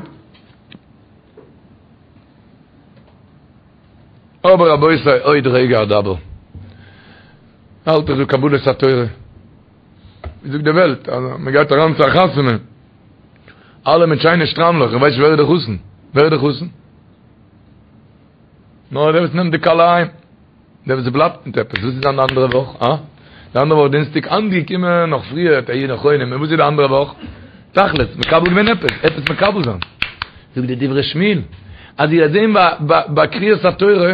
אבער רבותי עוד רגע אדבר. האלט איך דא קבלת התורה. ווי זאגט די וועלט אז מען גייט אריין צו א חתונה. אלע מיט שיינע שטריימלעך, איך ווייס נישט ווער איז די חתן. ווער איז די חתן? נאר דער וואס נעמט די כלה אהיים. דער וואס בלייבט מיט עפעס. וואס איז די אנדערע וואך? אה? די אנדערע וואך דינסטאג אנגעקומען נאך פריער, היו נכונים. און וואס איז די אנדערע וואך? תכלית, מקבל געווען עפעס, עפעס מקבל זיין. זאגט די דברי שמואל, אז איר וועט זען ביי קריאת התורה,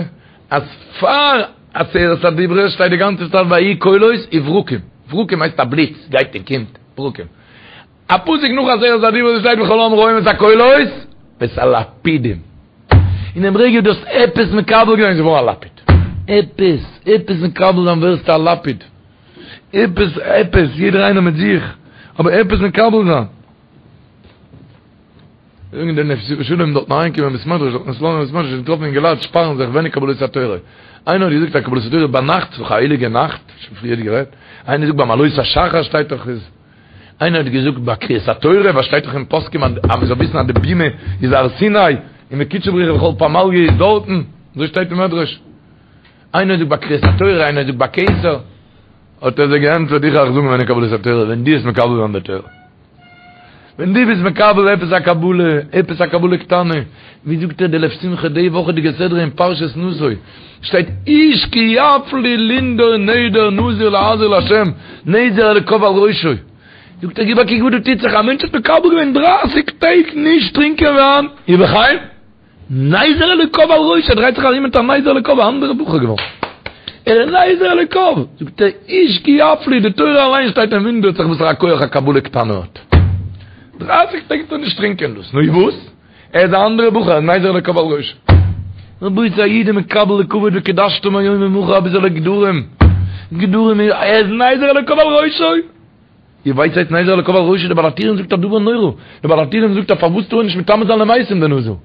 אז פאר עשרת הדיברות שטייט די גאנצע צייט ויהי קולות וברקים, ברקים הייסט א בליץ, גייט און קומט, ברקים. א פסוק נאך עשרת הדיברות שטייט וכל העם רואים את הקולות ואת הלפידים. אין דעם רגע דו האסט עפעס מקבל געווען איז געווארן א לפיד. עפעס, עפעס מקבל זיין ווערסטו א לפיד. עפעס, עפעס, יעדער איינער מיט זיך, אבער עפעס מקבל זיין. זאגן די נתיבות שלום דארטן אריינגעקומען אין בית מדרש, דארטן אין סלאנים בית מדרש, געטראפן אינגעלייט שפארן זיך ווען איז קבלת התורה. איינער האט געזאגט אז קבלת התורה ביינאכט, ס'איז דאך א הייליגע נאכט, שוין פריער גערעדט. איינער זאגט ביים עלות השחר שטייט דאך איז. איינער האט געזאגט ביי קריאת התורה, וואס שטייט דאך אין פוסקים אז מען זאל וויסן אז די בימה איז הר סיני, און וקודשא בריך הוא וכל פמליא איז דארטן, אזוי שטייט אין מדרש. איינער זאגט ביי קריאת התורה, איינער זאגט ביי כתר. האט ער זיי געענטפערט, איך אייך זאגן ווען איז קבלת התורה, ווען דו וועסט מקבל זיין די תורה. ווען דו ביסט מקבל עפעס א קבלה, עפעס א קבלה קטנה, ווי זאגט ער די לב שמחה די וואכעדיגע סדרה אין פרשת נשא, שטייט איש כי יפליא לנדור נדר נזיר להזיר לה', נזר אלוקיו על ראשו. זאגט ער גיב א קוק וואס דא טוט זיך, א מענטש האט מקבל געווען דרייסיג טעג נישט טרינקען וויין, ובכן, נזר אלוקיו על ראשו, ער דרייט זיך ארום מיט א נזר אלוקיו, א אנדערע בחור געווארן. ער איז נזר אלוקיו, זאגט ער, איש כי יפליא, די תורה אליין שטייט און וואונדערט זיך וואסערע כח א קבלה קטנה האט. דרייסיג טעג טאר נישט טרינקען דאס, נו וואס? ער איז א אנדערע בחור, ער איז נזר אלוקיו על ראשו. רבותי א איד איז מקבל די כבוד וקדשתם היום ומחר אביסעלע גדרים, גדרים ער איז נזר אלוקיו על ראשו. איר ווייסט וואס הייסט נזר אלוקיו על ראשו? דער בעל הטורים זאגט א דבר נורא, דער בעל הטורים זאגט אז פארוואס טאר ער נישט מטמא זיין למתים דער נזיר?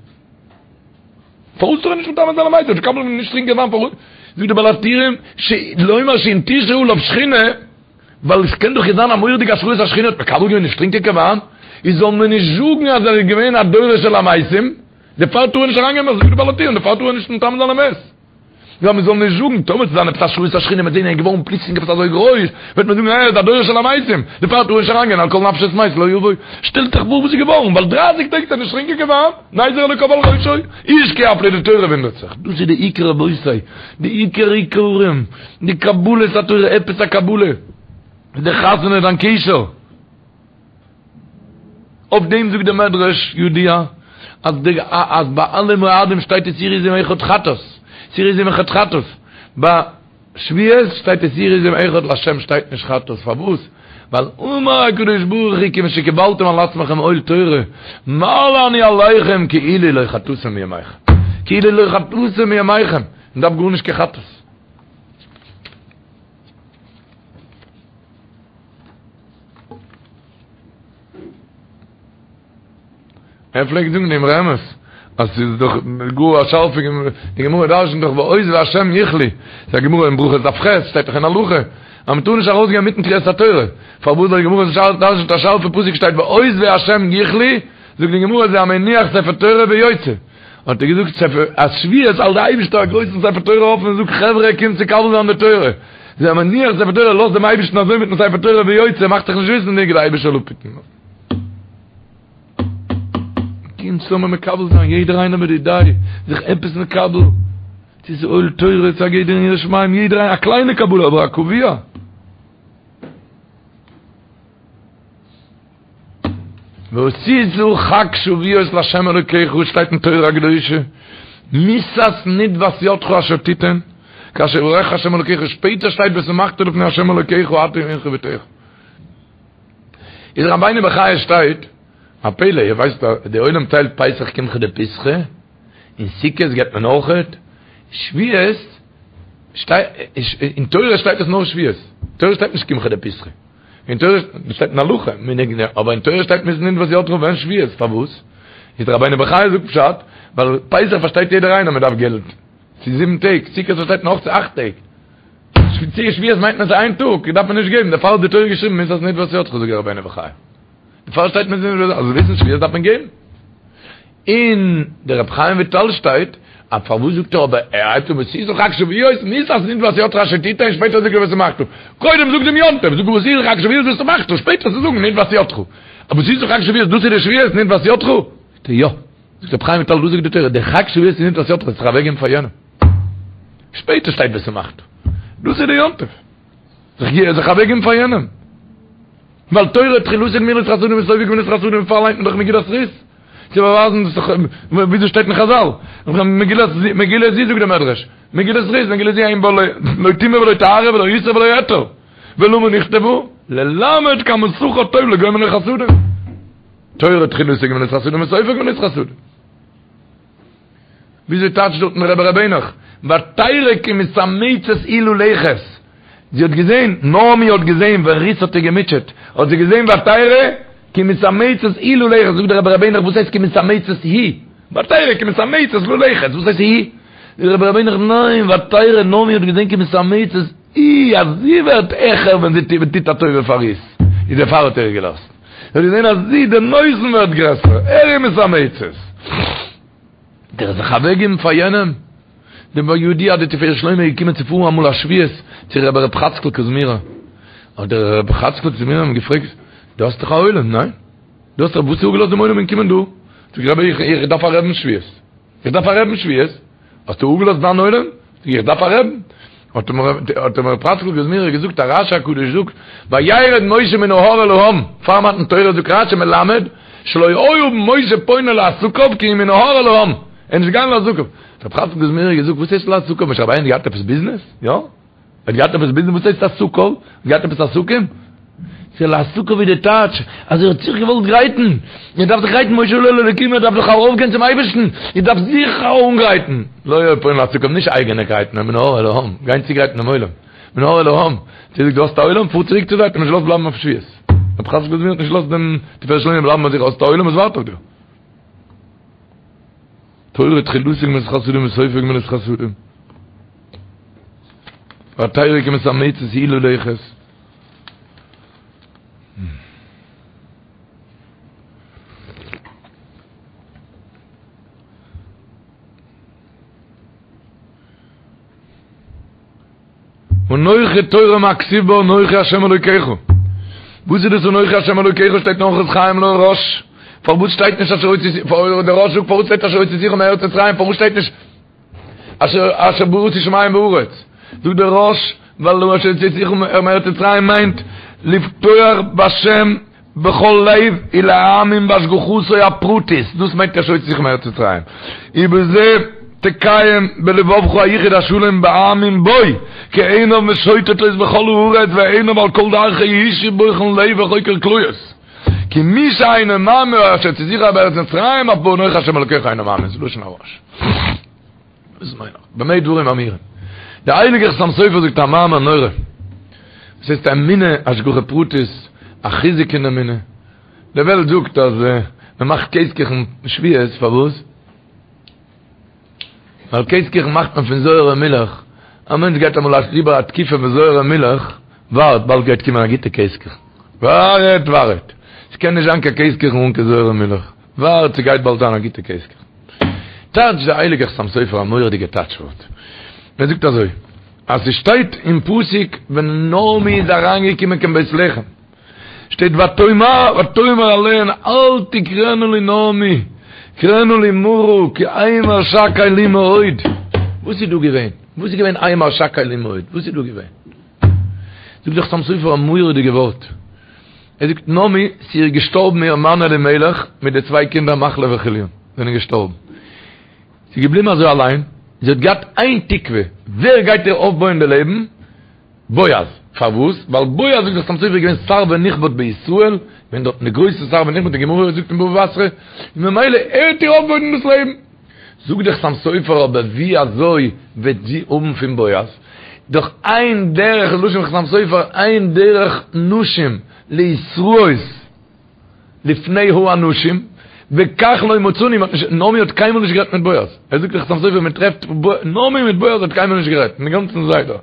פארוואס טאר ער נישט מטמא זיין למתים? מקבל נישט טרינקען וויין פארוואס? זאגט דער בעל הטורים לומר שאם תשרה עליו שכינה, ווייל עס קען דאך זיין א מורא'דיגע השראת השכינה האט מקבל געווען נישט טרינקען קיין וויין, איז זאל מען נישט זאגן אז ער איז געווען א דורש אל המתים, דערפאר טאר ער נישט אריינגיין זאגט דער בעל הטורים דערפאר טאר ער נישט מטמא זיין למת. יא מען זאל נישט זאגן, טאמער ס'וועט זיין עפעס השראת השכינה מ'וועט זעהן ער איז געווארן פלוצלינג עפעס אזוי גרויס, וועט מען זאגן ער איז א דורש אל המתים, דערפאר טאר ער נישט אריינגיין על כל נפשות מת לא יבוא. שטעלט זיך פאר וואס איז געווארן, ווייל דרייסיג טעג האט ער נישט טרינקען קיין וויין, נזר אלוקיו על ראשו, איש כי יפליא די תורה וואונדערט זיך, דאס איז די עיקר רבותי, די עיקר עיקרים, די קבלת התורה, עפעס א קבלה, די חתונה דיין קשר. אויף דעם זאגט דער מדרש ידוע אז די אז ביי אלע מועדים שטייט שעיר עזים אחד חטאת, שעיר עזים אחד חטאת, ביי שבועות שטייט שעיר עזים אחד לה' שטייט נישט חטאת, פארוואס? ווייל אמר הקדוש ברוך הוא כיוון שקיבלתם על עצמכם עול תורה מעלה אני עליכם כאילו לא חטאתם מימיכם, כאילו לא חטאתם מימיכם, מען דארף גארנישט קיין חטאת. ער פלעגט זאגן דעם אמרי אמת אז ס'איז דאך גאר א שארפע די גמרא דרש'נט דאך ועוזבי השם יכלו, ס'איז א גמרא אין ברכות דף ח', שטייט דאך אין הלכה אז מ'טאר נישט ארויסגיין מיטן קריאת התורה, פארוואס ווייל די גמרא דרש'נט א שארפע פסוק שטייט ועוזבי השם יכלו, זאגט די גמרא זה המניח ספר תורה ויוצא. האט ער געזאגט ספר אז שבועות האלט די אייבישטער א גרויסן ספר תורה אפן און זאגט חברה קומט צו מקבל זיין די תורה, זה המניח ספר תורה לאזט דעם אייבישטן אזוי מיטן ספר תורה ויוצא מאכט זיך נישט וויסענדיג די אייבישטער זאל אפהיטן. קומט צוזאמען מקבל זיין יעדער איינער מיט די דעה זיך עפעס מקבל צו ס'איז עול תורה צו א גדר אין יראת שמים יעדער איינער א קליינע קבלה אבער א קבוע. ועשית חג שבועות לה' אלוקיך, שטייט אין תורה הקדושה, מסת נדבת ידך אשר תיתן, כאשר יברכך ה' אלוקיך, שפעטער שטייט ושמחת לפני ה' אלוקיך אתה ובנך ובתך. איז רבינו בחיי שטייט, א פלא, איר ווייסט אז די עולם טיילט פסח קמחא דפסחא, און סוכות געבט מען אויכעט, שבועות שטייט, אין תורה שטייט עס נאר שבועות, תורה שטייט נישט קמחא דפסחא. אין תורה שטייט אין הלכה, מנהג, אבער אין תורה שטייט מסת נדבת ידך ווען שבועות, פארוואס? איז דער רבינו בחיי זאגט פשט, ווייל פסח פארשטייט יעדער איינער מען דארף געלט, ס'איז זיבן טעג, סוכות פארשטייט מען אויך ס'איז אכט טעג, שבועות מיינט מען ס'איז איין טאג, דארף מען נישט געבן, דערפאר האט די תורה געשריבן מסת נדבת ידך זאגט דער רבינו בחיי. דערפאר שטייט מסת נדבת ידך, אז וויסן שבועות דארף מען געבן. אין דער רבי חיים וויטאל שטייט אז פארוואס זאגט ער אבער ער הייבט אן ועשית חג שבועות מסת נדבת ידך אשר תתן שפעטער זאגט ער ושמחת קודם זאג דעם יום טוב זאג ועשית חג שבועות ושמחת שפעטער צו זאגן נדבת ידך אבער ועשית חג שבועות דאס איז די שבועות נדבת ידך זאגט ער יא זאגט רבי חיים וויטאל דאס זאגט די תורה דער חג שבועות איז נדבת ידך זיך אוועקגעבן פאר יענעם שפעטער שטייט ושמחת דאס איז די יום טוב זיך זיך אוועקגעבן פאר יענעם ווייל תורה תחילתו גמילות חסדים וסופו גמילות חסדים דערפאר ליינט מען דאך מגילת רות צו באווייזן דאס איז וויאזוי שטייט אין חזל מגילת מגילה זו זאגט דער מדרש מגילת רות מגילה זו אין בה לא טומאה ולא טהרה ולא איסור ולא היתר ולמה נכתבה ללמד כמה שכר טוב לגומלי חסדים תורה תחילתו גמילות חסדים וסופו גמילות חסדים וויאזוי טייטשט דארטן רבי ר' העניך, ותרא כי מתאמצת היא ללכת, זי האט געזען, נעמי האט געזען ווען רות האט איר געמוטשעט, האט זי געזען ותרא כי מתאמצת היא ללכת, זאגט דער רבי ר' העניך וואס הייסט כי מתאמצת היא? ותרא כי מתאמצת ללכת, וואס הייסט היא? זאגט דער רבי ר' העניך ניין, ותרא נעמי האט געזען כי מתאמצת היא, אז זי ווערט העכער ווען זי טוט א טובה פאר רות, איז דערפאר האט ער איר געלאזט, זי האט געזען אז זי, דער נותן ווערט גרעסער, ער איז מתאמצת. דער זיך אוועקגעבן פאר יענעם, דער ידוע אז די תפארת שלמה איז געקומען צו פארן אמאל א שבועות צו רבי ר' חאצקל קוזמירער, האט דער רבי חאצקל קוזמירער אים געפרעגט, דו האסט דאך א עולם, ניין? דו האסט דאך, וואס האסטו אפגעלאזט דעם עולם און קומען דא? זאגט רבי איך איך דארף א רעבן שבועות, איך דארף א רעבן שבועות, האסטו אפגעלאזט דיין עולם? זאגט איך דארף א רעבן, האט אים האט אים רבי חאצקל קוזמירער געזאגט א רשי הקדוש זאגט וירד משה מן ההר אל העם פאר מתן תורה זאגט רשי מלמד שלא היה משה פונה לעסקיו כי אם מן ההר אל העם ער איז נישט געגאנגען לעסקיו האט רבי חאצקל קוזמירער געזאגט וואס הייסט לעסקיו משה רבינו האט געהאט עפעס ביזנעס יא ער האט געהאט עפעס ביזנעס וואס הייסט עסקיו געהאט עפעס עסקים? ס'איז לעסקיו ווי די טייטש אז ער האט זיך געוואלט גרייטן, ער דארף זיך גרייטן משה עלה אל האלקים ער דארף דאך ארויפגיין צום אייבערשטן, ער דארף זיך אנגרייטן, לא היה פועל לעסקיו, נישט אייגענע גרייטן, נאר מן ההר אל העם, גיין צוגרייטן דעם עולם, מן ההר אל העם, צו דו האסט א עולם, פאר צוריק צו זיי, האט אים נישט געלאזט בלייבן אויף שבועות, רבי חצקל האט נישט געלאזט דעם תפארת שלמה בלייבן ביי זיך, האסט א עולם וואס ווארט אויף דיר. תורה תחילתה גמילות חסדים וסופה גמילות חסדים. והתורה כמתאמצת היא ללכת. אנכי תורה מה כתיב בה אנכי השם אלוקיך. וואס איז דאס אנכי השם אלוקיך שטייט אין אורחות חיים להרא"ש. פארוואס שטייט נישט אשר הוצאתי דער רא"ש זאגט פארוואס שטייט אשר הוצאתיך מארץ מצרים פארוואס שטייט נישט אשר אשר בראתי שמים וארץ. זאגט דער רא"ש ווייל אשר הוצאתיך מארץ מצרים מיינט לבטוח בהשם בכל לב ולהאמין בהשגחתו הפרטית, דאס מיינט אשר הוצאתיך מארץ מצרים, ובזה תקיים בלבבך היחוד השלם בהאמין בו, כי עיניו משוטטות בכל הארץ ועיניו על כל דרכי איש בוחן לב וחוקר כליות. כי מי שאינו מאמין באשר הוצאתיך מארץ מצרים אף באנוכי השם אלוקיך אינו מאמין, זה לשון הרא"ש. דאס מיין איך. במה דברים אמורים? דער הייליגער חתם סופר זאגט א מאמר נורא. וואס הייסט אמונה, השגחה פרטית, א חיזוק אין אמונה. די וועלט זאגט אז מען מאכט קעז-קוכן שבועות, פארוואס? ווייל קעז-קוכן מאכט מען פון זויערע מילך. א מענטש גייט אמאל אריבער א תקופה פון זויערע מילך, ווארט, באלד גייט קומען א גוטע קעז-קוכן. ווארט, ווארט. ס'קען נישט זיין קיין קעז-קוכן אן קיין זויערע מילך. ווארט, ס'גייט באלד זיין א גוטע קעז-קוכן. טייטש דער הייליגער חתם סופר א מורא'דיגע טייטש ווארט. ער זאגט אזוי, אז ס'שטייט אין פסוק ווען נעמי איז אריינגעקומען קיין בית לחם, שטייט ותאמר ותאמר אליהן אל תקראנה לי נעמי, קראנה לי מרא כי המר שקי לי מאוד. וואס איז דא געווען? וואס איז געווען המר שקי לי מאוד? וואס איז דא געווען? זאגט דער חתם סופר א מורא'דיגע ווארט. ער זאגט נעמי, ס'איז איר געשטארבן איר מאן אלימלך מיט די צוויי קינדער מחלון וכליון זענען געשטארבן. זי איז געבליבן אזוי אליין, זי האט געהאט איין תקווה, ווער גייט איר אויפבויען די לעבן? בועז. פארוואס? ווייל בועז זאגט דער חתם סופר איז געווען שר ונכבד בישראל, געווען דארטן די גרויסע שר ונכבד, די גמרא זאגט אין בבא בתרא, און ממילא ער וועט איר אויפבויען דאס לעבן. זאגט דער חתם סופר אבער ווי אזוי וועט זי האבן פון בועז? דאך אין דרך, לשון חתם סופר, אין דרך נשים להתראות לפני האנשים, וכך לא מצאנו, מ'האט נישט, נעמי האט קיינמאל נישט גערעדט מיט בועז, ער זאגט דער חתם סופר מען טרעפט נעמי מיט בועז האט קיינמאל נישט גערעדט, אין גאנצן סדר,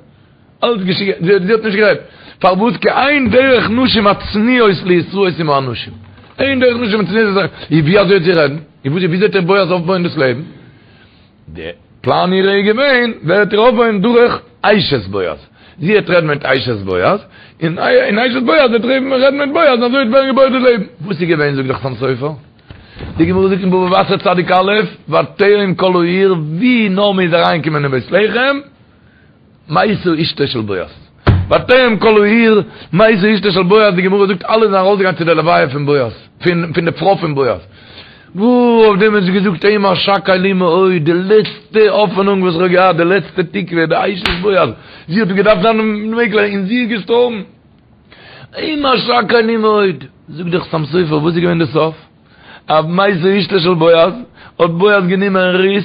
אלץ געשריגן, זי האט נישט גערעדט, פארוואס כי אין דרך נשים הצנועות להתראות עם האנשים, אין דרך נשים הצנועות, און ווי אזוי וועט זי רעדן, און ווי אזוי וועט איר בועז אויפבויען דאס לעבן? די פלאן אירע איז געווען, ווער וועט איר אויפבויען דורך אשת בועז. זי וועט רעדן מיט אשת בועז, און אשת בועז וועט רעדן מיט בועז, און אזוי וועט ווערן געבויעט די לעבן. וואס איז געווען זאגט דער חתם סופר? די גמרא זאגט אין בבא בתרא צדיק א', ותרם כל העיר, ווי נעמי איז אריינגעקומען אין בית לחם, מתה אשתו של בועז. ותרם כל העיר, מתה אשתו של בועז, די גמרא זאגט אלע זענען ארויסגעגאנגען צו די לוויה פון בועז, פון די פרוי פון בועז. וואו אויף דעם האט זי געזאגט המר שקי לי מאוד, די לעצטע האפענונג וואס איך האב געהאט, די לעצטע תקווה, די אשת בועז, זי האט געדארפט זיין מעגליך, און זי איז געשטארבן. המר שקי לי מאוד. זאגט דער חתם סופר, וואס איז געווען די סוף? אז מתה אשתו של בועז, האט בועז גענומען רות,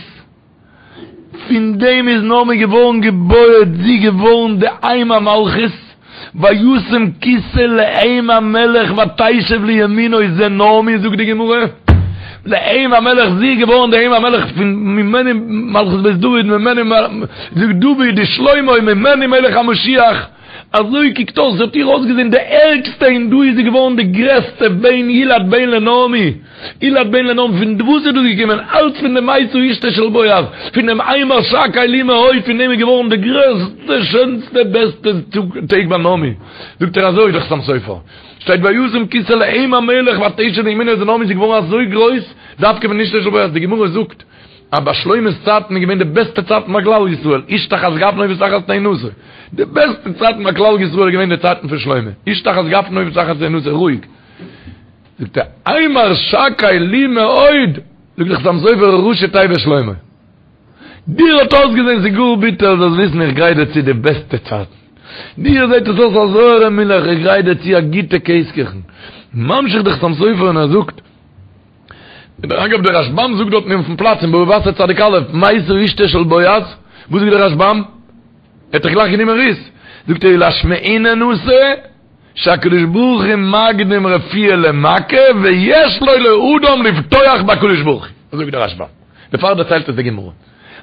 פון דעם איז נעמי געווארן געבויעט, זי געווארן די אם המלכות, וישם כסא לאם המלך ותשב לימינו זה נעמי זאגט די גמרא, לאם המלך זי איז געווארן די אם המלך פון ממנו מלכות בית דוד ממנו זאגט דוד ושלמה ממנו מלך המשיח, אזוי קוקט אויס, זי האט איר אויסגעזען די ערגסטע און דא איז זי געווארן די גרעסטע בן ילד בן לנעמי, ילד בן לנעמי, פון וואס איז דאס געקומען? אלץ פון די מתה אשתו של בועז, פון דעם המר שקי לי מאוד, פון דעם איז געווארן די גרעסטע שענסטע בעסטע טעג ביי נעמי, זאגט ער אזוי דער חתם סופר, שטייט וישם כסא לאם המלך ותשב לימינו איז נעמי איז געווארן אזוי גרויס דווקא פון אשתו של בועז, די גמרא זאגט אז ביי שלמה'ס צייטן איז געווען די בעסטע צייטן ביי כלל ישראל, איש תחת גפנו ותחת תאנתו. די בעסטע צייטן ביי כלל ישראל איז געווען די צייטן פון שלמה, איש תחת גפנו ותחת תאנתו, רואיג. זאגט ער, המר שקי לי מאוד, זאגט דער חתם סופר ראשי תיבות שלמה. דיר האט אויסגעזען ס'איז גאר ביטער, זאלסט וויסן איך גרייט דיר צו די בעסטע צייטן. דיר זעט עס אויס א זויערע מילך, איך גרייט דיר צו א גוטע קעז-קוכן. ממשיך דער חתם סופר און ער זאגט, דרך אגב דער רשבם זאגט דארטן אויפן פלאץ אין בבא בתרא צדיק א', מתה אשתו של בועז, וואס זאגט דער רשבם? ער האט דאך גלייך גענומען רות, זאגט ער ולשמעינן אתא שהקדוש ברוך הוא מקדים רפואה למכה ויש לו לאדם לבטוח בקדוש ברוך הוא, אזוי זאגט דער רשבם, דערפאר דערציילט עס די גמרא.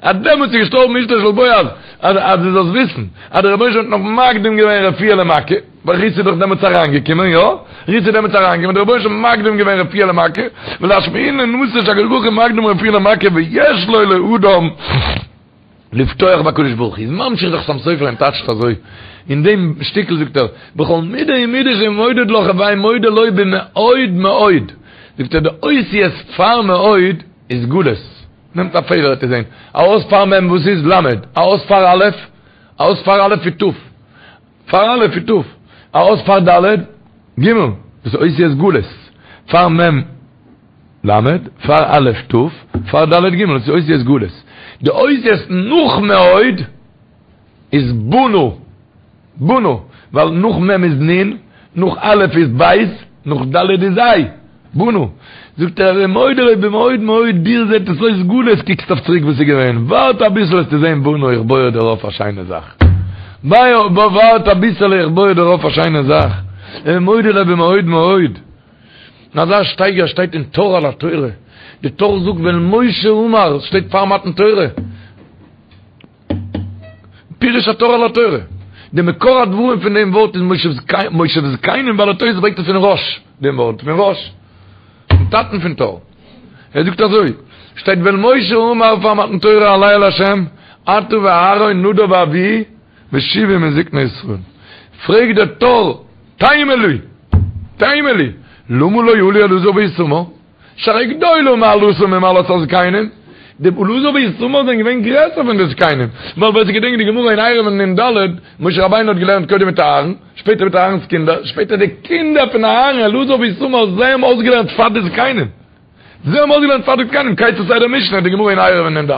אז דעמאלטס איז געשטארבן אשתו של בועז, אז אז דו זאלסט וויסן אז דער רבונו של עולם האט נאך מקדים געווען רפואה למכה, ווייל רות איז דאך דעמאלטס אריינגעקומען, יא? רות איז דעמאלטס אריינגעקומען, דער רבונו של עולם האט מקדים געווען רפואה למכה, ולשמעינן אתא שהקדוש ברוך הוא מקדים רפואה למכה ויש לו לאדם לבטוח בקדוש ברוך הוא. איז ממשיך דער חתם סופר און טייטשט אזוי, אין דעם שטיקל זאגט ער, בכל מידה ומידה שמודד לך הווי מודה לו במאוד מאוד, זאגט ער די אותיות פאר מאוד איז גלות, נעמט א פעדער וועט איר זען, א אות פאר מ' וואס איז ל', א אות פאר א', א אות פאר א' איז ת', פאר א' איז ת', א אות פאר ד', ג', דאס איז אותיות גלות, פאר מ' ל', פאר א' ת', פאר ד' ג', דאס איז אותיות גלות. די אותיות נאך מאוד איז בנה, בנה, ווייל נאך מ' איז נ', נאך א' איז ב', נאך ד' איז ה', בנה. זאגט ער, הוי מודה לו במאוד מאוד, דיר זעט עס אויס גלות, קוקסט אויף צוריק וואס איז געווען, ווארט אביסל וועסטו זען בנה, איך בוי דיר אויף א שיינע זאך. ווארט אביסעלע איך בוי דיר אויף א שיינע זאך. הוי מודה לו במאוד מאוד. אזא שטייגער שטייט אין טור על התורה, די טור זאגט ואל משה אמר, שטייט פאר מתן תורה. פירוש הטור על התורה. די מקור הדברים פון דעם ווארט איז מושב זקנים בעלי התוס' ברענגט עס פון רא"ש, דעם ווארט פון רא"ש, פון טאטן פון טור. ער זאגט אזוי, שטייט ואל משה אמר פאר מתן תורה עלה אל השם, אתה ואהרן נדב ואביהוא ושבעים מזקני ישראל. פרעגט דער טור, תימה לי, תימה לי, למה לא עלו אלעזר ואיתמר? שהרי גדולה מעלתם ממעלת הזקנים, די אלעזר ואיתמר זענען געווען גרעסער פון די זקנים, ווייל ווער ס'געדענקט די גמרא אין עירובין נ"ד, משה רבינו האט געלערנט קודם מיט אהרן, שפעטער מיט אהרן'ס קינדער, שפעטער די קינדער פון אהרן, אלעזר ואיתמר, זיי האבן אויסגעלערנט פאר די זקנים. זיי האבן אויסגעלערנט פאר די זקנים, כיצד סדר משנה, די גמרא אין עירובין נ"ד.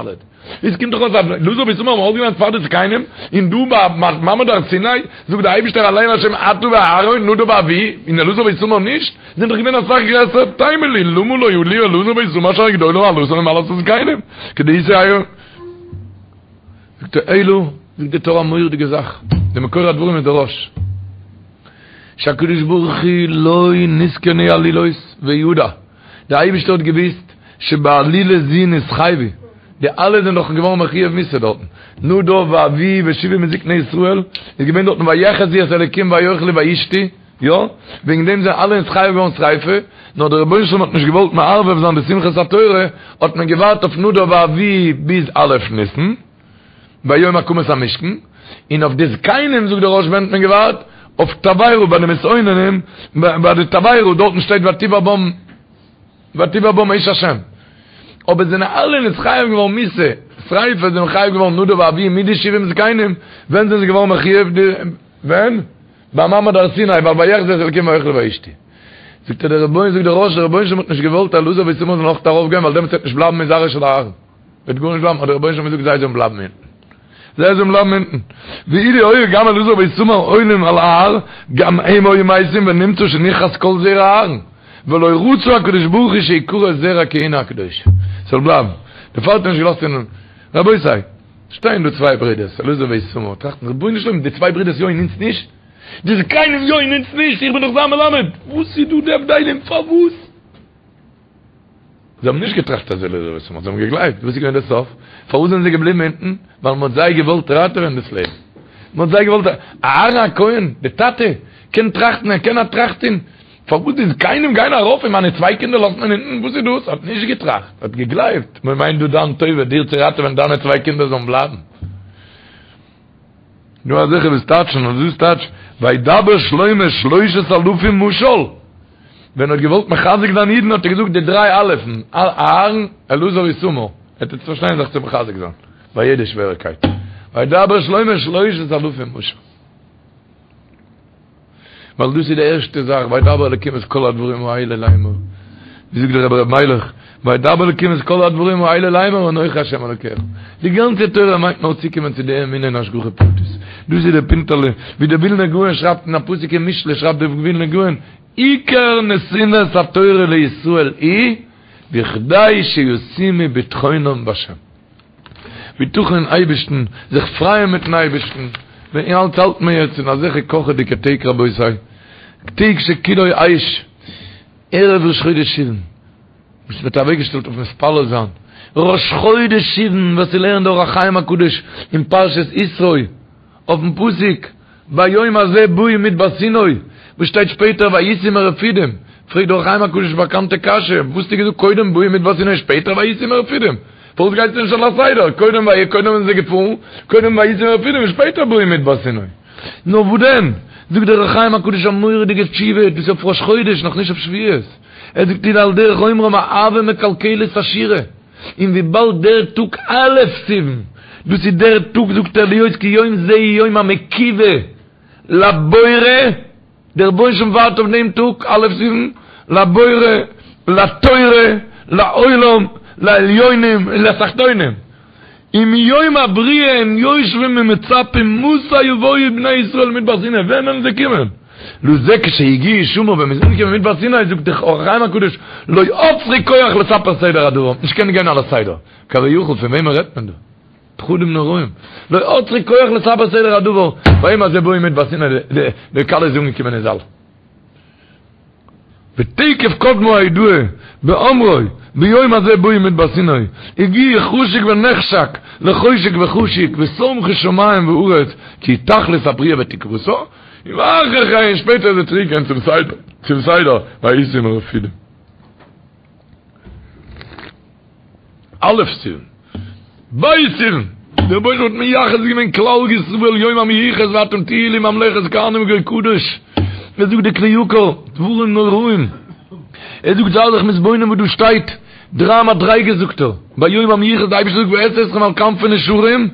איז קומט דאך אויס אז אלעזר ואיתמר האבן אויסגעלערנט פאר די זקנים, און דא ביי מעמד הר סיני זאגט דער אייבישטער עלה אל השם אתה ואהרן נדב ואביהוא, און אלעזר ואיתמר נישט? זענען דאך געווען אסאך גרעסער, תימה לי למה לא עלו אלעזר ואיתמר שהרי גדולה מעלתם ממעלת הזקנים, כדאיתא עירובין. זאגט ער אלא, זאגט די טור א מורא'דיגע זאך, די מקור הדברים איז דער רא"ש, שהקדוש ברוך הוא לא נתכוונו עלילות וידע, די אייבישטער האט געוויסט שבעלילה זו נתחייבו, די אלע זענען דאך געווארן מחויב מיתה דארטן, נדב ואביהוא ושבעים מזקני ישראל, איז געווען דארטן ויחזו את האלקים ויאכלו וישתו, יא, וועגן דעם זענען אלע נתחייב געווארן שריפה, נאר דער רבונו של עולם האט נישט געוואלט מערבב זיין די שמחת התורה, האט מען געווארט אויף נדב ואביהוא ביז א' ניסן, ביום הקמת המשכן, און אויף די זקנים זאגט דער רא"ש ווען האט מען געווארט? אויף תבערה ביי די מתאוננים, ביי די תבערה דארטן שטייט ותבער בם ותבער בם אש השם, אבער זענען אלע נתחייב געווארן מיתה, שריפה זענען מחויב געווארן נדב ואביהוא מיט די שבעים זקנים, ווען זענען זיי געווארן מחויב? ווען? ביי מעמד הר סיני, ווייל ויחזו את האלקים ויאכלו וישתו. זאגט ער דער רבונו זאגט דער רא"ש דער רבונו של עולם האט נישט געוואלט אלעזר ואיתמר זאלן אויך ארויף גיין ווייל דעמאלטס וועט נישט בלייבן מזרעו של אהרן. וועט גארנישט בלייבן האט דער רבונו של עולם געזאגט זיי זאלן בלייבן אונטן. זיי זאלן בלייבן אונטן. ואילו היו גם אלעזר ואיתמר עולים על ההר גם הם היו מתים ונמצא שנכרת כל זרע אהרן. ולא רצה הקדוש ברוך הוא שיכרת זרע כהונה הקדושה. ס'זאל בלייבן. דערפאר האט ער נישט געלאזט און רבותי. שטייען דא צוויי ברודערס, אלעזר ואיתמר, טראכטן, רבונו של עולם, די צוויי ברודערס יא און אונז נישט? די זקנים יא און אונז נישט? איך בין דאך זיין מלמד! וואס איז דא די הבדלים? פארוואס? זיי האבן נישט געטראכט אז אלעזר ואיתמר, זיי האבן געגלייבט. וואס איז געווען דער סוף? פארוואס זענען זיי געבליבן אונטן? ווייל מען האט זיי געוואלט ראטעווען דאס לעבן. מען האט זיי געוואלט, אהרן הכהן, די טאטע, קען טראכטן, ער קען א טראכט טון, פארוואס די זקנים גייען ארויף און מיינע צוויי קינדער לאזט מען אונטן? וואס איז דאס? האט נישט געטראכט, האט געגלייבט, מען מיינט דא דיין טובה, דיר צו ראטעווען דיינע צוויי קינדער זאלן בלייבן. דא אזעלכע וואס טייטשן אז דאס טייטש וידבר שלמה שלושת אלפים משל, ווען ער האט געוואלט מחזק זיין אידן האט ער געזאגט די דריי אלפ'ן, אהרן, אלעזר, איתמר, ער טוט פארשטיין זיך צו מחזק זיין ביי יעדע שוועריקייט, וידבר שלמה שלושת אלפים משל. ווייל דאס איז די ערשטע זאך, וידבר אלקים את כל הדברים האלה לאמור, ווי זאגט דער רבי ר' מיילעך, וידבר אלקים את כל הדברים האלה לאמור אנוכי השם אלוקיך. די גאנצע תורה מיינט נאר צוקומען צו די אמונה אין השגחה פרטית. דאס איז דער פינטעלע, ווי דער ווילנער גאון שרייבט אין א פסוק אין משלי שרייבט דער ווילנער גאון, עיקר נתינת התורה לישראל היא בכדי שישימו בטחונם בהשם. בטחון אין אייבערשטן, זיך פרייען מיטן אייבערשטן, ווען אלץ האלט מען יעצט אין אזעלכע קאכעדיגע טעג רבותי, טעג שכולו אש, ערב ראש חודש סיוון, וואס מ'האט אוועקגעשטעלט אויף מתפלל זיין, ראש חודש סיוון, וואס ס'לערנט דער אור החיים הקדוש אין פרשת יתרו, אויפן פסוק ביום הזה באו מדבר סיני, וואס שטייט שפעטער ויסעו מרפידים, פרעגט דער אור החיים הקדוש באקאנטע קשיא, וואס האסטו געזאגט קודם באו מדבר סיני שפעטער ויסעו מרפידים? פארוואס גייסטו נישט על הסדר, קודם ויהי קודם זענען זיי געפארן, קודם ויסעו מרפידים און שפעטער באו מדבר סיני? נאר וואס דען? זאגט דער אור החיים הקדוש א מורא'דיגע תשובה, דאס איז אויף ראש חודש, נאכנישט אויף שבועות, ער זאגט איז על דרך אומרם אהבה מקלקלת השורה. און וויבאלד דער טאג א' סיוון, דאס איז דער טאג זאגט ער להיות כי יום זה הוא יום המקווה לבורא, דער רבונו של עולם ווארט אויף דעם טאג א' סיוון, לבורא, לתורה, לעולם, לעליונים ולתחתונים, ומיום הבריאה הם יושבים ומצפים מתי יבואו בני ישראל מדבר סיני, ווען וועלן זיי קומען? לזה כשהגיעו שמה ווען מ'איז אנגעקומען מדבר סיני זאגט דער אור החיים הקדוש לא עצרו כח לספר סדר הדבר, נישט קענען גיין על הסדר, כביכול פון וועמען רעדט מען דא? פחדים נוראים, לא עצרו כח לספר סדר הדבר, ביום הזה באו מדבר סיני די כלה איז אנגעקומען אין זאל. ותיכף קדמה ההודעה באומרו ביום הזה באו מדבר סיני הגיעו חשוק ונחשק לחושק וחשוק ושמחו שמים וארץ כי תכלית הבריאה ותקוותה ואחר כן שפעטער איז ער צוריק געגאנגען צום סדר צום סדר ויסעו מרפידים. א' סיוון, ב' סיוון, דער רבונו של עולם האט מייחס געווען כלל ישראל יום המיוחס ואתם תהיו לי ממלכת כהנים וגוי קדוש, ער זאגט די כלי יקר, דברים נוראים, ער זאגט זיי זיך מתבונן וואס דא שטייט, דריי מדריגות זאגט ער, ביום המיוחס די אייבערשטער זאגט ואשא אתכם על כנפי נשרים,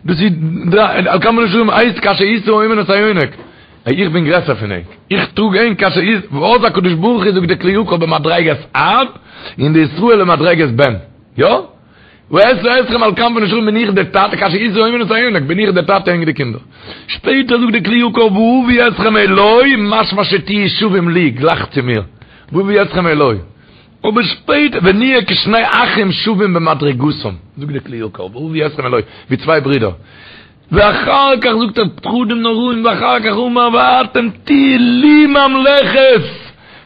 דאס איז על כנפי נשרים הייסט כאשר ישא האומן את היונק, איך בין גרעסער פון ענק, איך טראג ענק כאשר ישא, ואז הקדוש ברוך הוא זאגט די כלי יקר במדריגת אב, און די ישראל במדריגת בן, יא? ואשא אתכם על כנפי נשרים בין איך דער טאטע, כאשר ישא האומן את היונק בין איך דער טאטע ענק די קינדער. שפעטער זאגט די כלי יקר ואביא אתכם אלי, משמע שתהיו שווים לי, גלייך צו מיר, ואביא אתכם אלי. אבער שפעטער ונהיה כשני אחים שווים במדריגתם, זאגט די כלי יקר ואביא אתכם אלי, ווי צוויי ברידער. ואחר כך זאגט ער פחדים נוראים ואחר כך אמר ואתם תהיו לי ממלכת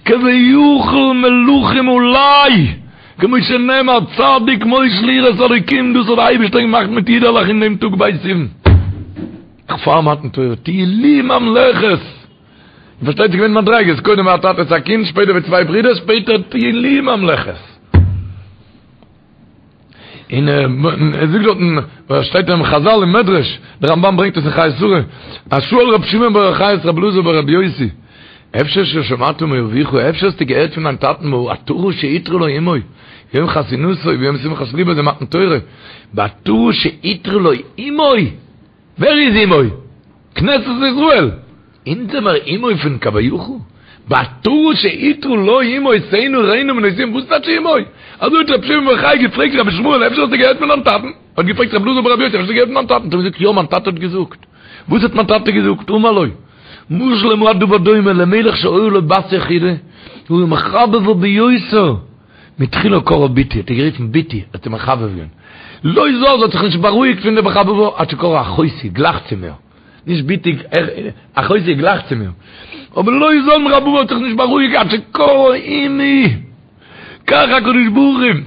כביכול מלכים עלי כמו שנאמר צדיק מושל יראת אלוקים דאס האט די אייבערשטער געמאכט מיט אידעלעך אין דעם טאג ב' סיוון פאר מתן תורה תהיו לי ממלכת איר פארשטייט ס'איז געווען מדריגות קודם ווי א טאטע צו א קינד שפעטער ווי צוויי ברידער שפעטער תהיו לי ממלכת. און ער זאגט דארטן, וואס שטייט אין חזל אין מדרש, דער רמב"ן ברענגט עס אין חיי שרה, אז שאל רבי שמעון בר יוחאי את רבי אלעזר ברבי יוסי, אפשר ששמעת מאביך, אפשר האסטו געהערט פון דיין טאטן בעטרה שעטרה לו אמו, יום חתונתו ויום שמחת ליבו זה מתן תורה, בעטרה שעטרה לו אמו, ווער איז אמו? כנסת ישראל! אונז זעמער אמו פון כביכול? בעטרה שעטרה לו אמו שאינה רינה מנוסים וואס טייטש אמו? אזוי האט רבי שמעון בר יוחאי געפרעגט רבי ישמעאל אפשר האסטו געהערט פון דיין טאטן? האט געפרעגט רבי אלעזר ברבי יוסי אפשר האסטו געהערט פון דיין טאטן? האט ער געזאגט יא מיין טאטע האט געזאגט. וואס האט מיין טאטע געזאגט? אמר לו משל למה הדבר דומה למלך שהיתה לו בת יחידה והיה מחבבה ביותר מתחילה קראה בתי, האט ער גערופן בתי, האט איר מחבב געווען. לא זז, האט זיך נישט בארואיגט פון די מחבבה, עד שקראה אחותי, גלייך צו מיר. נישט בתי, אחותי גלייך צו מיר. אבער לא זז מחבבה האט זיך נישט בארואיגט עד שקראה אמי. כך הקדוש ברוך הוא,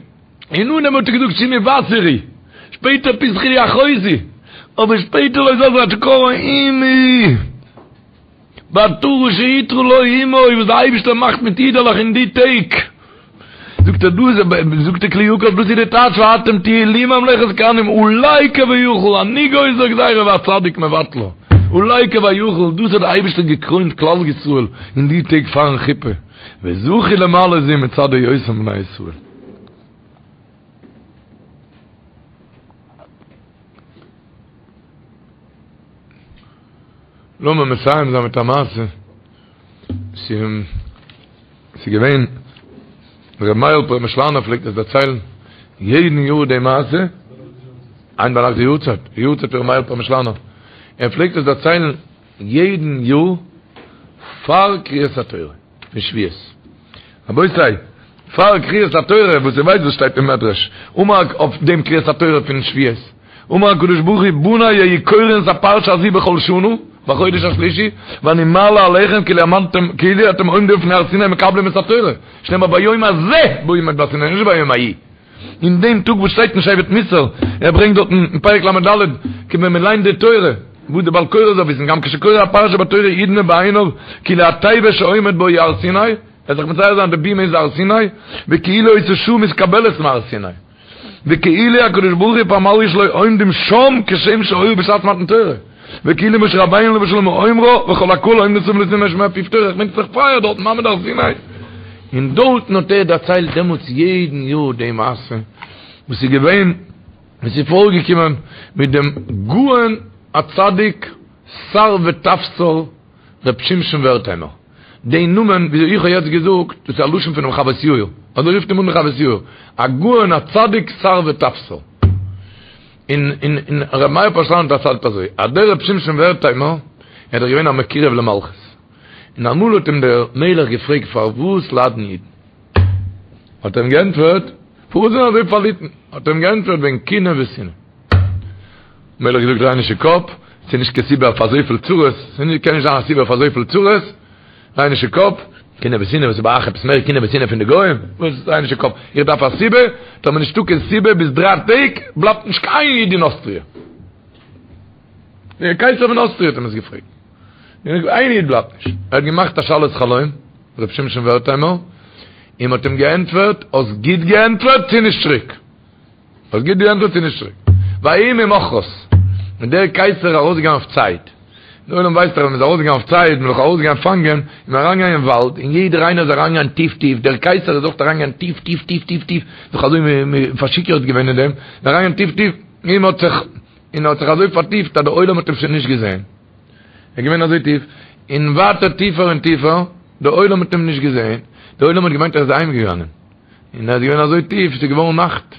אין אנהייב האט ער געזאגט שמעי בת וראי, שפעטער פתחי לי אחותי, אבער שפעטער לא זז עד שקראה אמי. בעטרה שעטרה לו אמו וואס די אייבישטער מאכט מיט אידעלעך אין די טעג, זאגט ער דאס זאגט די כלי יקר דאס איז די טייטש ואתם תהיו לי ממלכת כהנים עלי כביכול אני גוזר גזירה והצדיק מבטלה עלי כביכול דאס האט די אייבישטער געקרוינט כלל ישראל אין די טעג פארן חופה וזכו למעלה זו מצד היותם בני ישראל. לאמיר מסיים זיין מיט א מעשה, ס'איז געווען ר' מאיר'ל פרעמישלאנער פלעגט עס דערציילן יעדן יאר די מעשה, היינט ביינאכט די יארצייט, די יארצייט פון ר' מאיר'ל פרעמישלאנער, ער פלעגט עס דערציילן יעדן יאר פאר קריאת התורה פון שבועות. רבותי, פאר קריאת התורה, וואס איר ווייסט וואס שטייט אין מדרש, אמר אויף דעם קריאת התורה פון שבועות, אמר הקדוש ברוך הוא בני היו קורין את הפרשה הזו בכל שנה, בחודש השלישי, ואני מעלה עליכם כאילו עמדתם, כאילו אתם עומדים לפני הר סיני מקבלים את התורה, שנאמר ביום הזה בו עמד בהר סיני, נישט ביום ההוא. אין דעם טאג וואס שטייט אין שבט מוסר, ער ברענגט דארטן אין פרק ל"ד, כי ווען מען ליינט די תורה, וואס די בעל קורא זאל וויסן, גם כשקורא הפרשה בתורה ידמה בעיניו כאילו התיבה שעומד בה היא הר סיני, ער זאל זיך מצייר זיין די בימה איז הר סיני, וכאילו אותה שעה מתקבלת מהר סיני, וכאילו הקדוש ברוך הוא ופמליא שלו עומדים שם כשם שהיו בשעת מתן תורה. וכאילו משה רבינו עליו השלום אומרה וכל הקהל עומדים סביב לסיני לשמוע פיו תורה, כ'מיין ס'איז דאך פייער דארט מעמד הר סיני, און דארטן האט ער דערציילט דעמאלטס יעדן יאר די מעשה וואס איז געווען וואס איז פארגעקומען מיט דעם גאון הצדיק שר וטפסר ר' שמשון ווערטהיימער, די נאמען וויאזוי איך האב יעצט געזאגט דאס איז א לשון פונעם חוות יאיר, אזוי רופט אים אן די חוות יאיר, הגאון הצדיק שר וטפסר. און און און ר' מאיר פאשלאן האט דערציילט אזוי, אז דער ר' שמשון ווערטהיימער ער איז דאך געווען א מקורב למלכות, און אמאל האט אים דער מלך געפרעגט פארוואס ליידן אידן? האט ער אים געענטפערט, פארוואס זענען אזוי פארליטן? האט ער אים געענטפערט וועגן קנאה ושנאה. מלך געזאגט דריי נישט די קאפ, ס'איז נישט קיין סיבה אויף אזויפיל צרות, ס'קען נישט זיין א סיבה אויף אזויפיל צרות, דריי נישט די קאפ, קנאה ושנאה, וואס איז ביי אייך עפעס מער קנאה ושנאה פון די גוים? וואס דריי נישט די קאפ, איך דארף א סיבה, טאמער נישטא קיין סיבה ביז דריי טעג בלייבט נישט קיין איד אין אוסטריע. דער קייסער פון אוסטריע האט אים עס געפרעגט. איין איד בלייבט נישט. ער האט געמאכט א שאלת חלום, ר' שמשון ווערטהיימער, און מ'האט אים געענטפערט, האסט גוט געענטפערט, צי נישט צוריק. האסט גוט געענטפערט צי נישט צוריק. ויהי ממחרת, איז דער קייסער ארויסגעגאנגען אויף צייד. דער עולם ווייסט דאך ווען מ'איז ארויסגעגאנגען אויף צייד, מ'איז דאך ארויסגעגאנגען פאנגען, איז מען אריינגעגאנגען אין וואלד, און יעדער איינער איז אריינגעגאנגען טיף טיף, דער קייסער איז אויך אריינגעגאנגען טיף טיף טיף טיף טיף, זיך אזוי פארשיכורט געווען אין דעם, איז אריינגעגאנגען טיף טיף, און מ'האט זיך, און ער האט זיך אזוי פארטיפט אז דער עולם האט אים שוין נישט געזען. ער איז געווען אזוי טיף, און ווייטער טיפער און טיפער, דער עולם האט אים נישט געזען, דער עולם האט געמיינט ער איז אהיימגעגאנגען. און ער איז געווען אזוי טיף, ס'איז געווארן נאכט,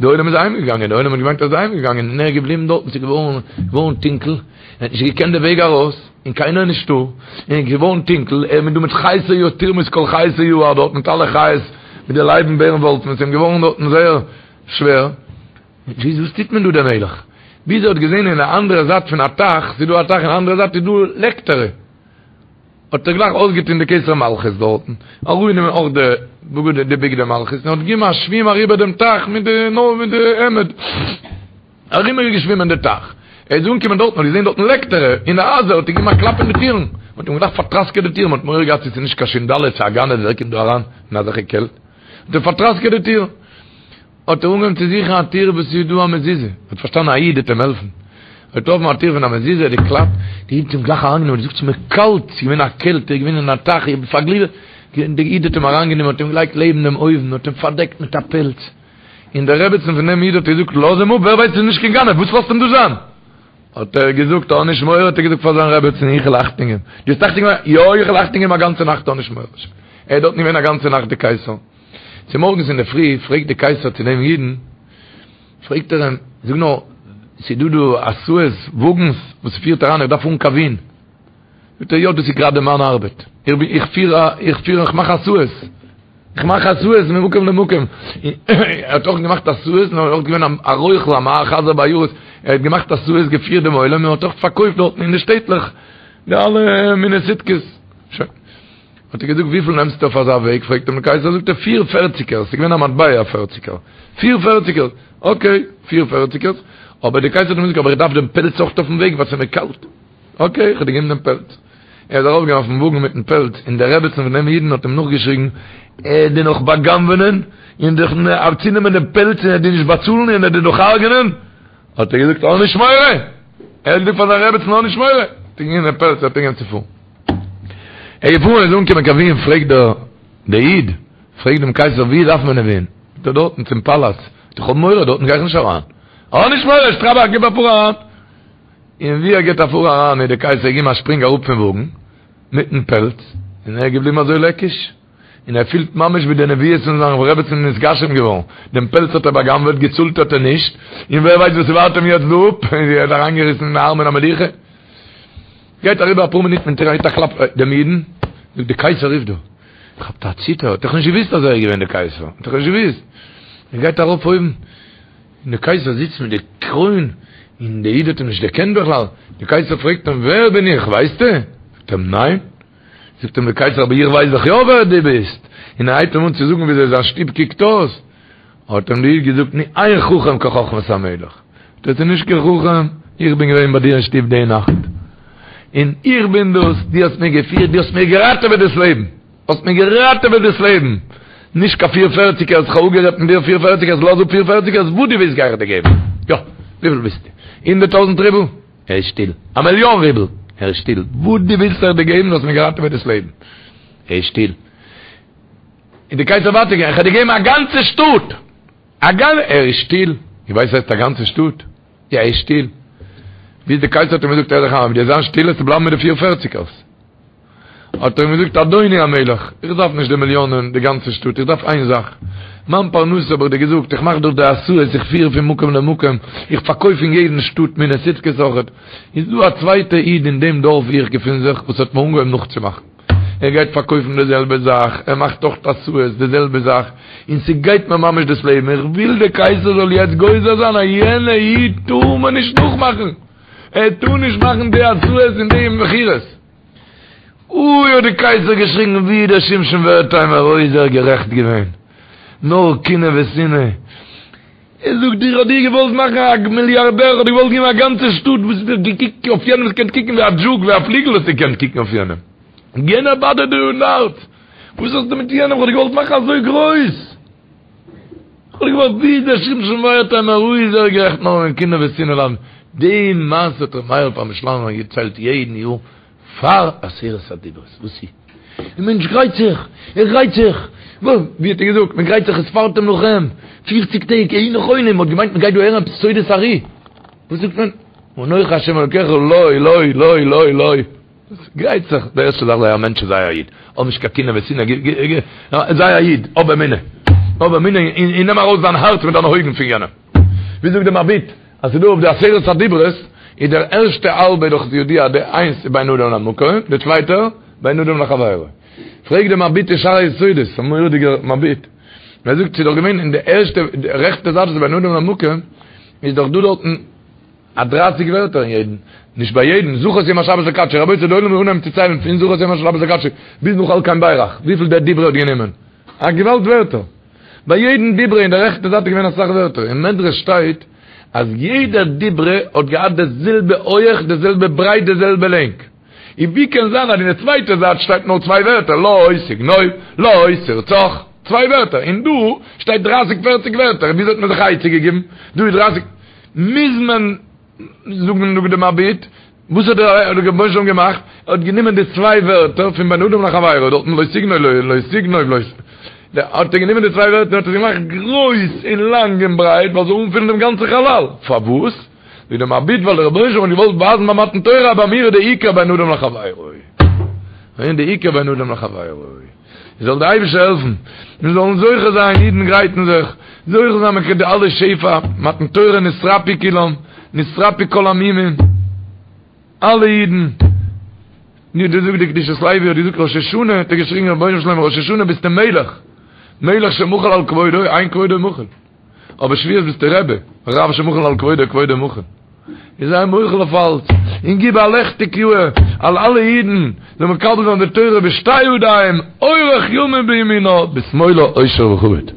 די עולם איז אהיים געגאנגען, די עולם האט געמיינט ער איז אהיים געגאנגען, און ער איז געבליבן דארטן, ס'איז געווארן געווארן טונקל, ער האט נישט געקענט די וועג ארויס, און קיינער איז נישטא, און איז געווארן טונקל, ער איז דא מיט חיות היער, תרמוס כל חיות היער דארט מיט אלע חיות, מיט די לייבן בערן וואלפן, ס'איז אים געווארן דארטן זייער שווער, וואס טוט מען דא דער מלך? ביז ער האט געזען אין די אנדערע זייט פון א טייך, ס'איז דא א טייך אין די אנדערע זייט איז דא לעקטערע, האט ער גלייך אויסגעטון די כתר מלכות דארטן, אראפגענומען אויך די בגדים די בגדי מלכות, און האט געגעבן א שווים אריבער דעם טייך מיט די נאר מיט די העמד, אריבער געשווימען די טייך, ער איז אנגעקומען דארטן האט געזען דארטן לעקטערע אין די הייזער, האט ער געגעבן א קלאפ אין די טירן, מען האט אים גלייך פארטראסקעט די טיר, מען האט מורא געהאט צו ס'איז נישט קיין שינדאלע צו א גנב ווער קומט דא אריין אין אזעלכע קעלט, האט ער פארטראסקעט די טיר. האט ער אנגעהויבן צו זוכן א טיר וואס איז דא א מזוזה, ער האט פארשטאנען א איד וועט אים העלפן, ער האט געטראפן א טיר פון א מזוזה, ער האט געקלאפט, די איד האט אים גלייך אריינגענומען, ער האט געזאגט ס'איז מיר קאלט, ס'איז געווען א קעלט, ער איז געווען אין א טייך, איך בין פארגליווערט, די איד האט אים אריינגענומען, האט אים געלייגט לעבן דעם אויוון, האט אים פארדעקט מיט א פעלץ, און די רעבעצן פון דעם איד האט געזאגט לאז אים אפ, ווער ווייסט ס'איז נישט קיין גנב, וואס לאזט אים דא זיין? האט ער געזאגט האב נישט מורא, האט ער געזאגט פאר זיין רעבעצן איך וועל אכטונג געבן, דו האסט אכטונג געבן? יא איך וועל אכטונג געבן א גאנצע נאכט האב נישט מורא, ער איז דארטן געווען א גאנצע נאכט די קייסער. צומארגנס אינדערפרי פרעגט די קייסער צו דעם אידן, פרעגט ער אים, זאג נאר, ס'איז דא דא הסעות, וואגנס, וואס פירט אריין, איך דארף פארן קיין ווין. זאגט ער, יא, דאס איז גראדע מיין ארבעט, איך בין, איך פיר א, איך פיר, איך מאך הסעות, איך מאך הסעות ממקום למקום. ער האט אויך געמאכט הסעות, נאר ער איז אויך געווען א רוכל, א מחזר בעיירות, ער האט געמאכט הסעות, געפירט דעם עולם, און האט אויך פארקויפט דארטן אין די שטעטלעך די אלע מיני סיטקעס. שוין. האט ער געזאגט וויפיל נעמסטו אויף אזא וועג, פרעגט אים דער קייסער, זאגט ער פיר פערציגערס, ס'איז געווען א מטבע א פערציגער, פיר פערציגערס, אקעי, פיר פערציגערס, אבער דער קייסער האט אים געזאגט אבער איך דארף דעם פעלץ אויך אויפן וועג ווייל ס'איז מיר קאלט, אקעי, איך האב דיר געגעבן דעם פעלץ. ער איז ארויף געגאנגען אויפן וואגן מיטן פעלץ, און די רעבעצן פון דעם אידן האט אים נאכגעשריגן, ער וועט דיר נאך בא'גנב'ענען, און דיך צונעמען דעם פעלץ און ער וועט דיר נישט באצאלן און ער וועט דיר נאך הרג'ענען, האט ער געזאגט האב נישט מורא! ער האט געזאגט פאר זיין רעבעצן האב נישט מורא! האט ער געגעבן דעם פעלץ האט ער אנגעהויבן צו פארן. ער איז געפארן איז אנגעקומען קיין וויען פרעגט דער דער איד פרעגט דעם קייסער ווי דארף מען אין וויען? זאגט ער דארטן צום פאלאץ, זאגט ער איך האב מורא דארטן גיי איך נישט אריין. האב נישט מורא שטראבאך גיב א פאר אריין. און ווי ער גיבט א פאר אריין איז דער קייסער געגעבן א שפרינג אראפ פון וואגן מיטן פעלץ און ער איז געבליבן אזוי לעקיש. און ער פילט ממש ווי די נביאות פון זיין רעבעצין איז נתגשם געווארן, דעם פעלץ האט ער בא'גנב'עט, געצאלט האט ער נישט, און ווער ווייסט וואס ס'ווארט אים יעצט דא אפ, ער האט אריינגעריסן אין ארמון המלוכה. גייט אריבער אפאר מינוט מען גיט א קלאפ דעם אידן, זאגט די קייסער רופט דא. כאפט א ציטער, האט דאך נישט געוויסט אז ער איז געווען די קייסער, האט דאך נישט געוויסט. ער גייט ארויף אויבן, און די קייסער זיצט מיט די קרוין, און די איד האט אים נישט דערקענט בכלל. די קייסער פרעגט אים, ווער בין איך, ווייסטו? זאגט אים, ניין. זאגט אים די קייסער, אבער איך ווייס דאך יא ווער דו ביסט. און ער הייבט אים אן צו זאגן וויאזוי זיין שטוב קוקט אויס. האט אים די איד געזאגט, נו, אין חכם כחכמת המלך. דאס איז נישט קיין חכם, איך בין געווען ביי דיר אין שטוב די נאכט, און איך בין דאס, דו האסט מיר געפירט, דו האסט מיר געראטעוועט דאס לעבן, האסט מיר געראטעוועט דאס לעבן, נישט קיין פיר פערציגערס, איך האב אפגערעדט מיט דיר פיר פערציגערס, לאז אפ פיר פערציגערס, וואס דו ווילסט גיי איך דיר געבן, יא, וויפיל ווילסטו? הונדערט טויזנט רובל? ער איז שטיל. א מיליאן רובל? ער איז שטיל. וואס דו ווילסט וועל איך דיר געבן, דו האסט מיר געראטעוועט דאס לעבן. ער איז שטיל. און די קייסער ווייטער געגאנגען, איך וועל דיר געבן א גאנצע שטאט! א גאנ. ער איז שטיל. איר ווייסט וואס הייסט א גאנצע שטאט? יא, ער איז שטיל. ביז די קייסער האט אים געזאגט, הער זיך איין, אויב דו וועסט זיין שטיל וועסטו בלייבן מיט די פיר פערציגערס. האט ער אים געזאגט, אדוני המלך, איך דארף נישט די מיליאנען, די גאנצע שטאט, איך דארף איין זאך. מיין פרנסה האב איך דיר געזאגט, איך מאך דאך די הסעות, איך פיר פון מקום למקום, איך פארקויף אין יעדן שטאט מיני סוטקעס אויכעט. איז דא א צווייטע איד אין דעם דארף וואו איך געפין זיך, וואס האט מיר אנגעהויבן נאכצומאכן. ער גייט פארקויפן די זעלבע זאך, ער מאכט אויך הסעות די זעלבע זאך, און ס'גייט מיר ממש דאס לעבן, איך וויל די קייסער זאל יעצט גוזר זיין אז יענע איד טאר מען נישט נאכמאכן, ער טאר נישט מאכן די הסעות און די מכירות. אוי האט די קייסער געשריגן ווי דער שמשון ווערטהיימער אוי איז ער גערעכט געווען, נאר קנאה ושנאה. ער זאגט איך האב דיר געוואלט מאכן א מיליארדער, איך האב דיר געוואלט געבן א גאנצע שטאט, וואס האסטו געקוקט אויף יענעם, האסט געקענט קוקן ווי א דזשוק, ווי א פליגל האסטו געקענט קוקן אויף יענעם, יענער באדערט דיר אין הארץ, וואס האסטו מיט יענעם, איך האב דיר געוואלט מאכן אזוי גרויס, איך האב דיר געוואלט, ווי איז דער שמשון ווערטהיימער, אוי איז ער גערעכט נאר אין קנאה ושנאה ליידן, די מעשה האט ר' מאיר פרעמישלאנער געציילט יעדן יאר פאר עשרת הדיברות, וואס איז? דער מענטש גרייט זיך, ער גרייט זיך, ווי האט ער געזאגט, מען גרייט זיך וספרתם לכם, פופציג טעג, היו נכונים, מען האט געמיינט מען גייט דא הערן עפעס סודות ארי, וואס זאגט מען? אנוכי השם אלוקיך, לא, לא, לא, לא, לא, גרייט זיך, די ערשטע זאך זיי א מענטש זיי א איד, האב נישט קיין קנאה ושנאה, זיי א איד, האב אמונה, האב אמונה און נעם ארויס דיין הארץ מיט דיינע אויגן פון יענעם, ווי זאגט דער מבי"ט, אז ס'איז דא אויף די עשרת הדיברות, איז דער ערשטע האלבע דאך ידוע די איינס איז בין אדם למקום, די צווייטע בין אדם לחבירו. פרעגט דער מבי"ט אין שער היסודות, א מורא'דיגער מבי"ט, ער זאגט ס'איז דאך געווען אין די ערשטע די רעכטע זייט וואס איז בין אדם למקום, איז דאך דא דארטן א דרייסיג ווערטער אין יעדן, נישט ביי יעדן, זכור את יום השבת לקדשו, רבותי די עולם זאל אנהייבן צו ציילן פון זכור את יום השבת לקדשו ביז נאך על כן בירך, וויפיל דער דיברא האט גענומען. א געוואלד ווערטער. ביי יעדן דיברא אין די רעכטע זייט איז געווען אסאך ווערטער. אין מדרש שטייט אז יעדער דיברא האט געהאט די זעלבע הויעך, די זעלבע ברייט, די זעלבע לענג. און ווי קען זיין אז אין די צווייטע זייט שטייט נאר צוויי ווערטער לא תגנוב, לא תרצח, צוויי ווערטער, און דא שטייט דרייסיג פערציג ווערטער, וויאזוי האט מען זיך א עצה געגעבן? דא איז דרייסיג, מוז מען זאגן זאגט די מבי"ט, וואס האט דער רבונו של עולם געמאכט? ער האט גענומען די צוויי ווערטער פון בין אדם לחבירו, דארטן לא תגנוב לא תגנוב לא, האט ער גענומען די צוויי ווערטער און האט עס געמאכט גרויס און לאנג און ברייט ווייל ס'זאל אנפילן דעם גאנצן חלל, פארוואס? זאגט דער מבי"ט ווייל דער רבונו של עולם האט געוואלט ווייזן ביי מתן תורה אז ביי מיר איז די עיקר בין אדם לחבירו, און די עיקר בין אדם לחבירו. זאל דער אייבערשטער העלפן מיר זאלן זוכה זיין, אידן גרייטן זיך, זוכה זיין מיט די אלע שפע, מתן תורה נתרפאו כולם, נתרפאו כל המומים, אלע אידן, ווי דא זאגט די קדושת לוי האט געזאגט ראש השנה, האט ער געשריגן רבונו של עולם ראש השנה ביסטו מלך, מלך שמחל על כבודו, אין כבודו מחול. אבער שבועות ביסטו רבי, רב שמחל על כבודו כבודו מחול. איז זיי מוחל אויף אלץ, און גיב א לעכטיג יאהר על אלע אידן, זאל מקבל זיין די תורה בשתי ידיים, אורך ימים בימינה, בשמאלה עושר וכבוד.